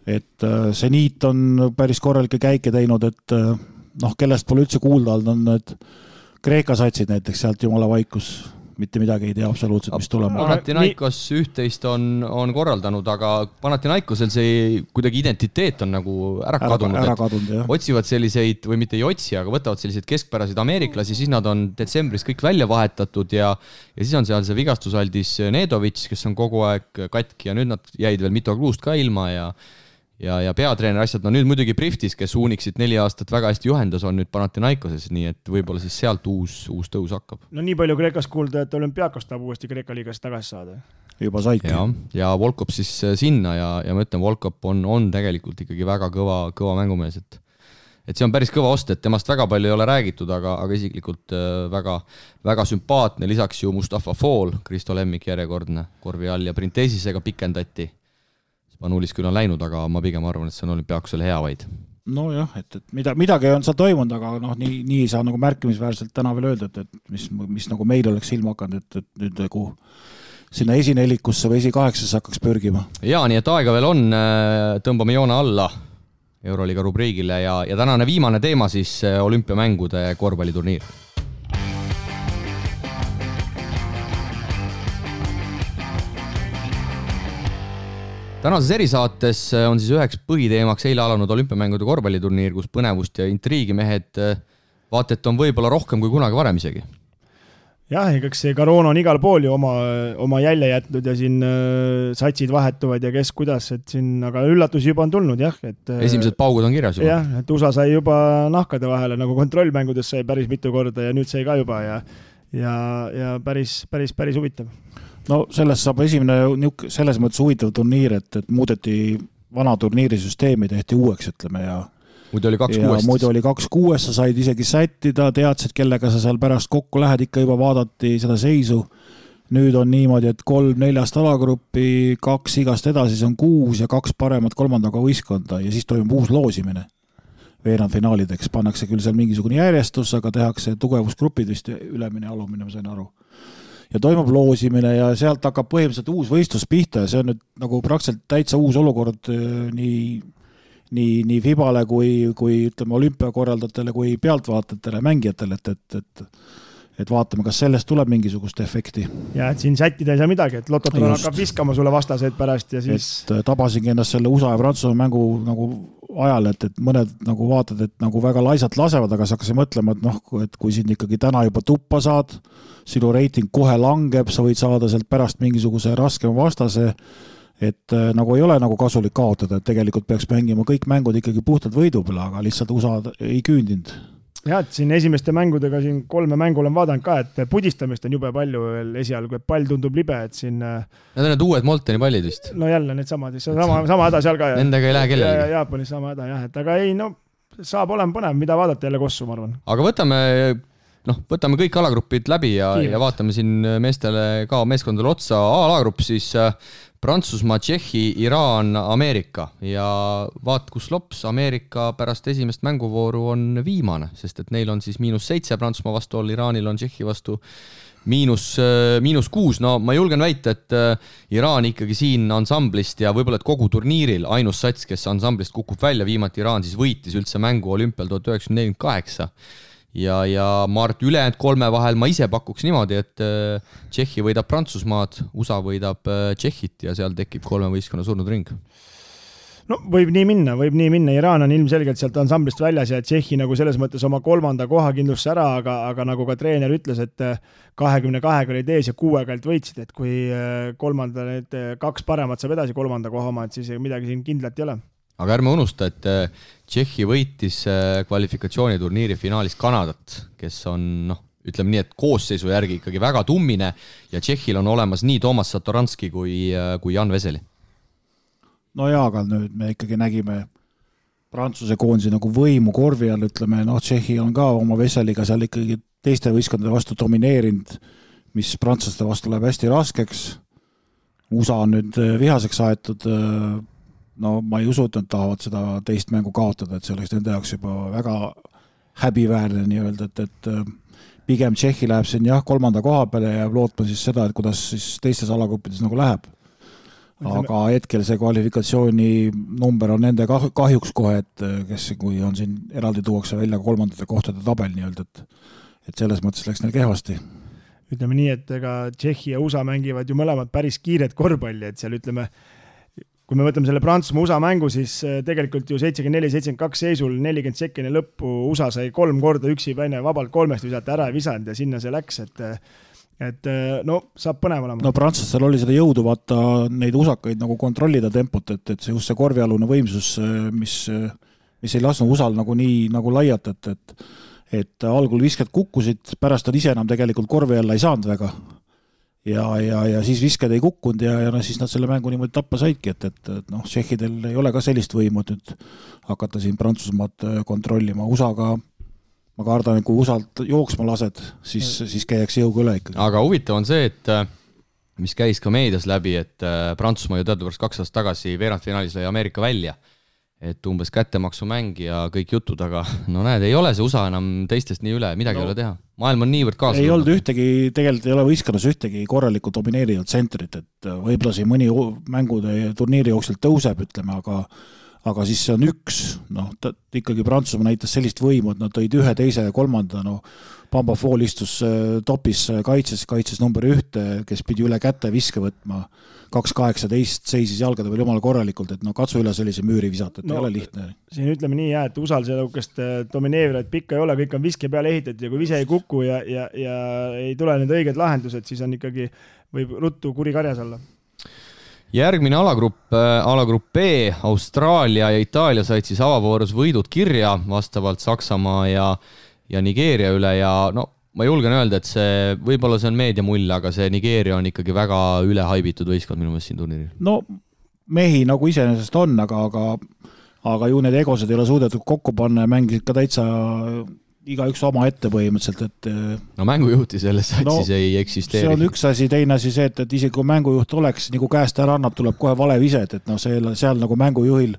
et Zenit on päris korralikke käike teinud, et noh, kellest pole üldse kuulda olnud, on need Kreeka satsid näiteks, sealt jumala vaikus, mitte midagi ei tea absoluutselt, mis tulema. Panathinaikos üht-teist on korraldanud, aga Panathinaikosel see kuidagi identiteet on nagu ära kadunud. Otsivad selliseid, või mitte ei otsi, aga võtavad selliseid keskpäraseid ameeriklasi, siis nad on detsembris kõik välja vahetatud ja siis on seal see vigastusaldis Nedovitš, kes on kogu aeg katki ja nüüd nad jäid veel Mitogluust ka ilma ja peatreener asjad, no nüüd muidugi Priftis, kes Uniksit 4 aastat väga hästi juhendas, on nüüd Panathinaikoses, nii et võib-olla siis sealt uus tõus hakkab. No nii palju Kreekas kuulda, et Olümpiakos tahab uuesti Kreeka liigas tagasi saada. Juba saidki. Ja Volkop siis sinna ja ma ütlen, Volkop on tegelikult ikkagi väga kõva mängumees, et see on päris kõva ost, et temast väga palju ei ole räägitud, aga isiklikult väga, väga sümpaatne, lisaks ju Mustafa Fall, Kristo Lemmik järjekordne korvi all ja Printesisega pikendati. Spanulis küll on läinud, aga ma pigem arvan, et see on Olümpiakosele hea vaid. No jah, et midagi on seal toimunud, aga nii ei saa nagu märkimisväärselt täna veel öelda, et mis nagu meil oleks silma hakanud, et nüüd nagu sinna esinelikusse või esi-8 hakkaks pörgima. Jaa, nii et aega veel on, tõmbame joone alla Euroliiga rubriigile ja tänane viimane teema siis olümpiamängude korvpalliturniir. Tänases erisaates on siis üheks põhiteemaks eile alanud olümpiamängude korvpalliturniir, kus põnevust ja intriigi mehed vaatet on võib-olla rohkem kui kunagi varem isegi. Jah, eks see koroona on igal pool ju oma jälje jätnud ja siin satsid vahetuvad ja kes kuidas, et siin, aga üllatusi juba on tulnud, jah. Esimesed paugud on kirjas juba. Jah, et USA sai juba nahkade vahele, nagu kontrollmängudes sai päris mitu korda ja nüüd sai ka juba ja päris huvitav. No sellest saab esimene selles mõttes huvitav turniir, et muudeti vana turniirisüsteemi, tehti uueks, ütleme, ja muidu oli 2-6. Muidu oli 2-6, sa said isegi sättida, teadsid, kellega sa seal pärast kokku lähed, ikka juba vaadati seda seisu. Nüüd on niimoodi, et 3-4 alagruppi, 2 igast edasi, see on 6 ja 2 paremat kolmandaga võistkonda ja siis toimub uus loosimine. Veerandfinaalideks pannakse küll seal mingisugune järjestus, aga tehakse tugevusgrupid vist ülemine ja alumine, ma sain aru. Ja toimub loosimine ja sealt hakkab põhimõtteliselt uus võistlus pihta ja see on nüüd nagu praktiliselt täitsa uus olukord nii FIBale kui ütleme olümpiakorraldajatele kui pealtvaatajatele, mängijatele, et vaatame, kas sellest tuleb mingisugust efekti. Ja et siin sättida ei saa midagi, et Lototron hakkab viskama sulle vastaseid pärast ja siis... Et tabasingi ennast selle USA ja Prantsusmaa mängu nagu ajal, et mõned nagu vaatad, et nagu väga laisalt lasevad, aga sa hakkasid mõtlema, et kui sind ikkagi täna juba tuppa saad, sinu reiting kohe langeb, sa võid saada sealt pärast mingisuguse raskema vastase, et nagu ei ole nagu kasulik kaotada, et tegelikult peaks mängima kõik mängud ikkagi puhtalt võidu peale, aga lihtsalt USA ei küündinud. Jah, et siin esimeste mängudega siin 3 mängu olen vaadanud ka, et pudistamist on jube palju veel esialgu, et pall tundub libe, et siin... Need on need uued Molteni pallid vist. No jälle need samad, sama häda seal ka. Nendega ei lähe kellelegi. Jaapanis sama häda, jah, et aga ei, no saab olema põnev, mida vaadata jälle kossu, ma arvan. Aga võtame kõik alagrupid läbi ja vaatame siin meestele ka meeskondadele otsa. A-alagrupp siis Prantsusmaa, Tšehhi, Iraan, Ameerika ja vaat kus lops, Ameerika pärast esimest mänguvooru on viimane, sest et neil on siis -7 Prantsusmaa vastu all, Iraanil on Tšehhi vastu -6. No ma julgen väita, et Iraan ikkagi siin ansamblist ja võib-olla et kogu turniiril ainus sats, kes ansamblist kukub välja, viimati Iraan siis võitis üldse mängu olümpial 1948. Ja ma arvan, ülejäänud 3 vahel ma ise pakuks niimoodi, et Tšehhi võidab Prantsusmaad, USA võidab Tšehhit ja seal tekib 3 võistkonna surnud ring. No võib nii minna. Iraan on ilmselgelt sealt ansamblist väljas ja Tšehhi nagu selles mõttes oma 3. koha kindlusse ära, aga nagu ka treener ütles, et 22 olid ees ja 6 võitsid, et kui 3. need 2 paremat saab edasi 3. koha oma, et siis midagi siin kindlalt ei ole. Aga ärme unusta, et Tšehhi võitis kvalifikatsiooniturniiri finaalis Kanadat, kes on, ütleme nii, et koosseisu järgi ikkagi väga tummine ja Tšehhil on olemas nii Toomas Satoranski kui Jan Veseli. No jaa, aga nüüd me ikkagi nägime Prantsuse koondisi nagu võimu korvi all, ütleme, Tšehhi on ka oma Veseliga seal ikkagi teiste võistkondade vastu domineerinud, mis prantslaste vastu läheb hästi raskeks. USA on nüüd vihaseks aetud, ma ei usu, et nad tahavad seda teist mängu kaotada, et see oleks nende jaoks juba väga häbiväärne nii öelda, et pigem Tšehhi läheb siin 3. koha peale ja lootma siis seda, et kuidas siis teistes alagruppides nagu läheb. Aga hetkel see kvalifikatsiooni number on nende kahjuks kohe, et kes kui on siin eraldi tuuakse välja 3. kohtade tabel nii öelda, et selles mõttes läks neil kehvasti. Ütleme nii, et ega Tšehhi ja USA mängivad ju mõlemad päris kiired korvpalli, et seal ütleme, kui me võtame selle Prantsusmaa USA mängu, siis tegelikult ju 74-72 seisul 40 sekeni lõppu USA sai 3 korda üksi päine vabalt 3 visata ära ja visanud ja sinna see läks, et no saab põnev olema. No prantslastel oli seda jõudu vaata neid usakaid nagu kontrollida tempot, et see just see korvialune võimsus, mis ei lasknud usal nagu nii nagu laiata, et algul visked kukkusid, pärast nad ise enam tegelikult korvi alla ei saanud väga. Ja siis visked ei kukkunud ja siis nad selle mängu niimoodi tappa saidki, et noh, tšehhidel ei ole ka sellist võimu nüüd hakata siin Prantsusmaad kontrollima. USA-ga ma kardan, et kui USA-lt jooksma lased, siis käiakse jõuga üle ikkagi. Aga huvitav on see, et mis käis ka meedias läbi, et Prantsusmaa ju teadupärast 2 aastat tagasi veerandfinaalis lõi Ameerika välja, et umbes kättemaksumäng ja kõik jutud, aga no näed, ei ole see USA enam teistest nii üle, midagi ei ole teha. Maailm on niivõrd kaasa. Ei olnud ühtegi, tegelikult ei ole võistkonnus ühtegi korralikku domineerivat tsentrit, et võib-olla siin mõni mängude turniiri jooksul tõuseb, ütleme, aga siis see on üks, noh, ikkagi Prantsusmaa näitas sellist võimu, et nad tõid 1, 2 ja 3, no Bamba Fall istus topis kaitses number 1, kes pidi üle käte viske võtma, 2-18 seisis jalgade veel jumala korralikult, et no katsu üle sellise müüri visata, et ei ole lihtne. Siin ütleme nii, et usal sellukest domineerivat pikka ei ole, kõik on viske peale ehitatud ja kui vise ei kuku ja ei tule need õiged lahendused, siis on ikkagi, võib ruttu kuri karjas olla. Järgmine alagrupp B, Austraalia ja Itaalia said siis avavoorus võidud kirja vastavalt Saksamaa ja Nigeeria üle ja no ma julgen öelda, et võib-olla see on meedia mull, aga see Nigeeria on ikkagi väga ülehaibitud võistkond minu meelest siin turniiril. No mehi nagu iseenesest on, aga ju need egosed ei ole suudetud kokku panna ja mängisid ka täitsa igaüks oma ette põhimõtteliselt, et no mängujuhti selles satsis ei eksisteeri. See on üks asi, teine asi see, et isegi kui mängujuht oleks, nagu käest ära annab, tuleb kohe vale vise, et no seal nagu mängujuhil,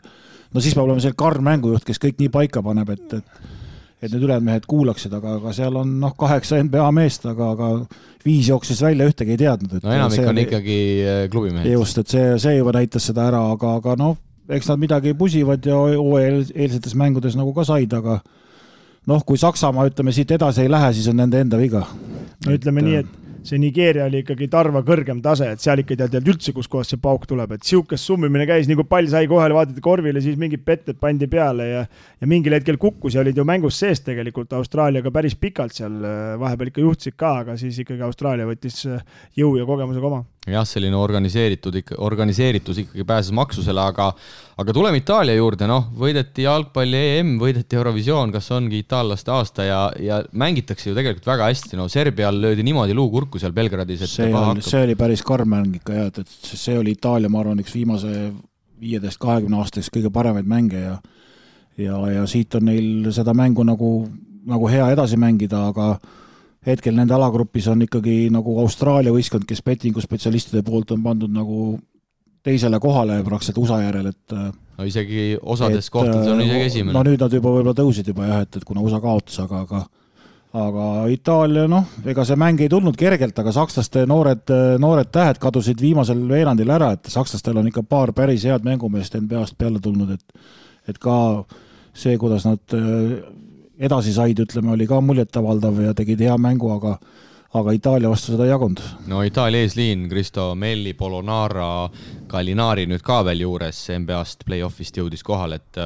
no siis peab olema see karm mängujuht, kes kõik nii paika paneb, et need ülejäänud mehed kuulaksid, aga seal on 8 NBA meest, aga 5 jooksis välja, ühtegi ei teadnud. No enamik on ikkagi klubimehed. Just, et see juba näitas seda ära, aga noh, eks nad midagi pusivad ja eelsetes mängudes nagu ka said, aga noh, kui Saksamaa, ütleme, siit edasi ei lähe, siis on nende enda viga. No ütleme nii, et see Nigeeria oli ikkagi tarva kõrgem tase, et seal ikka tead üldse, kus kohas see pauk tuleb, et siukest summimine käis, nii kui pall sai kohale, vaadati korvile, siis mingid petted pandi peale ja mingil hetkel kukkus ja olid ju mängus sees tegelikult Austraaliaga päris pikalt seal, vahepeal ikka juhtsid ka, aga siis ikkagi Austraalia võttis jõu ja kogemusega oma. Jah, selline organiseeritus ikkagi pääses maksusele, aga tuleme Itaalia juurde, võideti jalgpalli EM, võideti Eurovisioon, kas ongi itaallaste aasta ja mängitakse ju tegelikult väga hästi, Serbial löödi niimoodi luu kurku seal Belgradis, et see oli päris karm mäng ikka ja, et see oli Itaalia, ma arvan, üks viimase 15-20 aastaks kõige paremaid mänge ja siit on neil seda mängu nagu hea edasi mängida, aga hetkel nende alagrupis on ikkagi nagu Austraalia võistkond, kes bettingu spetsialistide poolt on pandud nagu teisele kohale praktiliselt USA järel, et no isegi osades kohtades on isegi esimene. No nüüd nad juba võib-olla tõusid juba jah, et kuna USA kaotas, aga Itaalia, ega see mäng ei tulnud kergelt, aga sakslaste noored tähed kadusid viimasel veerandil ära, et sakslastel on ikka paar päris head mängumeest NBA-st peale tulnud, et ka see, kuidas nad edasi said, ütleme, oli ka muljetavaldav ja tegid hea mängu, aga Itaalia vastu seda ei jagunud. No Itaalia eesliin, Cristo Melli, Polonara, Gallinari nüüd ka veel juures NBA-st play-offist jõudis kohal, et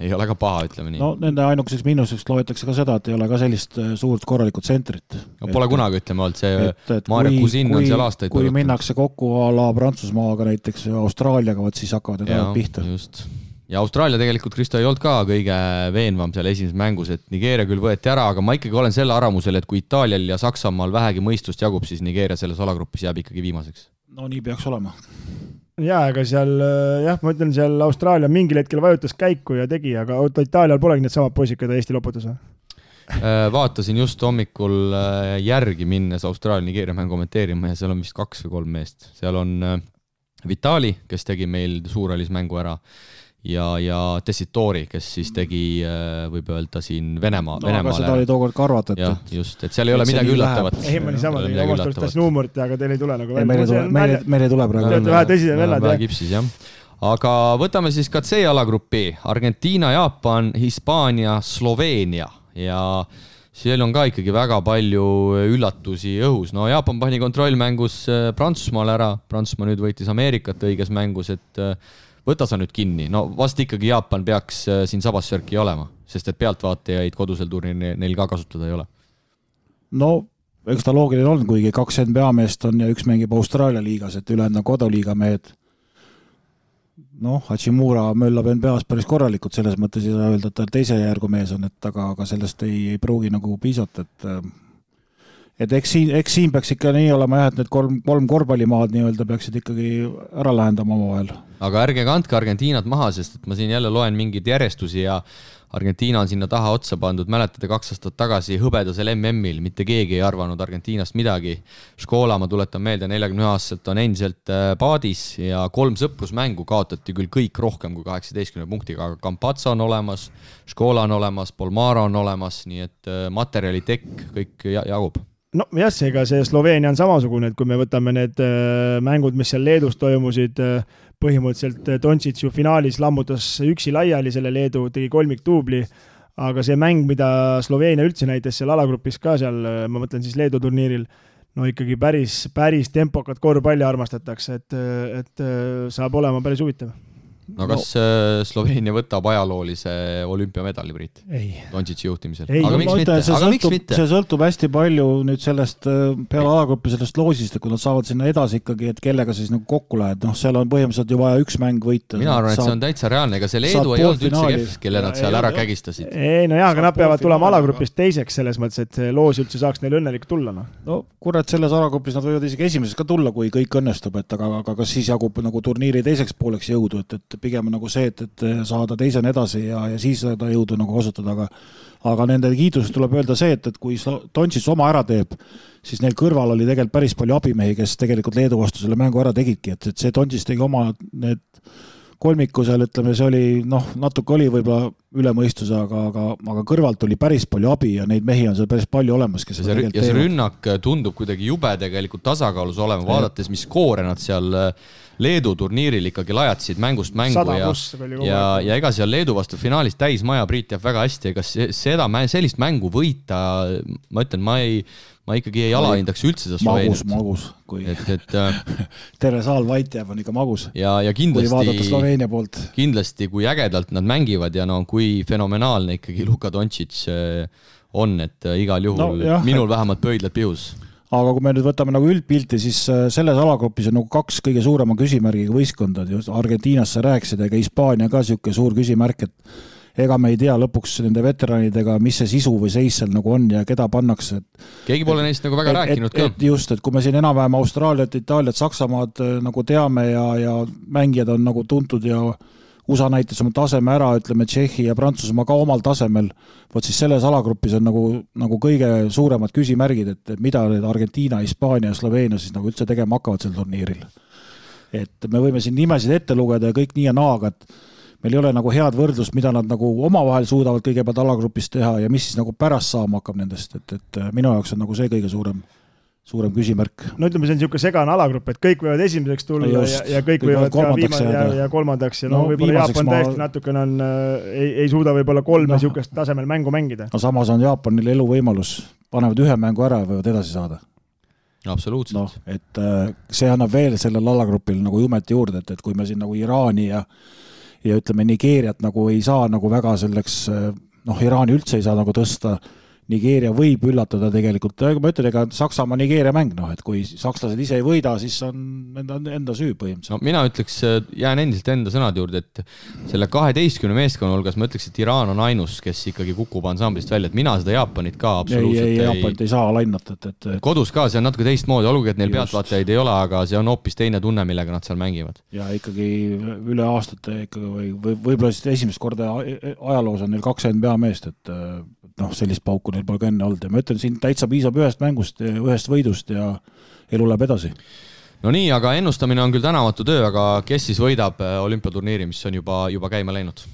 ei ole ka paha, ütleme nii. No nende ainukeseks miinuseks loetakse ka seda, et ei ole ka sellist suurt korralikut tsentrit. No, pole kunagi, ütleme, olnud see Maarja Kusin on seal aastaid. Kui minnakse kokku a la Prantsusmaaga näiteks Austraaliaga, siis hakkavad need ajad pihta. Just. Ja Austraalia tegelikult, Kristo, ei olnud ka kõige veenvam seal esimeses mängus, et Nigeeria küll võeti ära, aga ma ikkagi olen selle arvamusel, et kui Itaalial ja Saksamaal vähegi mõistust jagub, siis Nigeeria selles alagrupis jääb ikkagi viimaseks. No nii peaks olema. Jaa, aga seal, ma ütlen, seal Austraalia mingil hetkel vajutas käiku ja tegi, aga Itaalial polegi need samad poisid, keda Eesti loputas. Vaatasin just hommikul järgi minnes Austraalia-Nigeeria mängu kommenteerima ja seal on vist 2 või 3 meest. Seal on Vitali, kes tegi meil suuralis mängu ära ja Tessitori, kes siis tegi, võib öelda siin Venemaale. Aga seda oli tookord ka arvata, et just, et seal ei ole midagi üllatavat. Ei, ma niisama tegin omast arvast taas nuumurit, aga teil ei tule nagu meil ei tule praegu. Vähe tõsised vellad. Vähe kipsis, jah. Aga võtame siis ka C alagruppi. Argentiina, Jaapan, Hispaania, Sloveenia ja seal on ka ikkagi väga palju üllatusi õhus. No Jaapan pani kontrollmängus Prantsusmaal ära. Prantsusmaa nüüd võitis Ameerikat õiges mängus, et võta sa nüüd kinni. No vast ikkagi Jaapan peaks siin sabassörki olema, sest et pealtvaatajaid kodusel turniiril neil ka kasutada ei ole. No eks ta loogiline on, kuigi 2 NBA meest on ja üks mängib Austraalia liigas, et ülejäänud on koduliiga mehed. Hachimura möllab NBA-s päris korralikult, selles mõttes ei saa öelda, et ta teise järgu mees on, et aga sellest ei pruugi nagu piisata, et eks siin peaks ikka nii olema jah, et need kolm korvpallimaad nii-öelda peaksid ikkagi ära lähendama omavahel. Aga ärge kandke Argentiinat maha, sest et ma siin jälle loen mingeid järjestusi ja Argentiina on sinna taha otsa pandud, mäletate 2 aastat tagasi hõbedasel MM-il, mitte keegi ei arvanud Argentiinast midagi. Škola, ma tuletan meelde, 41-aastaselt on endiselt paadis ja 3 sõprusmängu kaotati küll kõik rohkem kui 18 punktiga, aga Campazzo on olemas, Škola on olemas, Polmaro on olemas, nii et materjali tekk kõik jagub. No jah, ega see Sloveenia on samasugune, et kui me võtame need mängud, mis seal Leedus toimusid, põhimõtteliselt Doncic ju finaalis lammutas üksi laiali selle Leedu, tegi 3 duubli, aga see mäng, mida Sloveenia üldse näitas seal alagrupis ka seal, ma mõtlen siis Leedu turniiril, no ikkagi päris tempokat korvpalli armastatakse, et saab olema päris huvitav. No kas Sloveenia võtab ajaloolise olümpiamedali, Priit? Ei. Doncic'i juhtimisel. Aga miks mitte? See sõltub hästi palju nüüd sellest peale alagruppi sellest loosist, et kui nad saavad sinna edasi ikkagi, et kellega siis nagu kokku lähed, seal on põhimõtteliselt ju vaja 1 mäng võita. Mina arvan, et see on täitsa reaalne, ega see Leedu ei olnud üldse kehv, kelle nad seal ära kägistasid. Ei, no jah, aga nad peavad tulema alagrupist teiseks selles mõttes, et loos üldse saaks neil õnnelik tulla. No kurat, selles alagrupis nad võivad isegi esimeseks ka tulla, kui kõik õnnestub, et aga kas siis jagub nagu turniiri teiseks pooleks jõudu, et pigem nagu see, et saada teisena edasi ja siis seda jõudu nagu kasutada, aga nende kiidusest tuleb öelda see, et kui Doncic oma ära teeb, siis neil kõrval oli tegelikult päris palju abimehi, kes tegelikult Leedu vastu selle mängu ära tegidki, et see Doncic tegi oma need kolmiku seal, ütleme, see oli, natuke oli võib-olla ülemõistuse, aga kõrvalt oli päris palju abi ja neid mehi on seal päris palju olemas, kes ja see rünnak tundub kuidagi jube tegelikult tasakaalus olema, vaadates, mis skoore nad seal Leedu turniiril ikkagi lajatasid mängust mängu ja ega seal Leedu vastu finaalis täismaja Priit jääb väga hästi, ega sellist mängu võita, ma ütlen, ma ikkagi ei alahindaks üldse seda Sloveeniat. Magus. Terve saal vait jääb on ikka magus. Ja kui vaadata Sloveenia poolt. Kindlasti, kui ägedalt nad mängivad ja kui fenomenaalne ikkagi Luka Doncic on, et igal juhul minul vähemalt pöidlad pihus. Aga kui me nüüd võtame nagu üldpilti, siis selles alagrupis on nagu 2 kõige suurema küsimärgiga võistkondad. Argentiinast sa rääkisid, ega Hispaania ka siuke suur küsimärk, et ega me ei tea lõpuks nende veteranidega, mis see sisu või seis seal nagu on ja keda pannakse. Keegi pole neist nagu väga rääkinud ka. Just, et kui me siin enam-vähem Austraaliat, Itaaliat, Saksamaad nagu teame ja mängijad on nagu tuntud ja USA näitas oma taseme ära, ütleme Tšehhi ja Prantsusmaa ka omal tasemel, võt siis selles alagrupis on nagu kõige suuremad küsimärgid, et mida need Argentiina, Hispaania ja Sloveenia siis nagu üldse tegema hakkavad sel turniiril. Et me võime siin nimesid ette lugeda ja kõik nii ja naaga, et meil ei ole nagu head võrdlust, mida nad nagu omavahel suudavad kõigepealt alagrupis teha ja mis siis nagu pärast saama hakkab nendest, et minu jaoks on nagu see kõige suurem küsimärk. No ütleme, see on niisugune segane alagrupp, et kõik võivad esimeseks tulla ja kõik võivad ka ja kolmandaks ja võib-olla Jaapan täiesti natukene ei suuda võib-olla 3 niisugust tasemel mängu mängida. No samas on Jaapanil eluvõimalus, panevad 1 mängu ära ja võivad edasi saada. Absoluutselt. Et see annab veel sellel alagrupil nagu jumet juurde, et kui me siin nagu Iraani ja ütleme Nigeeriat nagu ei saa nagu väga selleks, Iraani üldse ei saa nagu tõsta, Nigeeria võib üllatada tegelikult, ma ütlen, ega Saksamaa Nigeeria mäng, et kui sakslased ise ei võida, siis on enda süü põhimõtteliselt. No mina ütleks, jään endiselt enda sõnad juurde, et selle 12 meeskonna hulgas ma ütleks, et Iraan on ainus, kes ikkagi kukub ansamblist välja, et mina seda Jaapanit ka absoluutselt Jaapanit ei saa lainata. Kodus ka, see on natuke teistmoodi, olgugi, et neil pealtvaatajaid ei ole, aga see on hoopis teine tunne, millega nad seal mängivad. Ja ikkagi üle aastate ikkagi võib-olla siis esimest korda ajaloos on neil 2 NBA meest, et sellist pauku neil pole ka enne olnud ja ma ütlen, siin täitsa piisab 1 mängust, 1 võidust ja elu läheb edasi. No nii, aga ennustamine on küll tänamatu töö, aga kes siis võidab olümpiaturniiri, mis on juba käima läinud?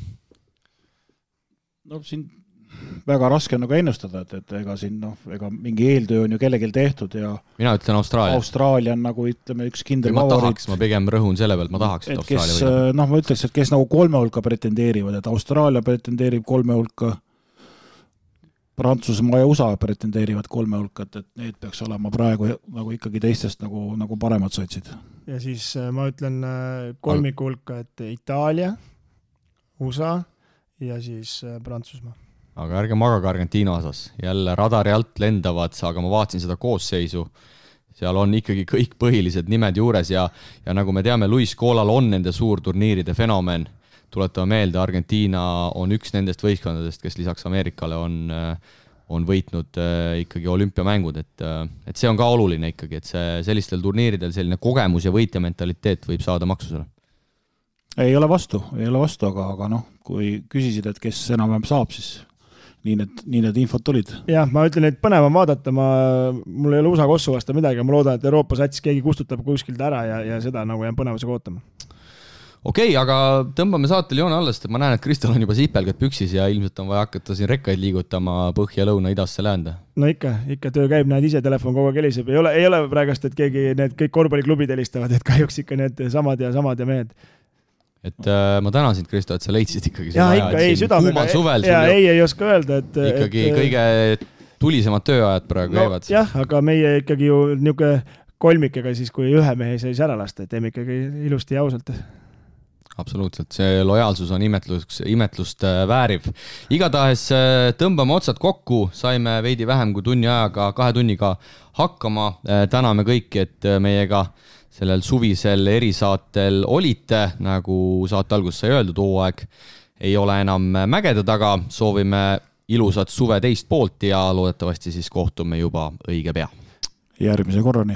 No siin väga raske on nagu ennustada, et ega siin ega mingi eeltöö on ju kellelgi tehtud ja mina ütlen Austraalia. Austraalia on nagu ütleme üks kindel favoriit. Ma pigem rõhun selle pealt, ma tahaks, et Austraalia võidab. Ma ütleks, et kes nagu 3 hulka pretendeerivad, et Austraalia pretendeerib 3 hulka, Prantsusmaa ja USA pretendeerivad 3 hulka, et need peaks olema praegu nagu ikkagi teistest nagu paremad satsid. Ja siis ma ütlen 3 hulka, et Itaalia, USA ja siis Prantsusmaa. aga ärge magage Argentiina osas. Jälle radari alt lendavad, aga ma vaatasin seda koosseisu. Seal on ikkagi kõik põhilised nimed juures ja nagu me teame, Luis Scolal on nende suurturniiride fenomen. Tuletame meelde, Argentiina on üks nendest võistkondadest, kes lisaks Ameerikale on võitnud ikkagi olümpiamängud, et see on ka oluline ikkagi, et see sellistel turniiridel selline kogemus ja võitja mentaliteet võib saada maksusele. Ei ole vastu, aga kui küsisid, et kes enam saab, siis nii need infot tulid. Jah, ma ütlen, et põnev on vaadata, mul ei ole USA kossu vasta midagi, ma loodan, et Euroopa sats keegi kustutab kuskilt ära ja seda nagu jään põnevusega ootama. Okei, aga tõmbame saatel joone alles, et ma näen, et Kristel on juba sipelgad püksis ja ilmselt on vaja hakata siin rekkaid liigutama põhja, lõuna, idasse, läände. No ikka töö käib, näed ise telefon kogu aeg heliseb. Ei ole praegast, et keegi need kõik korvpalliklubid helistavad, et kahjuks ikka need samad ja mehed. Et ma tänan sind, Kristo, et sa leidsid ikkagi ja ikka ei südamega. Suvel ja ei oska öelda, et ikkagi kõige tulisemad tööajad praegu käivad. Jah, aga meie ikkagi ju niuke kolmikega siis, kui ühe mehe ei saa ära lasta, et teeme ikkagi ilusti ja ausalt. Absoluutselt, see lojaalsus on imetlust vääriv. Igatahes tõmbame otsad kokku, saime veidi vähem kui kahe tunniga hakkama. Täname kõiki, et meiega sellel suvisel erisaatel olite, nagu saate alguses sai öeldud, hooaeg ei ole enam mägede taga. Soovime ilusat suve teist poolt ja loodetavasti siis kohtume juba õige pea. Järgmise korrani.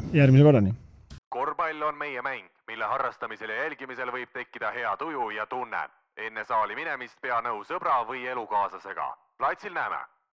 Korvpall on meie mäng, mille harrastamisel ja jälgimisel võib tekkida hea tuju ja tunne. Enne saali minemist pea nõu sõbra või elukaaslasega. Platsil näeme!